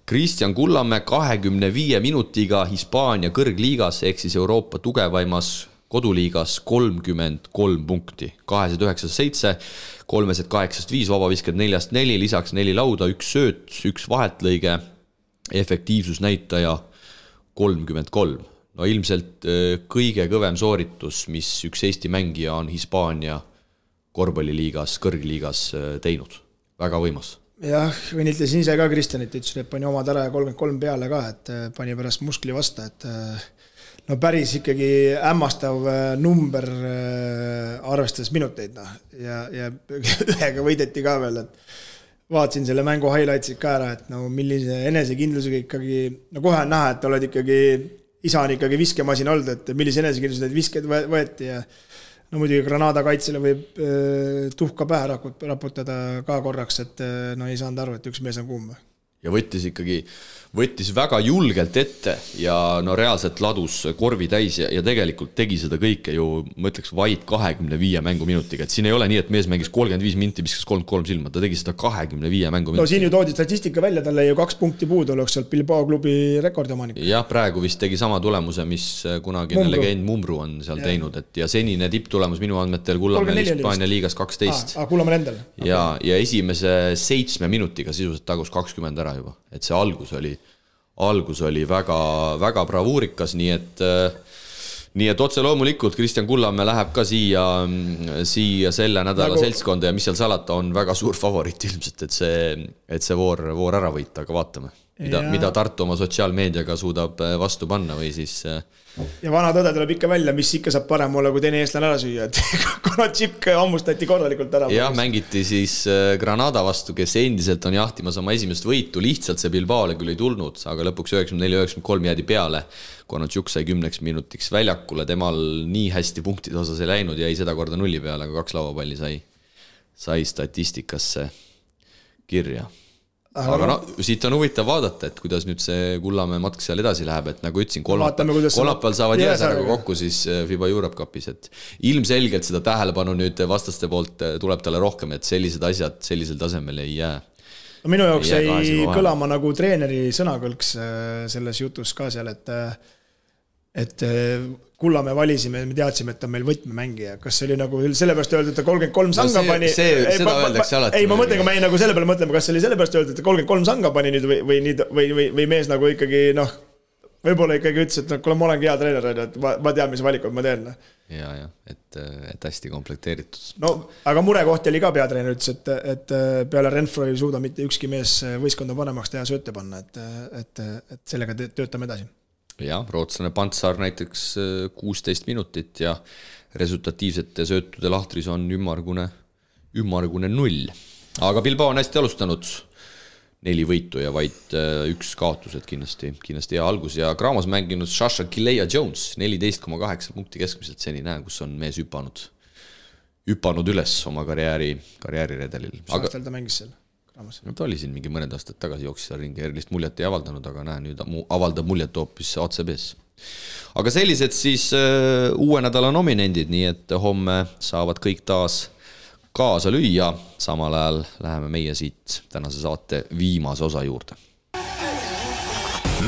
Speaker 2: Kristjan Kullamäe 25 minutiga Hispaania kõrgliigas ehk siis Euroopa tugevaimas koduliigas 33 punkti, 297, 385, vabavisked 4-4, lisaks 4 lauda, 1 sööt, 1 vahetlõige, efektiivsusnäitaja 33. No ilmselt kõige kõvem sooritus, mis üks Eesti mängija on Hispaania korvpalliliigas, kõrgliigas teinud. Väga võimas.
Speaker 4: Jah, õnnitlesin ise ka Kristjanit, ütlesin, et pani omad ära ja 33 peale ka, et pani pärast muskli vasta, et no päris ikkagi hämmastav number arvestades minuteid ja ühega võideti ka veel, et vaatasin selle mängu highlightsid ka ära, et no millise enesekindlusega ikkagi, no kohe on näha, et oled ikkagi, isa on ikkagi viskemasin olnud, et millise enesekindlusega need visked võeti ja no muidugi Granada kaitsele võib tuhka pähe raputada ka korraks, et no ei saanud aru, et üks mees on kuum.
Speaker 2: Ja võttis väga julgelt ette ja no reaalselt ladus korvi täis ja tegelikult tegi seda kõike ju, ma ütleks, vaid 25 mänguminutiga. Et siin ei ole nii, et mees mängis 35 minti, viskas 33 silma, ta tegi seda 25 mänguminutiga.
Speaker 4: No siin ju toodi statistika välja, talle ju 2 punkti puudu oleks sealt Bilbao klubi rekordiomanik.
Speaker 2: Jah, praegu vist tegi sama tulemuse, mis kunagine legend Mumru on seal teinud, et ja senine tipptulemus minu andmetel Kullamäel Hispaania liigas 12.
Speaker 4: Kullamäel endal.
Speaker 2: Ja esimese 7 minutiga sisuliselt tagus 20 ära juba, et see algus oli väga, väga bravuurikas, nii et otse loomulikult Kristjan Kullamäe läheb ka siia selle nädala seltskonda ja mis seal salata on väga suur favoriit ilmselt, et see voor ära võita, aga vaatame, mida Tartu oma sotsiaalmeediaga suudab vastu panna või siis...
Speaker 4: Ja vana tõde tuleb ikka välja, mis ikka saab parem olla, kui teine eestlane ära süüa, et kuna Tšipk ammustati korralikult ära.
Speaker 2: Jah, mängiti siis Granada vastu, kes endiselt on jahtimas oma esimest võitu, lihtsalt see Bilbaole küll ei tulnud, aga lõpuks 94-93 jäädi peale, kuna Tšuk sai 10 minutiks väljakule, temal nii hästi punktide osas ei läinud ja ei seda korda nulli peale, aga 2 lauapalli sai statistikasse kirja. Aga no, siit on huvitav vaadata, et kuidas nüüd see Kullamäe matk seal edasi läheb, et nagu ütlesin, kolmapäeval saavad Jääsärega kokku siis FIBA Europe Cupis, et ilmselgelt seda tähelepanu nüüd vastaste poolt tuleb talle rohkem, et sellised asjad sellisel tasemel ei jää.
Speaker 4: No minu jaoks ei kõlama nagu treeneri sõnakõlks selles jutus ka seal, et Kullamäe valisime, me teadsime, et on meil võtmemängija. Kas see oli nagu sellepärast öeldud, et 33 sanga pani?
Speaker 2: Seda öeldakse alati.
Speaker 4: Ei, ma mõtlen, kui me nagu selle peale mõtleme, kas see oli sellepärast öeldud, et 33 sanga pani nüüd või mees nagu ikkagi, võib-olla ikkagi ütles, et kuule, ma olengi hea treener, et ma tean, mis valikud ma teen.
Speaker 2: Ja, et hästi komplekteeritud.
Speaker 4: No, aga murekoht oli ka peatreener, ütles, et peale Renfro ei suuda mitte ükski mees võistkonda panemaks teha sööte panna, et sellega töötame edasi.
Speaker 2: Jah, rootslane Pantsar näiteks 16 minutit ja resultatiivsete söötude lahtris on ümmargune 0. Aga Bilbao on hästi alustanud 4 võitu ja vaid 1 kaotus, et kindlasti hea algus. Ja Kraamas mänginud Sasha Kilea-Jones 14,8 punkti keskmiselt seni kus on mees hüpanud üles oma karjääriredelil.
Speaker 4: Mis aastal ta mängis seal?
Speaker 2: No ta oli siin mingi mõned aastad tagasi jooksis seal ringi, erilist muljet ei avaldanud, aga nüüd avaldab muljet hoopis ACB-s. Aga sellised siis uue nädala nominendid, nii et homme saavad kõik taas kaasa lüüa. Samal ajal läheme meie siit tänase saate viimase osa juurde.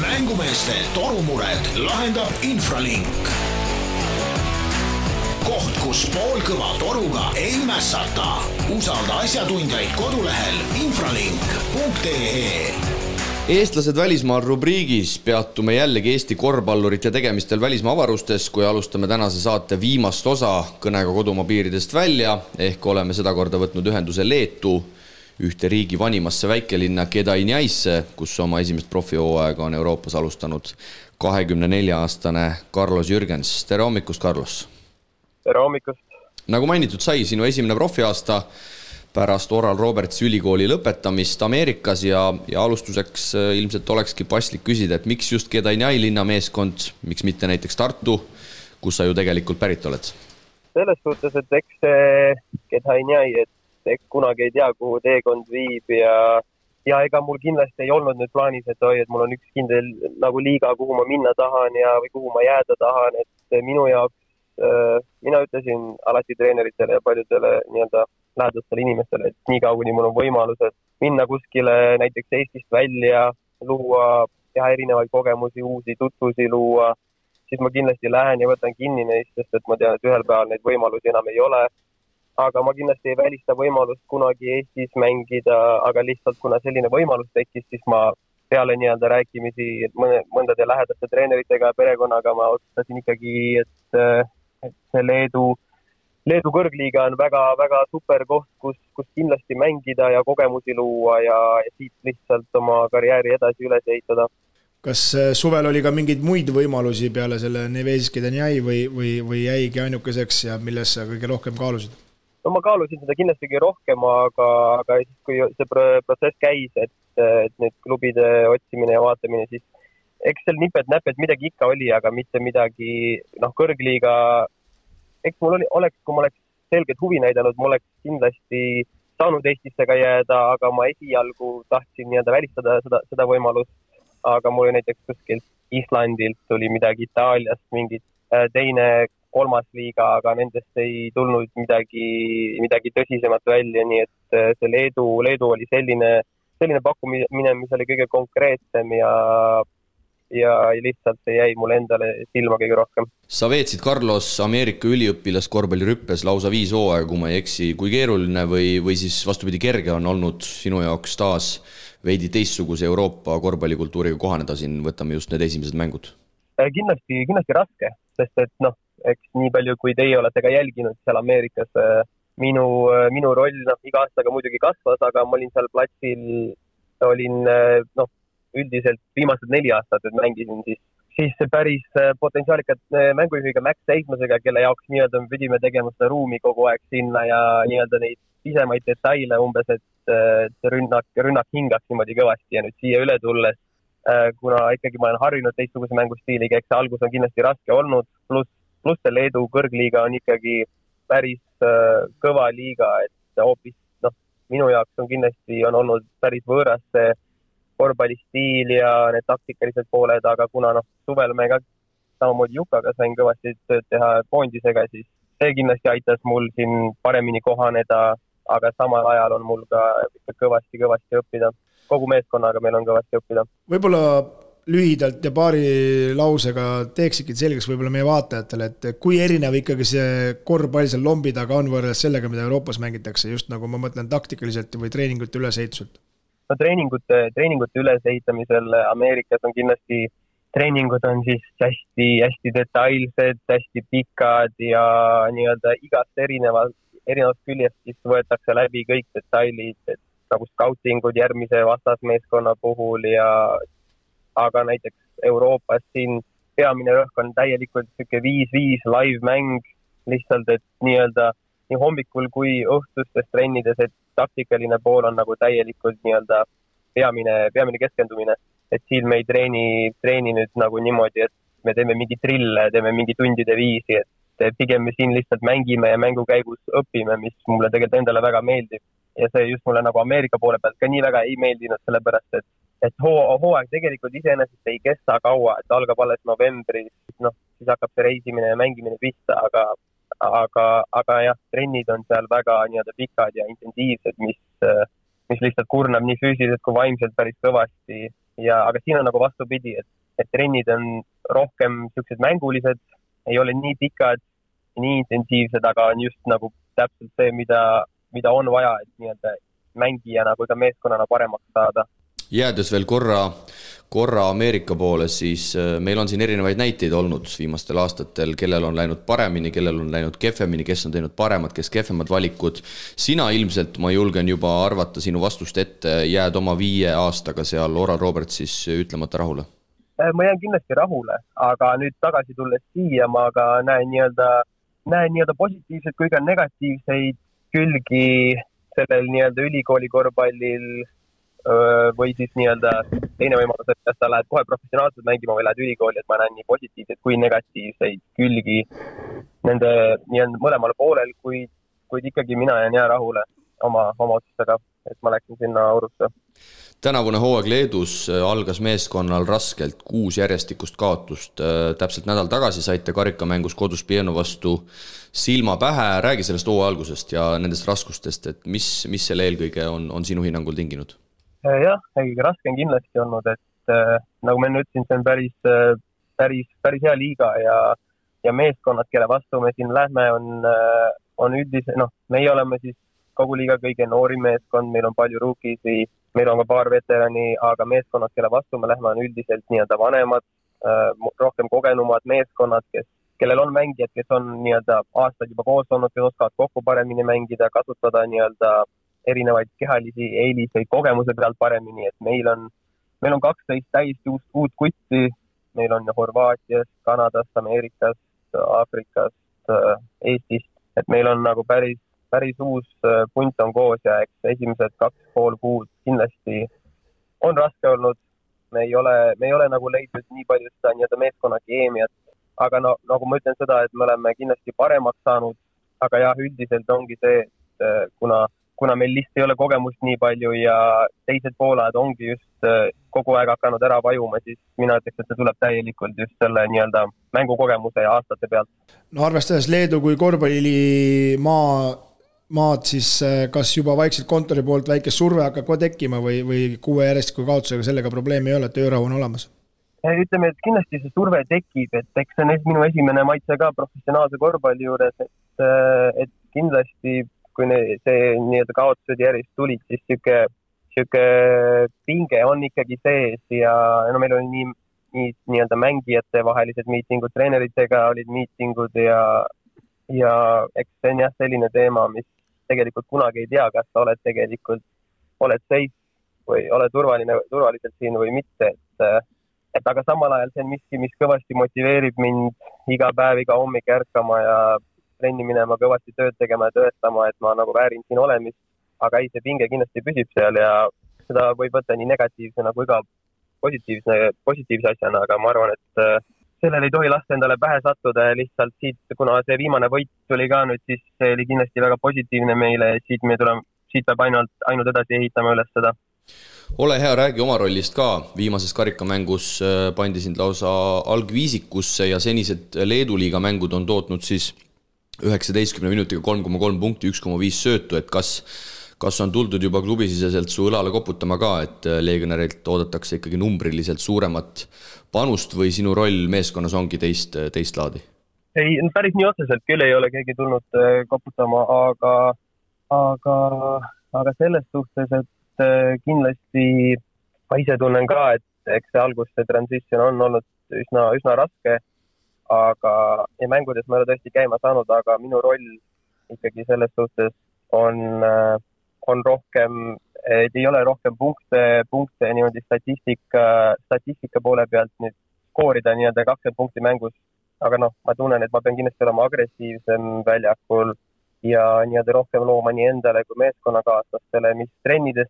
Speaker 1: Mängumeeste torumured lahendab Infralink. Koht, kus poolkõva toruga ei mässata. Usalda asjatundjaid kodulehel infralink.ee.
Speaker 2: Eestlased välismaal rubriigis peatume jällegi Eesti korvpallurite tegemistel välismaa avarustes, kui alustame tänase saate viimast osa kõnega kodumaa piiridest välja, ehk oleme seda korda võtnud ühenduse Leetu, ühte riigi vanimasse väikelinna Kedainjaisse, kus oma esimest profihooaega on Euroopas alustanud 24-aastane Carlos Jürgens. Tere hommikust, Carlos!
Speaker 5: Tere hommikust!
Speaker 2: Nagu mainitud sai, sinu esimene profiaasta pärast Oral Robertsi ülikooli lõpetamist Ameerikas ja alustuseks ilmselt olekski paslik küsida, et miks just Kedainjai linnameeskond, miks mitte näiteks Tartu, kus sa ju tegelikult pärit oled?
Speaker 5: Selles suhtes, et eks see Kedainjai, et kunagi ei tea, kuhu teekond viib ja ega mul kindlasti ei olnud nüüd plaanis, et mul on üks kindel nagu liiga, kuhu ma minna tahan või kuhu ma jääda tahan, et minu jaoks mina ütlesin alati treeneritele ja paljudele lähedastele inimestele, et nii kaua, kuni mul on võimalused minna kuskile näiteks Eestist välja, luua, teha erinevaid kogemusi, uusi tutvusi luua, siis ma kindlasti lähen ja võtan kinni neist, sest et ma tean, et ühel päeval neid võimalusi enam ei ole. Aga ma kindlasti ei välista võimalust kunagi Eestis mängida, aga lihtsalt kuna selline võimalus tekkis, siis ma peale rääkimisi mõndade lähedaste treeneritega ja perekonnaga ma otsustasin ikkagi, et see Leedu kõrgliiga on väga super koht, kus kindlasti mängida ja kogemusi luua ja siit lihtsalt oma karjääri edasi üles ehitada.
Speaker 4: Kas suvel oli ka mingeid muid võimalusi peale selle Nevesis Kedainjai või jäigi ainukeseks ja milles sa kõige rohkem kaalusid?
Speaker 5: No ma kaalusin seda kindlasti rohkem, aga siis, kui see protsess käis, et nüüd klubide otsimine ja vaatamine, siis eks seal nipet-näpet midagi ikka oli, aga mitte midagi, kõrgliiga eks mul kui ma oleks selgelt huvi näidanud, ma oleks kindlasti saanud Eestisse ka jääda, aga ma esialgu tahtsin nii-öelda välistada seda võimalust, aga mul näiteks kuskilt Islandilt tuli midagi, Itaaliast mingit teine, kolmas liiga, aga nendest ei tulnud midagi tõsisemat välja, nii et see Leedu oli selline pakkumine, mis oli kõige konkreetsem ja lihtsalt see jäi mulle endale silma kõige rohkem.
Speaker 2: Sa veetsid, Carlos, Ameerika üliõpilas korvpallirüppes lausa 5 hooaega, kui ma ei eksi. Kui keeruline või siis vastupidi kerge on olnud sinu jaoks taas veidi teistsuguse Euroopa korvpallikultuuriga kohaneda siin, võtame just need esimesed mängud?
Speaker 5: Kindlasti raske, sest et eks nii palju, kui teie olete ka jälginud seal Ameerikas, minu roll iga aastaga muidugi kasvas, aga ma olin seal platsil, üldiselt viimased 4 aastat, et mängisin siis päris potentsiaalikat mängujuhiga Max Seismasega, kelle jaoks nii-öelda me pidime tegema seda ruumi kogu aeg sinna ja nii-öelda neid pisemaid detaile umbes, et rünnak hingaks niimoodi kõvasti ja nüüd siia üle tulles, kuna ikkagi ma olen harjunud teistsuguse mängustiiliga, eks see algus on kindlasti raske olnud, pluss see Leedu kõrgliiga on ikkagi päris kõva liiga, et hoopis minu jaoks on olnud päris võõras see korvpallistiil ja need taktikalised pooled, aga kuna suvel me ka samamoodi Jukaga sain kõvasti tööd teha koondisega, siis see kindlasti aitas mul siin paremini kohaneda, aga samal ajal on mul ka kõvasti õppida. Kogu meeskonnaga meil on kõvasti õppida.
Speaker 4: Võib-olla lühidalt ja paari lausega teeksidki selgeks võib-olla meie vaatajatele, et kui erinev ikkagi see korvpall seal lombi taga on võrreldes sellega, mida Euroopas mängitakse, just nagu ma mõtlen taktikaliselt või treeningute ülesehituselt?
Speaker 5: Treeningute ülesehitamisel Ameerikas on kindlasti, treeningud on siis hästi detailsed, hästi pikad ja nii-öelda igast erinevast küljest siis võetakse läbi kõik detailid, et nagu scoutingud järgmise vastasmeeskonna puhul aga näiteks Euroopas siin peamine rõhk on täielikult 5-5 live-mäng, lihtsalt, et nii-öelda nii hommikul kui õhtustes trennides, et taktikaline pool on nagu täielikult nii-öelda peamine keskendumine. Et siin me ei treeni nüüd nagu niimoodi, et me teeme mingi trille, teeme mingi tundide viisi, et pigem me siin lihtsalt mängime ja mängu käigus õpime, mis mulle tegelikult endale väga meeldib. Ja see just mulle nagu Ameerika poole pealt ka nii väga ei meeldinud, sellepärast, et hooaeg tegelikult iseenesest ei kesta kaua, et algab alles novembris, siis hakkab see reisimine ja mängimine pista, aga jah, trennid on seal väga nii-öelda pikad ja intensiivsed, mis lihtsalt kurnab nii füüsiliselt kui vaimselt päris kõvasti. Aga siin on nagu vastupidi, et trennid on rohkem sellised mängulised, ei ole nii pikad, nii intensiivsed, aga on just nagu täpselt see, mida on vaja, et nii-öelda mängijana kui ka meeskonnana paremaks saada.
Speaker 2: Jäädes veel korra Ameerika poole, siis meil on siin erinevaid näiteid olnud viimastel aastatel, kellel on läinud paremini, kellel on läinud kehvemini, kes on teinud paremad, kes kehvemad valikud. Sina ilmselt, ma julgen juba arvata sinu vastust ette, jääd oma 5 aastaga seal Oral Robertsis ütlemata rahule?
Speaker 5: Ma jään kindlasti rahule, aga nüüd tagasi tulles siia ma ka näen nii-öelda positiivseid kui ka negatiivseid külgi sellel nii-öelda ülikooli korvpallil või siis nii-öelda teine võimalus, et kas sa lähed kohe professionaalselt mängima või lähed ülikooli, et ma näen nii positiivseid kui negatiivseid külgi nende nii-öelda mõlemal poolel, kuid ikkagi mina jään rahule oma otsustega, et ma läksin sinna Orusse.
Speaker 2: Tänavune hooaeg Leedus algas meeskonnal raskelt, 6 järjestikust kaotust. Täpselt nädal tagasi saite karikamängus kodus Pieno vastu silma pähe. Räägi sellest hooaja algusest ja nendest raskustest, et mis selle eelkõige on sinu hinnangul tinginud?
Speaker 5: Jah, kõige raske on kindlasti olnud, et nagu ma ütlesin, see on päris hea liiga ja meeskonnad, kelle vastu me siin lähme, on üldise, meie oleme siis kogu liiga kõige noori meeskond, meil on palju ruukisi, meil on ka paar veterani, aga meeskonnad, kelle vastu me lähme, on üldiselt nii-öelda vanemad, rohkem kogenumad meeskonnad, kellel on mängijad, kes on nii-öelda aastaid juba koos olnud, kes oskavad kokku paremini mängida, kasutada nii-öelda erinevaid kehalisi eeliseid kogemuse pealt paremini, et meil on 12 täiesti uut kutti, meil on Horvaatiast, Kanadast, Ameerikast, Aafrikast, Eestist, et meil on nagu päris uus punt on koos ja eks esimesed 2,5 kuud kindlasti on raske olnud. Me ei ole nagu leidnud nii palju seda nii-öelda meeskonna keemiat, aga no nagu ma ütlen seda, et me oleme kindlasti paremaks saanud, aga jah, üldiselt ongi see, et kuna meil lihtsalt ei ole kogemust nii palju ja teised poolajad ongi just kogu aeg hakanud ära vajuma, siis mina ütleks, et see tuleb täielikult just selle nii-öelda mängukogemuse ja aastate pealt.
Speaker 4: No arvestades Leedu kui korvpallimaad, siis kas juba vaikselt kontori poolt väike surve hakkab kohe tekkima või 6 järjestiku kaotusega sellega probleemi ei ole, et öörahu on olemas?
Speaker 5: Ütleme, et kindlasti see surve tekib, et eks see on minu esimene maitse ka professionaalse korvpalli juures, et kindlasti kui see nii-öelda kaotused järjest tulid, siis siuke pinge on ikkagi sees ja no meil oli nii-öelda mängijate vahelised miitingud, treeneritega olid miitingud ja eks see on jah selline teema, mis tegelikult kunagi ei tea, kas sa oled tegelikult, oled seis või oled turvaliselt siin või mitte, et aga samal ajal see on miski, mis kõvasti motiveerib mind iga päev, iga hommik ärkama ja trenni minema, kõvasti tööd tegema ja tõestama, et ma nagu väärin siin olemist, aga ei, see pinge kindlasti püsib seal ja seda võib võtta nii negatiivsena kui ka positiivse asjana, aga ma arvan, et sellel ei tohi lasta endale pähe sattuda ja lihtsalt siit, kuna see viimane võit tuli ka nüüd, siis see oli kindlasti väga positiivne meile ja siit peab ainult edasi ehitama üles seda.
Speaker 2: Ole hea, räägi oma rollist ka. Viimases karikamängus pandi sind lausa algviisikusse ja senised Leedu liiga mängud on tootnud siis 19 minutiga 3,3 punkti, 1,5 söötu, et kas on tuldud juba klubisiseselt su õlale koputama ka, et legionärilt oodatakse ikkagi numbriliselt suuremat panust või sinu roll meeskonnas ongi teist laadi?
Speaker 5: Ei, päris nii otseselt küll ei ole keegi tulnud koputama, aga selles suhtes, et kindlasti ma ise tunnen ka, et eks see algus, see transition on olnud üsna raske, aga ja mängudes ma ei ole tõesti käima saanud, aga minu roll ikkagi selles suhtes on rohkem, et ei ole rohkem punkte niimoodi statistika poole pealt nüüd skoorida nii-öelda 20 punkti mängus, aga ma tunnen, et ma pean kindlasti olema agressiivsem väljakul ja nii-öelda rohkem looma nii endale kui meeskonnakaaslastele, mis trennides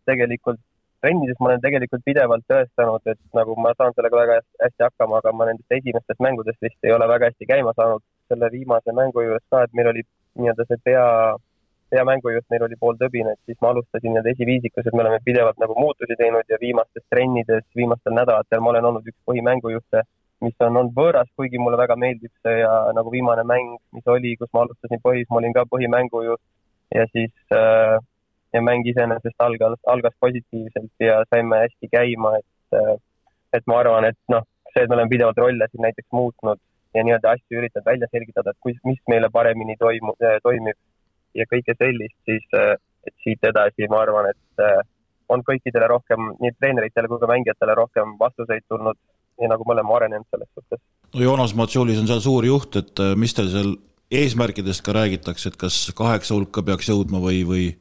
Speaker 5: ma olen tegelikult pidevalt tõestanud, et nagu ma saan sellega väga hästi hakkama, aga ma nendest esimestest mängudest vist ei ole väga hästi käima saanud selle viimase mängu juures ka, et meil oli nii-öelda see peamängu just meil oli pool tõbine, et siis ma alustasin nii-öelda esiviisikus, et me oleme pidevalt nagu muutusi teinud ja viimastes trennides, viimastel nädalatel ma olen olnud üks põhimängujuhte, mis on olnud võõras, kuigi mulle väga meeldib see ja nagu viimane mäng, mis oli, kus ma alustasin ma olin ka põhimängujuht ja siis ja mäng iseenesest algas positiivselt ja saime hästi käima, et ma arvan, et see, et me oleme pidevalt rolle siin näiteks muutnud ja nii-öelda asju üritanud välja selgitada, et mis meile paremini toimib ja kõike sellist, siis et siit edasi ma arvan, et on kõikidele rohkem, nii treeneritele kui ka mängijatele rohkem vastuseid tulnud ja nagu me oleme arenenud selles suhtes.
Speaker 3: No Joonas Matsulis on seal suur juht, et mis teil seal eesmärkidest ka räägitakse, et kas 8 hulka peaks jõudma või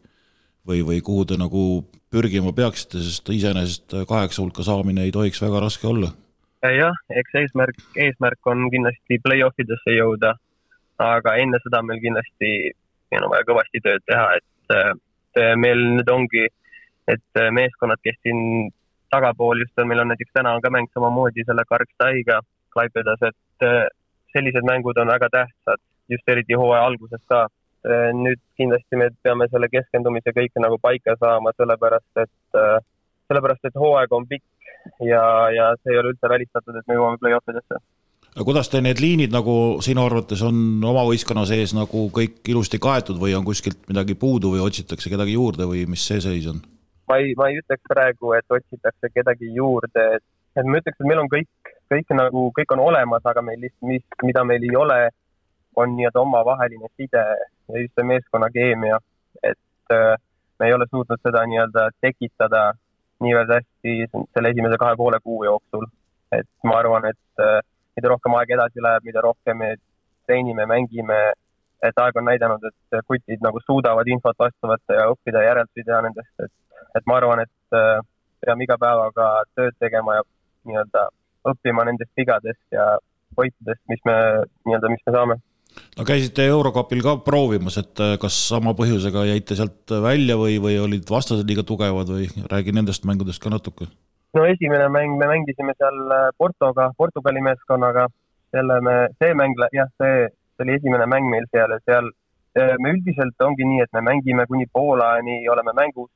Speaker 3: kuhu te nagu pürgima peaksite, sest iseenesest 8 hulka saamine ei tohiks väga raske olla?
Speaker 5: Jah, eks eesmärk on kindlasti play-offidesse jõuda, aga enne seda meil kindlasti vaja kõvasti tööd teha, et meil nüüd ongi, et meeskonnad, kes siin tagapool just on, meil on näiteks täna on ka mäng samamoodi selle Karkstaiga Klaipedas, et sellised mängud on väga tähtsad, just eriti hooaja alguses ka. Nüüd kindlasti me peame selle keskendumise kõike nagu paika saama, sellepärast et hooaeg on pikk ja see ei ole üldse välistatud, et me jõuame play-offidesse.
Speaker 3: Kuidas te need liinid nagu sinu arvates on oma võistkonna sees nagu kõik ilusti kaetud või on kuskilt midagi puudu või otsitakse kedagi juurde või mis see seis on?
Speaker 5: Ma ei ütleks praegu, et otsitakse kedagi juurde, et ma ütleks, et meil on kõik on olemas, aga meil lihtsalt, mida meil ei ole, on nii-öelda omavaheline side ja just see meeskonna keemia, et me ei ole suutnud seda nii-öelda tekitada niivõrd hästi selle esimese 2,5 kuu jooksul. Et ma arvan, et mida rohkem aeg edasi läheb, mida rohkem me treenime, mängime, et aeg on näidanud, et kutid nagu suudavad infot vastu võtta ja õppida järeldusi teha nendest, et ma arvan, et peame iga päevaga tööd tegema ja nii-öelda õppima nendest vigadest ja võitudest, mis me saame.
Speaker 3: No käisite Eurocupil ka proovimas, et kas sama põhjusega jäite sealt välja või olid vastased liiga tugevad või räägi nendest mängudest ka natuke?
Speaker 5: No esimene mäng me mängisime seal Portugali meeskonnaga, see mäng, jah, see oli esimene mäng meil seal ja seal me üldiselt ongi nii, et me mängime kuni poolaani, oleme mängus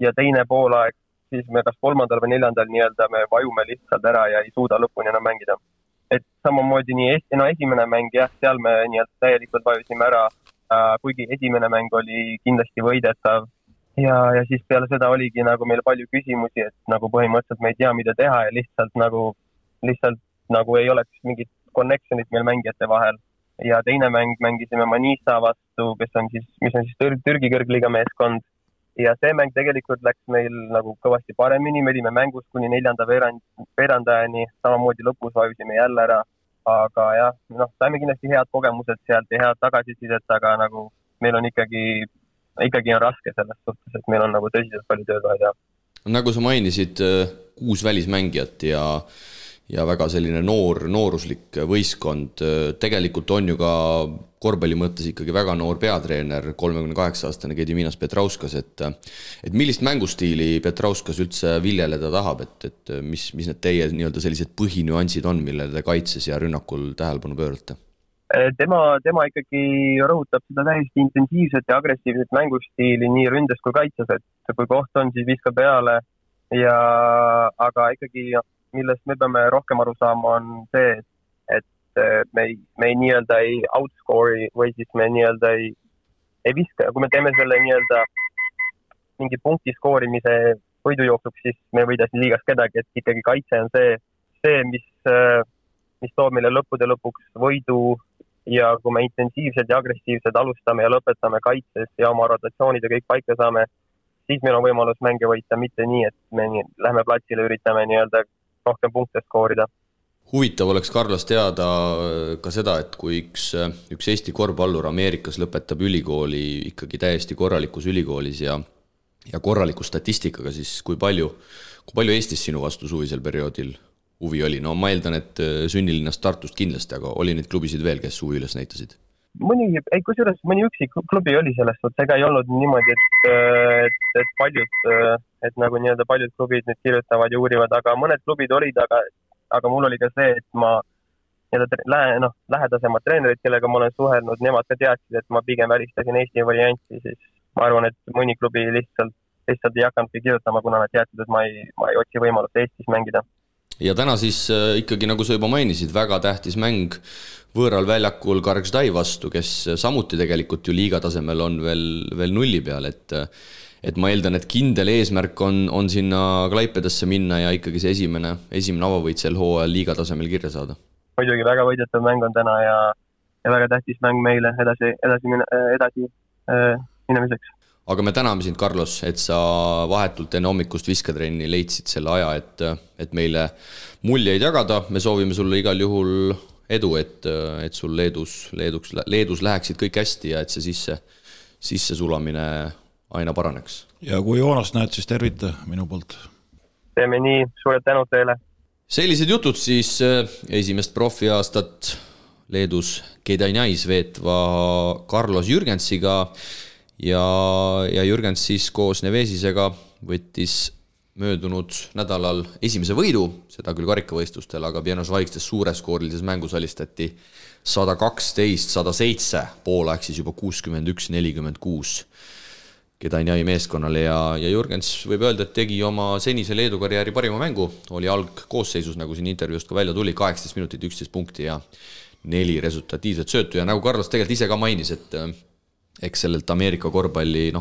Speaker 5: ja teine poolaeg, siis me kas 3. või 4. nii-öelda me vajume lihtsalt ära ja ei suuda lõpuni enam mängida. Et samamoodi nii esimene mäng, jah, seal me nii-öelda täielikult vajusime ära, kuigi esimene mäng oli kindlasti võidetav ja siis peale seda oligi nagu meil palju küsimusi, et nagu põhimõtteliselt me ei tea, mida teha ja lihtsalt nagu ei oleks mingit connectionit meil mängijate vahel. Ja teine mäng mängisime Manisa vastu, mis on siis Türgi kõrgliiga meeskond. Ja see mäng tegelikult läks meil nagu kõvasti paremini, me olime mängus kuni 4. veerandajani, samamoodi lõpus vajusime jälle ära, aga jah, saime kindlasti head kogemused sealt ja head tagasisidet, aga nagu meil on ikkagi on raske selles suhtes, et meil on nagu tõsiselt palju tööd vaja teha.
Speaker 2: Nagu sa mainisid, 6 välismängijat ja väga selline nooruslik võistkond, tegelikult on ju ka korvpalli mõttes ikkagi väga noor peatreener, 38-aastane Gediminas Petrauskas, et millist mängustiili Petrauskas üldse viljeleda tahab, et mis need teie nii-öelda sellised põhinüansid on, millele te kaitses ja rünnakul tähelepanu pöörate?
Speaker 5: Tema ikkagi rõhutab seda täiesti intensiivset ja agressiivset mängustiili nii ründes kui kaitses, et kui koht on, siis viskab peale aga ikkagi millest me peame rohkem aru saama on see, et me ei nii-öelda ei outscore'i või siis me nii-öelda ei viska. Kui me teeme selle nii-öelda mingi punkti skoorimise võidujooksuks, siis me ei võida siin liigas kedagi, et ikkagi kaitse on see mis toob meile lõppude lõpuks võidu ja kui me intensiivsed ja agressiivsed alustame ja lõpetame kaitses ja oma rotatsioonid ja kõik paika saame, siis meil on võimalus mänge võita, mitte nii, et me lähme platsile, üritame nii-öelda rohkem punkte skoorida.
Speaker 2: Huvitav oleks Carlos teada ka seda, et kui üks Eesti korvpallur Ameerikas lõpetab ülikooli ikkagi täiesti korralikus ülikoolis ja korraliku statistikaga, siis kui palju Eestis sinu vastu suvisel perioodil huvi oli? No ma eeldan, et sünnilinast Tartust kindlasti, aga oli neid klubisid veel, kes huvi üles näitasid?
Speaker 5: Mõni üksik klubi oli sellest, ega ei olnud niimoodi, et nagu nii-öelda paljud klubid nüüd kirjutavad ja uurivad, aga mõned klubid olid, aga mul oli ka see, et ma lähedasemad treenerid, kellega ma olen suhelnud, nemad ka teadsid, et ma pigem välistasin Eesti varianti, siis ma arvan, et mõni klubi lihtsalt ei hakanudki kirjutama, kuna nad teadsid, et ma ei otsi võimalust Eestis mängida.
Speaker 2: Ja täna siis ikkagi, nagu sa juba mainisid, väga tähtis mäng võõral väljakul Kargždai vastu, kes samuti tegelikult ju liiga tasemel on veel nulli peal, et ma eeldan, et kindel eesmärk on sinna Klaipedasse minna ja ikkagi see esimene avavõit sel hooajal liiga tasemel kirja saada.
Speaker 5: Muidugi väga võidetav mäng on täna ja väga tähtis mäng meile edasi minemiseks.
Speaker 2: Aga me täname sind, Carlos, et sa vahetult enne hommikust visketrenni leidsid selle aja, et meile muljeid jagada. Me soovime sulle igal juhul edu, et sul Leedus läheksid kõik hästi ja et see sisse sulamine aina paraneks. Ja
Speaker 3: kui Joonast näed, siis tervita minu poolt.
Speaker 5: Teeme nii, suured tänud teile.
Speaker 2: Sellised jutud siis esimest profiaastat Leedus Kėdainiais veetva Carlos Jürgensiga ja Jürgens siis koos Nevesisega võttis möödunud nädalal esimese võidu, seda küll karikavõistlustel, aga Pienos Vaikstes suureskoorilises mängus alistati 112-107, poolaeg siis juba 61-46 Kėdainiai meeskonnale ja Jürgens võib öelda, et tegi oma senise Leedu karjääri parima mängu, oli algkoosseisus, nagu siin intervjuust ka välja tuli, 18 minutit, 11 punkti ja 4 resultatiivset söötu ja nagu Carlos tegelikult ise ka mainis, et eks sellelt Ameerika korvpalli,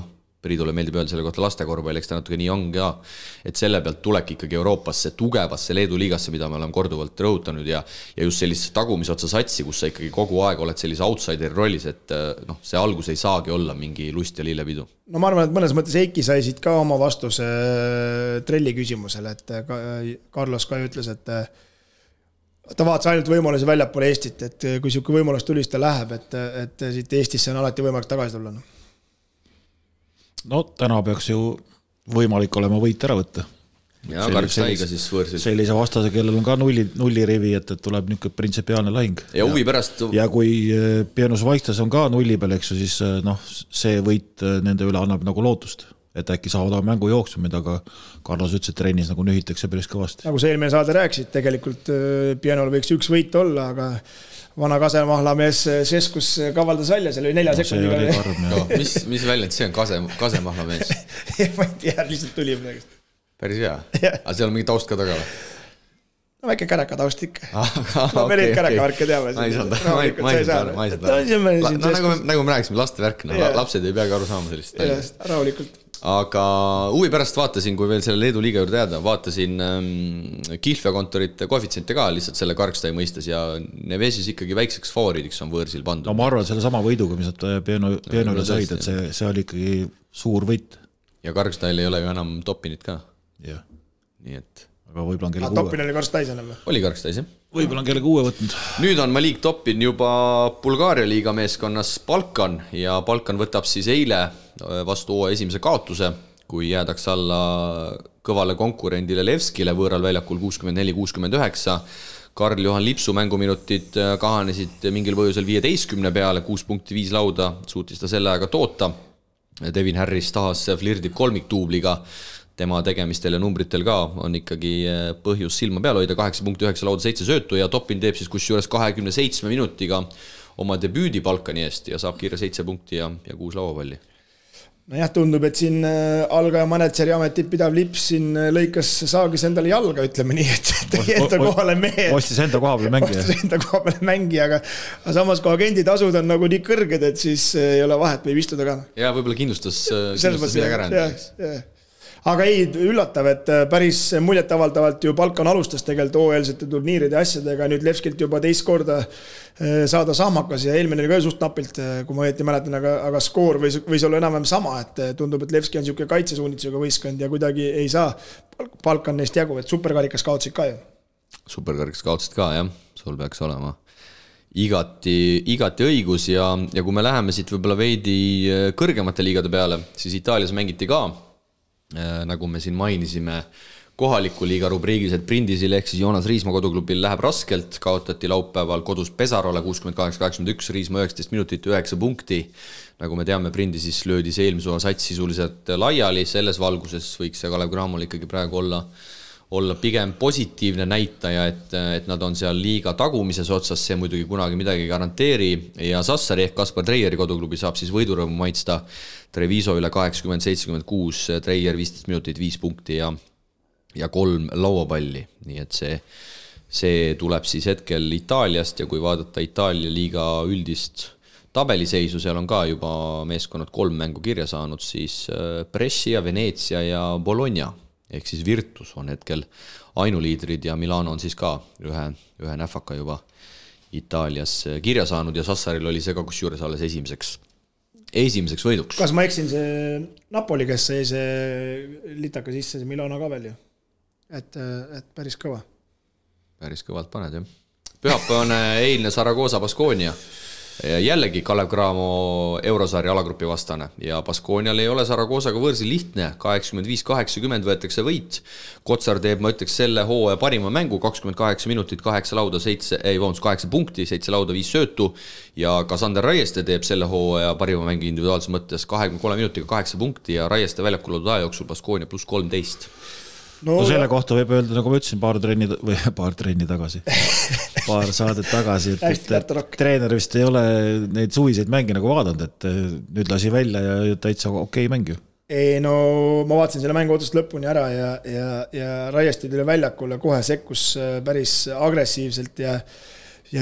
Speaker 2: Priidule meeldib öelda selle kohta lastekorvpall, eks ta natuke nii on ka, et selle pealt tulek ikkagi Euroopasse, tugevasse Leedu liigasse, mida me oleme korduvalt rõhutanud ja just sellist tagumisotsa satsi, kus sa ikkagi kogu aeg oled sellise outsideri rollis, et see algus ei saagi olla mingi lust ja lillepidu.
Speaker 4: No ma arvan, et mõnes mõttes Eiki sai siit ka oma vastuse Trelli küsimusele, et Carlos ka ütles, et ta vaatas ainult võimalusi väljapoole Eestit, et kui siuke võimalus tuli, siis ta läheb, et siit Eestisse on alati võimalik tagasi tulla.
Speaker 3: No täna peaks ju võimalik olema võit ära võtta.
Speaker 2: Ja Kargstaiga siis võõrsil.
Speaker 3: Sellise vastase, kellel on ka nullirivi, et tuleb niisugune printsipiaalne lahing.
Speaker 2: Ja huvi pärast...
Speaker 3: Ja kui Pienos Vaikstes on ka nulli peal, eks ju, siis see võit nende üle annab nagu lootust. et äkki saavad oma mängu jooksumid, aga Carlos ütles, et trennis nagu nühitakse päris kõvasti.
Speaker 4: Nagu see eelmine saade rääkisid, tegelikult Pienol võiks üks võit olla, aga vana Kasemahlamees Seskus kavaldas välja, seal oli 4 sekundiga.
Speaker 2: Mis väljend see on, Kasemahlamees?
Speaker 4: Ma ei tea, lihtsalt tuli midagi.
Speaker 2: Päris hea, aga seal on mingi taust ka taga või?
Speaker 4: No väike käraka taust ikka. No me neid kärakavärke teame.
Speaker 2: Ma ei saanud. Nagu me rääkisime, laste värk, lapsed ei peagi aru saama sellist.
Speaker 4: Rahulikult.
Speaker 2: Aga huvi pärast vaatasin, kui veel selle Leedu liiga juurde jääda, vaatasin Kihlveokontorite koefitsiente ka lihtsalt selle Karkstai mõistes ja Nevesis ikkagi väikseks favoriidiks on võõrsil pandud.
Speaker 3: No ma arvan, selle sama võiduga, mis nad Pienole said, et see oli ikkagi suur võit.
Speaker 2: Ja Karkstail ei ole ju enam Topinit ka.
Speaker 3: Jah.
Speaker 2: Nii et
Speaker 3: aga võib-olla on kellega uue.
Speaker 4: Topin oli Karstais enam või?
Speaker 2: Oli Karstais, jah.
Speaker 3: Võib-olla on kellega uue võtnud.
Speaker 2: Nüüd on Malik Topin juba Bulgaaria liiga meeskonnas Balkan ja Balkan võtab siis eile vastu hooaja esimese kaotuse, kui jäädaks alla kõvale konkurendile Levskile võõral väljakul 64-69. Karl-Johan Lipsu mänguminutid kahanesid mingil põhjusel 15 peale, 6 punkti 5 lauda, suutis ta selle aega toota. Devin Harris tahas flirdib kolmiktuubliga. Tema tegemistel ja numbritel ka on ikkagi põhjus silma peal hoida, 8 punkti 9 lauda 7 söötu ja Topin teeb siis kusjuures 27 minutiga oma debüüdi Balkani eest ja saab kiire 7 punkti ja 6 lauapalli.
Speaker 4: No jah, tundub, et siin algaja manetseri ametit pidav Lips siin lõikas saagis endale jalga, ütleme nii, et tegi enda kohale mehe.
Speaker 3: Ostis enda koha peale
Speaker 4: mängija, aga samas kui agenditasud on nagu nii kõrged, et siis ei ole vahet, võib istuda ka.
Speaker 2: Ja võib-olla kindlustas midagi ära.
Speaker 4: Aga ei, üllatav, et päris muljetavaldavalt ju Balkan alustas tegelikult OL-sete turniiride asjadega, nüüd Levskilt juba teist korda saada sahmakas ja eelmine oli ka suht napilt, kui ma õieti mäletan, aga skoor võis olla enam-vähem sama, et tundub, et Levski on niisugune kaitsesuunitusega võistkond ja kuidagi ei saa Balkan neist jagu, et superkarikas kaotsid ka ju.
Speaker 2: Superkarikas kaotsid ka, jah, sul peaks olema igati õigus ja kui me läheme siit võib-olla veidi kõrgemate liigade peale, siis Itaalias mängiti ka nagu me siin mainisime kohaliku liiga rubriigis, et Prindisil ehk siis Joonas Riismaa koduklubil läheb raskelt, kaotati laupäeval kodus Pesarole 68-81, Riismaa 19 minutit 9 punkti. Nagu me teame, Prindisis löödi see eelmise sats sisuliselt laiali, selles valguses võiks see Kalev Cramol ikkagi praegu olla pigem positiivne näitaja, et nad on seal liiga tagumises otsas, see muidugi kunagi midagi garanteeri ja Sassari ehk Kaspar Treieri koduklubi saab siis võidurõõmu maitsta Treviso üle 80-76, Treier 15 minutit 5 punkti ja 3 lauapalli, nii et see tuleb siis hetkel Itaaliast ja kui vaadata Itaalia liiga üldist tabeliseisu, seal on ka juba meeskonnad 3 mängu kirja saanud, siis Brescia, Venezia ja Bologna ehk siis Virtus on hetkel ainuliidrid ja Milano on siis ka ühe näfaka juba Itaalias kirja saanud ja Sassaril oli see ka kusjuures alles esimeseks võiduks.
Speaker 4: Kas ma eksin see Napoli, kes sai see litaka sisse, see Milano ka veel ju? Et päris kõva.
Speaker 2: Päris kõvalt paned, jah. Pühapäevane eilne Saragossa Baskonia. Jällegi Kalev Cramo eurosarja alagrupi vastane ja Baskonial ei ole Saragossaga võõrsil lihtne, 85-80 võetakse võit. Kotsar teeb, ma ütleks, selle hooaja parima mängu, 28 minutit, 8 lauda, 8 punkti, 7 lauda, 5 söötu ja ka Sander Raieste teeb selle hooaja parima mängu individuaalses mõttes 23 minutiga 8 punkti ja Raieste väljakul loodud aja jooksul Baskonia pluss 13.
Speaker 3: No selle kohta võib öelda, nagu ma ütlesin, paar trenni tagasi, paar saadet tagasi, et treener vist ei ole neid suviseid mänge nagu vaadanud, et nüüd lasi välja ja täitsa okei mäng ju.
Speaker 4: Ei, no ma vaatasin selle mängu otsast lõpuni ära ja Raiesti tuli väljakule, kohe sekkus päris agressiivselt ja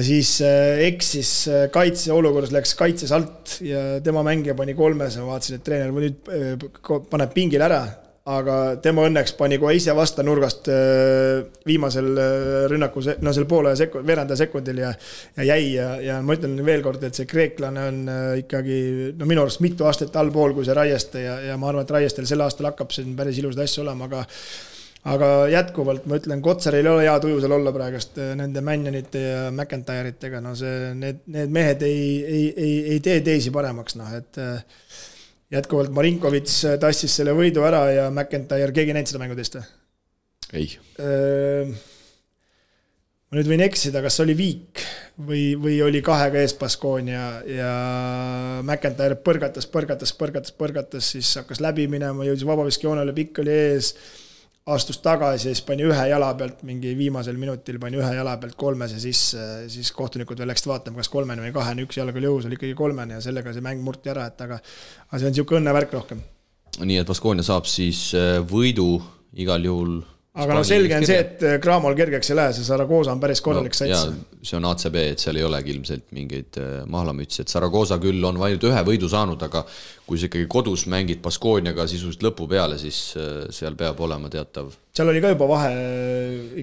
Speaker 4: siis eksis kaitse olukorras, läks kaitses alt ja tema mängija pani 3, ma vaatasin, et treener nüüd paneb pingil ära, aga tema õnneks pani kohe ise vasta nurgast viimasel rünnaku, no selle poole veeranda sekundil ja jäi ja ma ütlen veel kord, et see kreeklane on ikkagi minu arust mitu aastat allpool kui see Raieste ja ma arvan, et Raiestel sel aastal hakkab siin päris ilusad asju olema, aga jätkuvalt ma ütlen, Kotsaril ei ole hea tuju seal olla praegust nende Mannionite ja McIntyre'itega, no need mehed ei tee teisi paremaks, et jätkuvalt Marinkovits tassis selle võidu ära ja McIntyre, keegi näinud seda mängu teist?
Speaker 2: Ei.
Speaker 4: Ma nüüd võin eksida, kas oli Viik või oli 2 ees Baskonia ja McIntyre põrgatas, siis hakkas läbi minema, jõudis vabaviskijoonele, pikk oli ees, astus tagasi ja siis pani ühe jala pealt, mingi viimasel minutil pani ühe jala pealt 3 ja siis kohtunikud veel läksid vaatama, kas 3 või 2, üks jalga oli jõus, oli ikkagi 3 ja sellega see mäng murti ära, et aga see on niisugune õnnevärk rohkem.
Speaker 2: Nii et Baskonia saab siis võidu igal juhul.
Speaker 4: Aga no selge on see, et Cramol kergeks ei lähe, see Zaragoza on päris korralik sats.
Speaker 2: Ja see on ACB, et seal ei olegi ilmselt mingeid mahlamütsi, et Zaragoza küll on ainult 1 võidu saanud, aga kui sa ikkagi kodus mängid Baskoniaga sisuliselt lõpu peale, siis seal peab olema teatav.
Speaker 4: Seal oli ka juba vahe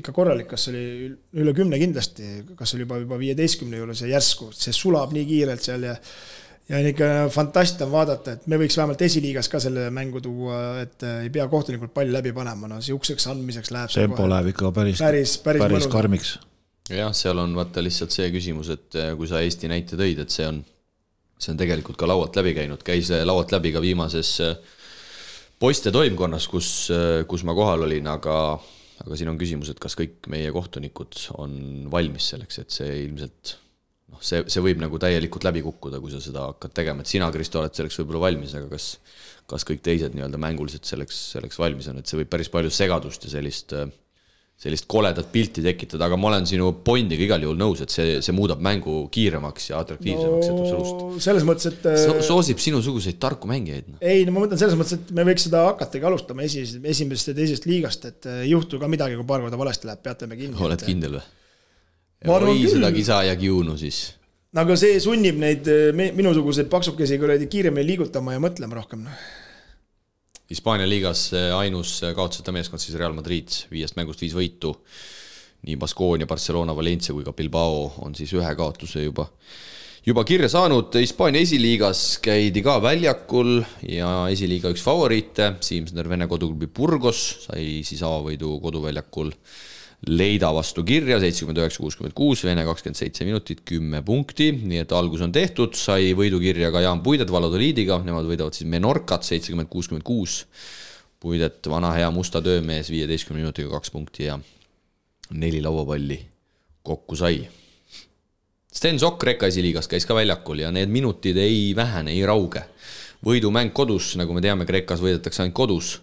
Speaker 4: ikka korralik, kas oli üle 10 kindlasti, kas oli juba 15 juures ja järsku, see sulab nii kiirelt seal ja on ikka fantast on vaadata, et me võiks vähemalt esiliigas ka selle mängu tuua, et ei pea kohtunikult palli läbi panema, no siukseks andmiseks läheb
Speaker 3: tempo läheb ikka päris karmiks.
Speaker 2: Jah, seal on vaata lihtsalt see küsimus, et kui sa Eesti näite tõid, et see on tegelikult ka laualt läbi käinud, käis laualt läbi ka viimases poiste toimkonnas, kus ma kohal olin, aga siin on küsimus, et kas kõik meie kohtunikud on valmis selleks, et see ilmselt see võib nagu täielikult läbi kukkuda, kui sa seda hakkad tegema, et sina, Kristo, oled selleks võib-olla valmis, aga kas kõik teised nii-öelda mänguliselt selleks valmis on, et see võib päris palju segadust ja sellist koledat pilti tekitada, aga ma olen sinu pointiga igal juhul nõus, et see muudab mängu kiiremaks ja atraktiivsemaks, et absoluutselt.
Speaker 4: Selles mõttes, et
Speaker 2: soosib sinusuguseid tarku mängijaid.
Speaker 4: Ei, no ma mõtlen selles mõttes, et me võiks seda hakatagi alustama esimesest ja teisest liigast, et ei juhtu ka midagi, kui paar korda valesti läheb, peate me kinni.
Speaker 2: Oled kindel või? Oi, seda kisa ja kiunu siis.
Speaker 4: Aga see sunnib neid minusuguseid paksukesi kiiremini liigutama ja mõtlema rohkem.
Speaker 2: Hispaania liigas ainus kaotuseta meeskond siis Real Madrid, 5 mängust 5 võitu. Nii Baskonia, Barcelona, Valencia kui ka Bilbao on siis 1 kaotuse juba kirja saanud. Hispaania esiliigas käidi ka väljakul ja esiliiga üks favoriite. Siimsner Vene koduklubi Burgos sai siis avavõidu koduväljakul Leida vastu kirja, 79-66, Vene 27 minutit, 10 punkti, nii et algus on tehtud, sai võidu kirja ka Jaan Puidet Valladolidiga, nemad võidavad siis Menorcat 70-66, Puidet vana hea musta töömees 15 minutiga 2 punkti ja 4 lauapalli kokku sai. Sten Sokk Rekka esiliigas käis ka väljakul ja need minutid ei vähene, ei rauge. Võidumäng kodus, nagu me teame, Kreekas võidetakse ainult kodus,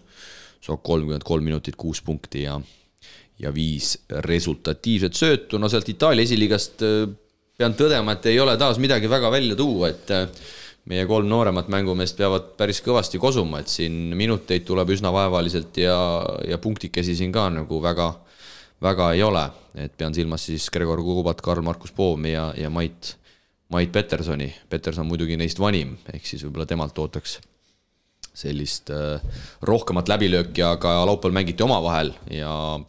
Speaker 2: Sokk 33 minutit, 6 punkti ja 5 resultatiivset söötu. No sealt Itaalia esiliigast pean tõdema, et ei ole taas midagi väga välja tuua, et meie 3 nooremat mängumeest peavad päris kõvasti kosuma, et siin minuteid tuleb üsna vaevaliselt ja punktikesi siin ka nagu väga ei ole. Et pean silmas siis Gregor Kubat, Karl-Markus Poomi ja Mait Petersoni. Peterson muidugi neist vanim, ehk siis võib-olla temalt ootaks sellist rohkemat läbilööki, aga laupäeval mängiti oma vahel ja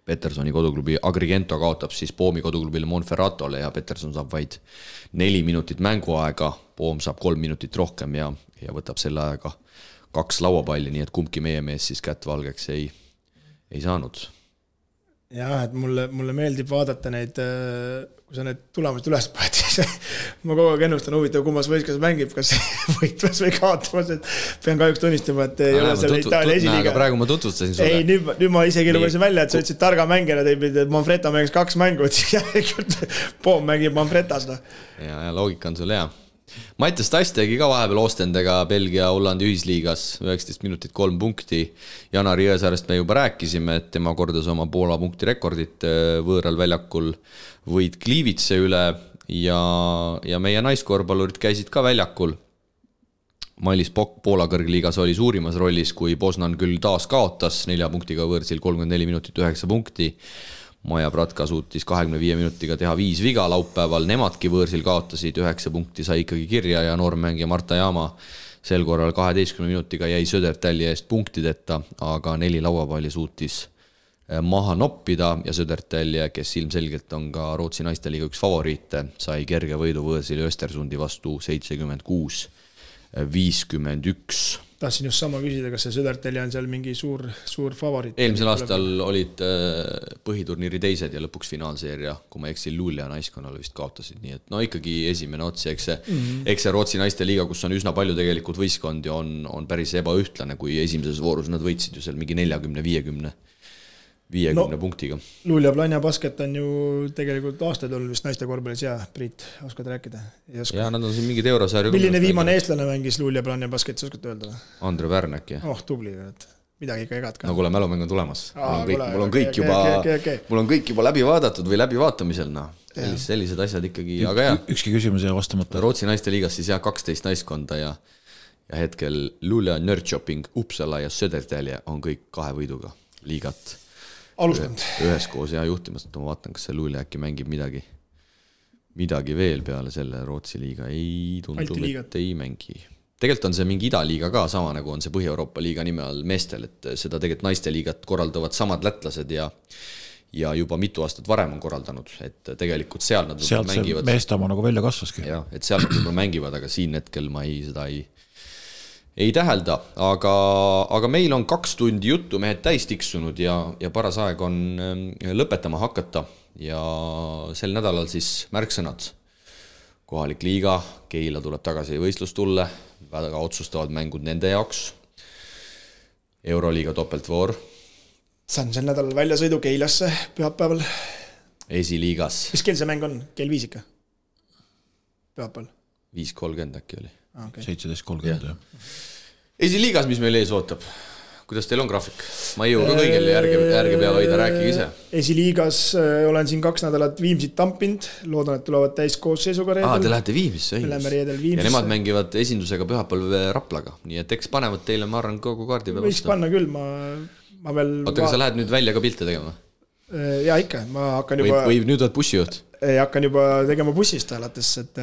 Speaker 2: Petersoni koduklubi Agrigento kaotab siis Poomi koduklubile Monferratole ja Peterson saab vaid 4 minutit mänguaega, Poom saab 3 minutit rohkem ja võtab selle aega 2 lauapalli, nii et kumbki meie mees siis kätt valgeks ei saanud.
Speaker 4: Jah, et mulle meeldib vaadata neid, kui sa need tulemused üles paned, siis ma kogu aeg ennustan huvitav, kummas võiskas mängib, kas võitvas või kaotamas, et pean kahjuks tunnistama, et ei ole selle Itaalia esiliiga.
Speaker 2: Aga praegu ma tutvustasin sulle.
Speaker 4: Ei, nüüd ma isegi lugesin välja, et sa ütlesid targa mängijana, et Manfretta mängis 2 mängu, et siis järelikult Poom mängib Manfrettas.
Speaker 2: Ja loogika on sul hea. Mattias Tass tegi ka vahepeal Oostendega Belgia-Hollandi ühisliigas 19 minutit 3 punkti. Janar Jõesaarest me juba rääkisime, et tema kordas oma Poola punkti rekordit võõral väljakul võid Kliivitse üle ja meie naiskorvpallurid käisid ka väljakul. Mailis Pokk Poola kõrgliigas oli suurimas rollis, kui Poznan küll taas kaotas 4 punktiga võõrsil 34 minutit 9 punkti. Maja Pratka suutis 25 minutiga teha 5 viga laupäeval, nemadki võõrsil kaotasid, 9 punkti sai ikkagi kirja ja noormängija Marta Jaama sel korral 12 minutiga jäi Södertälje eest punktideta, aga 4 lauapalli suutis maha noppida ja Södertälje, kes ilmselgelt on ka Rootsi naisteliiga üks favoriite, sai kerge võidu võõrsil Östersundi vastu 76-51.
Speaker 4: Tahtsin just sama küsida, kas see Södertälje on seal mingi suur favoriit.
Speaker 2: Eelmisel aastal olid põhiturniiri teised ja lõpuks finaalseeria, kui ma eksin Luulja naiskonnale vist kaotasid, nii et no ikkagi esimene otsi, eks see Rootsi naiste liiga, kus on üsna palju tegelikult võistkondi, on päris ebaühtlane, kui esimeses voorus nad võitsid ju seal mingi 40-50 50 punktiga.
Speaker 4: Luulja Planja basket on ju tegelikult aastaid olnud vist naiste korvpallis ja Priit, oskad rääkida?
Speaker 2: Ja nad on siin mingid eurosarju.
Speaker 4: Milline viimane eestlane mängis Luulja Planja basketis, oskad öelda?
Speaker 2: Andre Pärnek, jah.
Speaker 4: Tubli, midagi ikka egad ka.
Speaker 2: No kuule, mälumäng on tulemas. Mul on kõik juba läbi vaadatud või läbi vaatamisel, sellised asjad ikkagi, aga jah.
Speaker 3: Ükski küsimus jäi vastamata.
Speaker 2: Rootsi naiste liigas siis 12 naiskonda ja hetkel Luulja, Nörrköping, Uppsala ja Södertälje on kõik 2 võiduga liigat.
Speaker 4: Alustanud.
Speaker 2: Üheskoos ja juhtimast, ma vaatan, kas see Luulja äkki mängib midagi veel peale selle Rootsi liiga. Ei tundub, et ei mängi. Tegelikult on see mingi idaliiga ka sama, nagu on see Põhja-Euroopa liiga nime all meestel, et seda tegelikult naiste liigat korraldavad samad lätlased ja juba mitu aastat varem on korraldanud, et tegelikult seal nad
Speaker 3: sealt mängivad. Sealt see meestama nagu välja kasvaski.
Speaker 2: Jah, et seal nad mängivad, aga siin hetkel ma seda ei tähelda, aga meil on 2 tundi juttu mehed täis tiksunud ja paras aeg on lõpetama hakata ja sel nädalal siis märksõnad. Kohalik liiga, Keila tuleb tagasi võistlustulle, väga otsustavad mängud nende jaoks. Euroliiga topeltvoor.
Speaker 4: Saan sel nädalal väljasõidu Keilasse pühapäeval.
Speaker 2: Esiliigas.
Speaker 4: Mis kell see mäng on? Kell 5 ikka? Pühapäeval?
Speaker 2: 5.30 äkki oli.
Speaker 3: Okay. 17.30 jah.
Speaker 2: Esiliigas, mis meil ees ootab? Kuidas teil on graafik? Ma ei jõu ka kõigil järge pea hoida, rääkige ise.
Speaker 4: Esiliigas olen siin 2 nädalat Viimsit tampinud, loodan, et tulevad täis koosseisuga reedel.
Speaker 2: Te lähete Viimisse,
Speaker 4: ja
Speaker 2: nemad mängivad esindusega pühapäev Raplaga, nii et eks panevad teile, ma arvan, kogu kaardi peal
Speaker 4: vastu. Võiks panna küll, ma veel...
Speaker 2: Oota, kas sa lähed nüüd välja ka pilte tegema?
Speaker 4: Ja ikka, ma hakkan juba...
Speaker 2: Või nüüd oled bussijuht?
Speaker 4: Hakkan juba tegema bussist alates, et...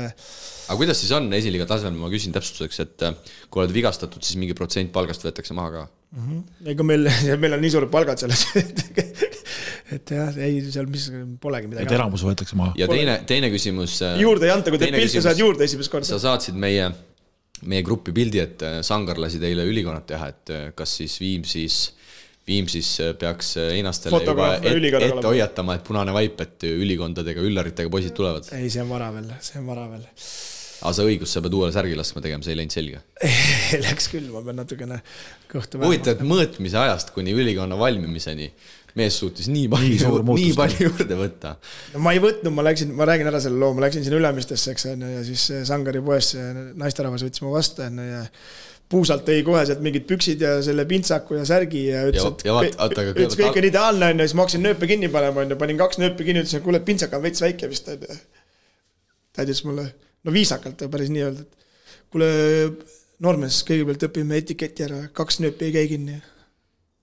Speaker 2: Aga kuidas siis on esiliiga tasemel, ma küsin täpsustuseks, et kui oled vigastatud, siis mingi protsent palgast võetakse maha ka?
Speaker 4: Ega meil on nii suured palgad selles, et jah, ei, seal mis polegi midagi.
Speaker 3: Et elamus võetakse maha.
Speaker 2: Ja teine küsimus...
Speaker 4: Juurde ei anta, kui teed pilte, saad juurde esimest korda.
Speaker 2: Sa saatsid meie gruppi pildi, et Sangar lasi teile ülikonnad teha, et kas siis Viimsis peaks einastele juba ette hoiatama, et punane vaip, et ülikondadega, üllaritega poisid tulevad.
Speaker 4: Ei, see on vara veel.
Speaker 2: Aga sa õigus, sa pead uuele särgi laskma tegema, see ei läinud selge.
Speaker 4: Läks küll, ma pean natukene kõhtu
Speaker 2: huvitav, et mõõtmise ajast kuni ülikonna valmimiseni mees suutis nii palju juurde võtta.
Speaker 4: No ma ei võtnud, ma räägin ära selle loo, ma läksin sinna Ülemistesse, eks, ja siis Sangari poes naisterahvas võttis mu vastu ja puusalt tõi kohe sealt mingid püksid ja selle pintsaku ja särgi ja ütles kõik on ideaalne, ja siis ma hakkasin nööpe kinni panema, panin 2 nööpe kinni, ütlesin, kuule, pintsak on veits väike vist. Ta ütles mulle, no viisakalt päris nii öelda, et kuule, noormees, kõigepealt õpime etiketi ära, 2 nööpi ei käi kinni.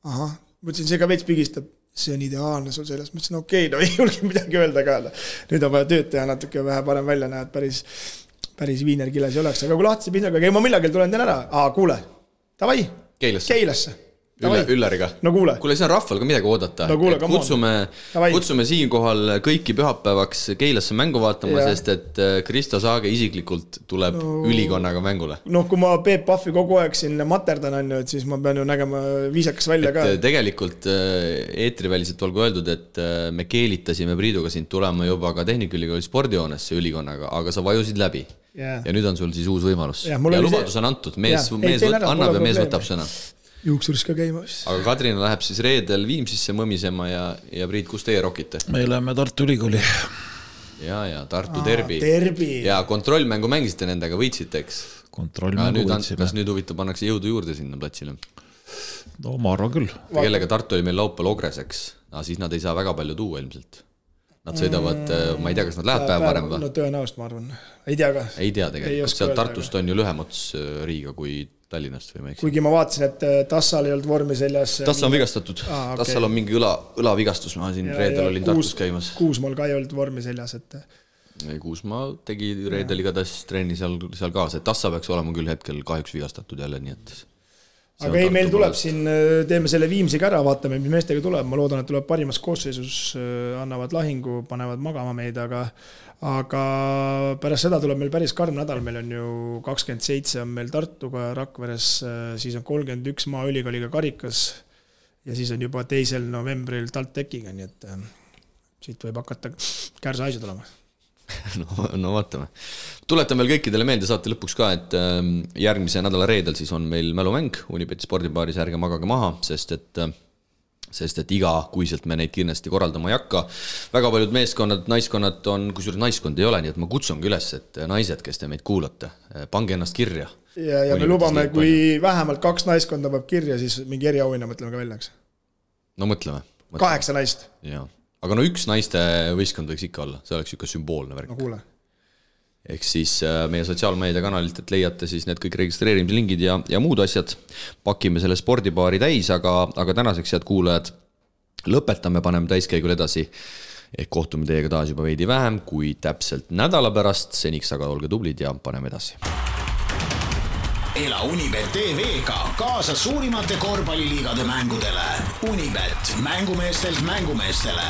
Speaker 4: Aha, mõtlesin, see ka veits pigistab, see on ideaalne sul selles, mõtlesin, okei, no ei julge midagi öelda ka. Nüüd on vaja tööd teha natuke vähe parem välja näed, päris viinerkiles ei oleks, aga kui lahtise pinsaga, ma millagel tulen teen ära. Kuule, tavai, Keilasse.
Speaker 2: Üllariga.
Speaker 4: No kuule.
Speaker 2: Kuule, see on rahval ka midagi oodata.
Speaker 4: No kuule,
Speaker 2: kutsume siinkohal kõiki pühapäevaks Keilasse mängu vaatama, sest et Kristo Saage isiklikult tuleb ülikonnaga mängule.
Speaker 4: No kui ma Peep Pahvi kogu aeg siin materdan, et siis ma pean ju nägema viisakas välja ka.
Speaker 2: Tegelikult eetriväliselt olgu öeldud, et me keelitasime Priiduga sind tulema juba ka Tehnikaülikooli spordihoonesse ülikonnaga, aga sa vajusid läbi. Ja nüüd on sul siis uus võimalus. Ja lubadus on antud, mees annab ja mees võtab sõna.
Speaker 4: Juuksuris ka käima.
Speaker 2: Aga Kadrina läheb siis reedel Viimsisse mõmisema ja Priit, kus teie rokite?
Speaker 3: Me läheme Tartu Ülikooli.
Speaker 2: Ja Tartu derbi. Ja kontrollmängu mängisite nendega, võitsite, eks?
Speaker 3: Kontrollmängu võitsime.
Speaker 2: Kas nüüd huvitav pannakse jõudu juurde sinna platsile?
Speaker 3: No ma arvan küll.
Speaker 2: Kellega Tartu oli meil laupäeval Ogreseks, siis nad ei saa väga palju tuua ilmselt. Nad sõidavad, ma ei tea, kas nad läheb päev varem või?
Speaker 4: No tõenäost, ma arvan. Ei tea ka.
Speaker 2: Ei tea tegelikult. Seal Tartust on ju lühem ots Riiga kui Tallinnast või ma eks.
Speaker 4: Kuigi ma vaatasin, et Tassal ei olnud vormi seljas.
Speaker 2: Tassal on vigastatud. Tassal on mingi õlavigastus. Ma siin reedel olin Tartus käimas.
Speaker 4: Kuusmaal ka ei olnud vormi seljas.
Speaker 2: Kuusmaa tegi reedel igatahes trenni seal kaasa. Et Tassa peaks olema küll hetkel kahjuks vigastatud jälle, nii et...
Speaker 4: Aga ei, meil tuleb siin, teeme selle Viimsiga ära, vaatame, mis meestega tuleb. Ma loodan, et tuleb parimas koosseisus, annavad lahingu, panevad magama meid, aga pärast seda tuleb meil päris karm nädal. Meil on ju 27 on meil Tartuga Rakveres, siis on 31 Maaülikooliga Karikas ja siis on juba 2. novembril TalTechiga, nii et siit võib hakata kärsa asju tulema.
Speaker 2: No vaatame. Tuletan veel kõikidele meelde saate lõpuks ka, et järgmise nädala reedel siis on meil mälumäng Unibeti spordibaaris, ärge magage maha, sest et sest et igakuiselt me neid kindlasti korraldama ei hakka. Väga paljud meeskonnad, naiskonnad on, kusjuures naiskond ei ole, nii et ma kutsungi üles, et naised, kes te meid kuulate, pange ennast kirja.
Speaker 4: Ja me lubame, kui vähemalt 2 naiskonda peab kirja, siis mingi eriauhinna mõtleme ka väljaks.
Speaker 2: No mõtleme.
Speaker 4: 8 naist.
Speaker 2: Jaa. Aga no 1 naiste võistkond võiks ikka olla, see oleks ikka sümboolne värk.
Speaker 4: No kuule.
Speaker 2: Ehk siis meie sotsiaalmeedia kanalilt, et leiate siis need kõik registreerimise lingid ja muud asjad. Pakime selle spordipaari täis, aga tänaseks head kuulajad lõpetame, paneme täiskäigul edasi. Ehk kohtume teiega taas juba veidi vähem kui täpselt nädala pärast. Seniks aga olge tublid ja paneme edasi.
Speaker 1: Ela Unibet TV-ga kaasa suurimate korvpalliliigade mängudele. Unibet, mängumeestelt mängumeestele.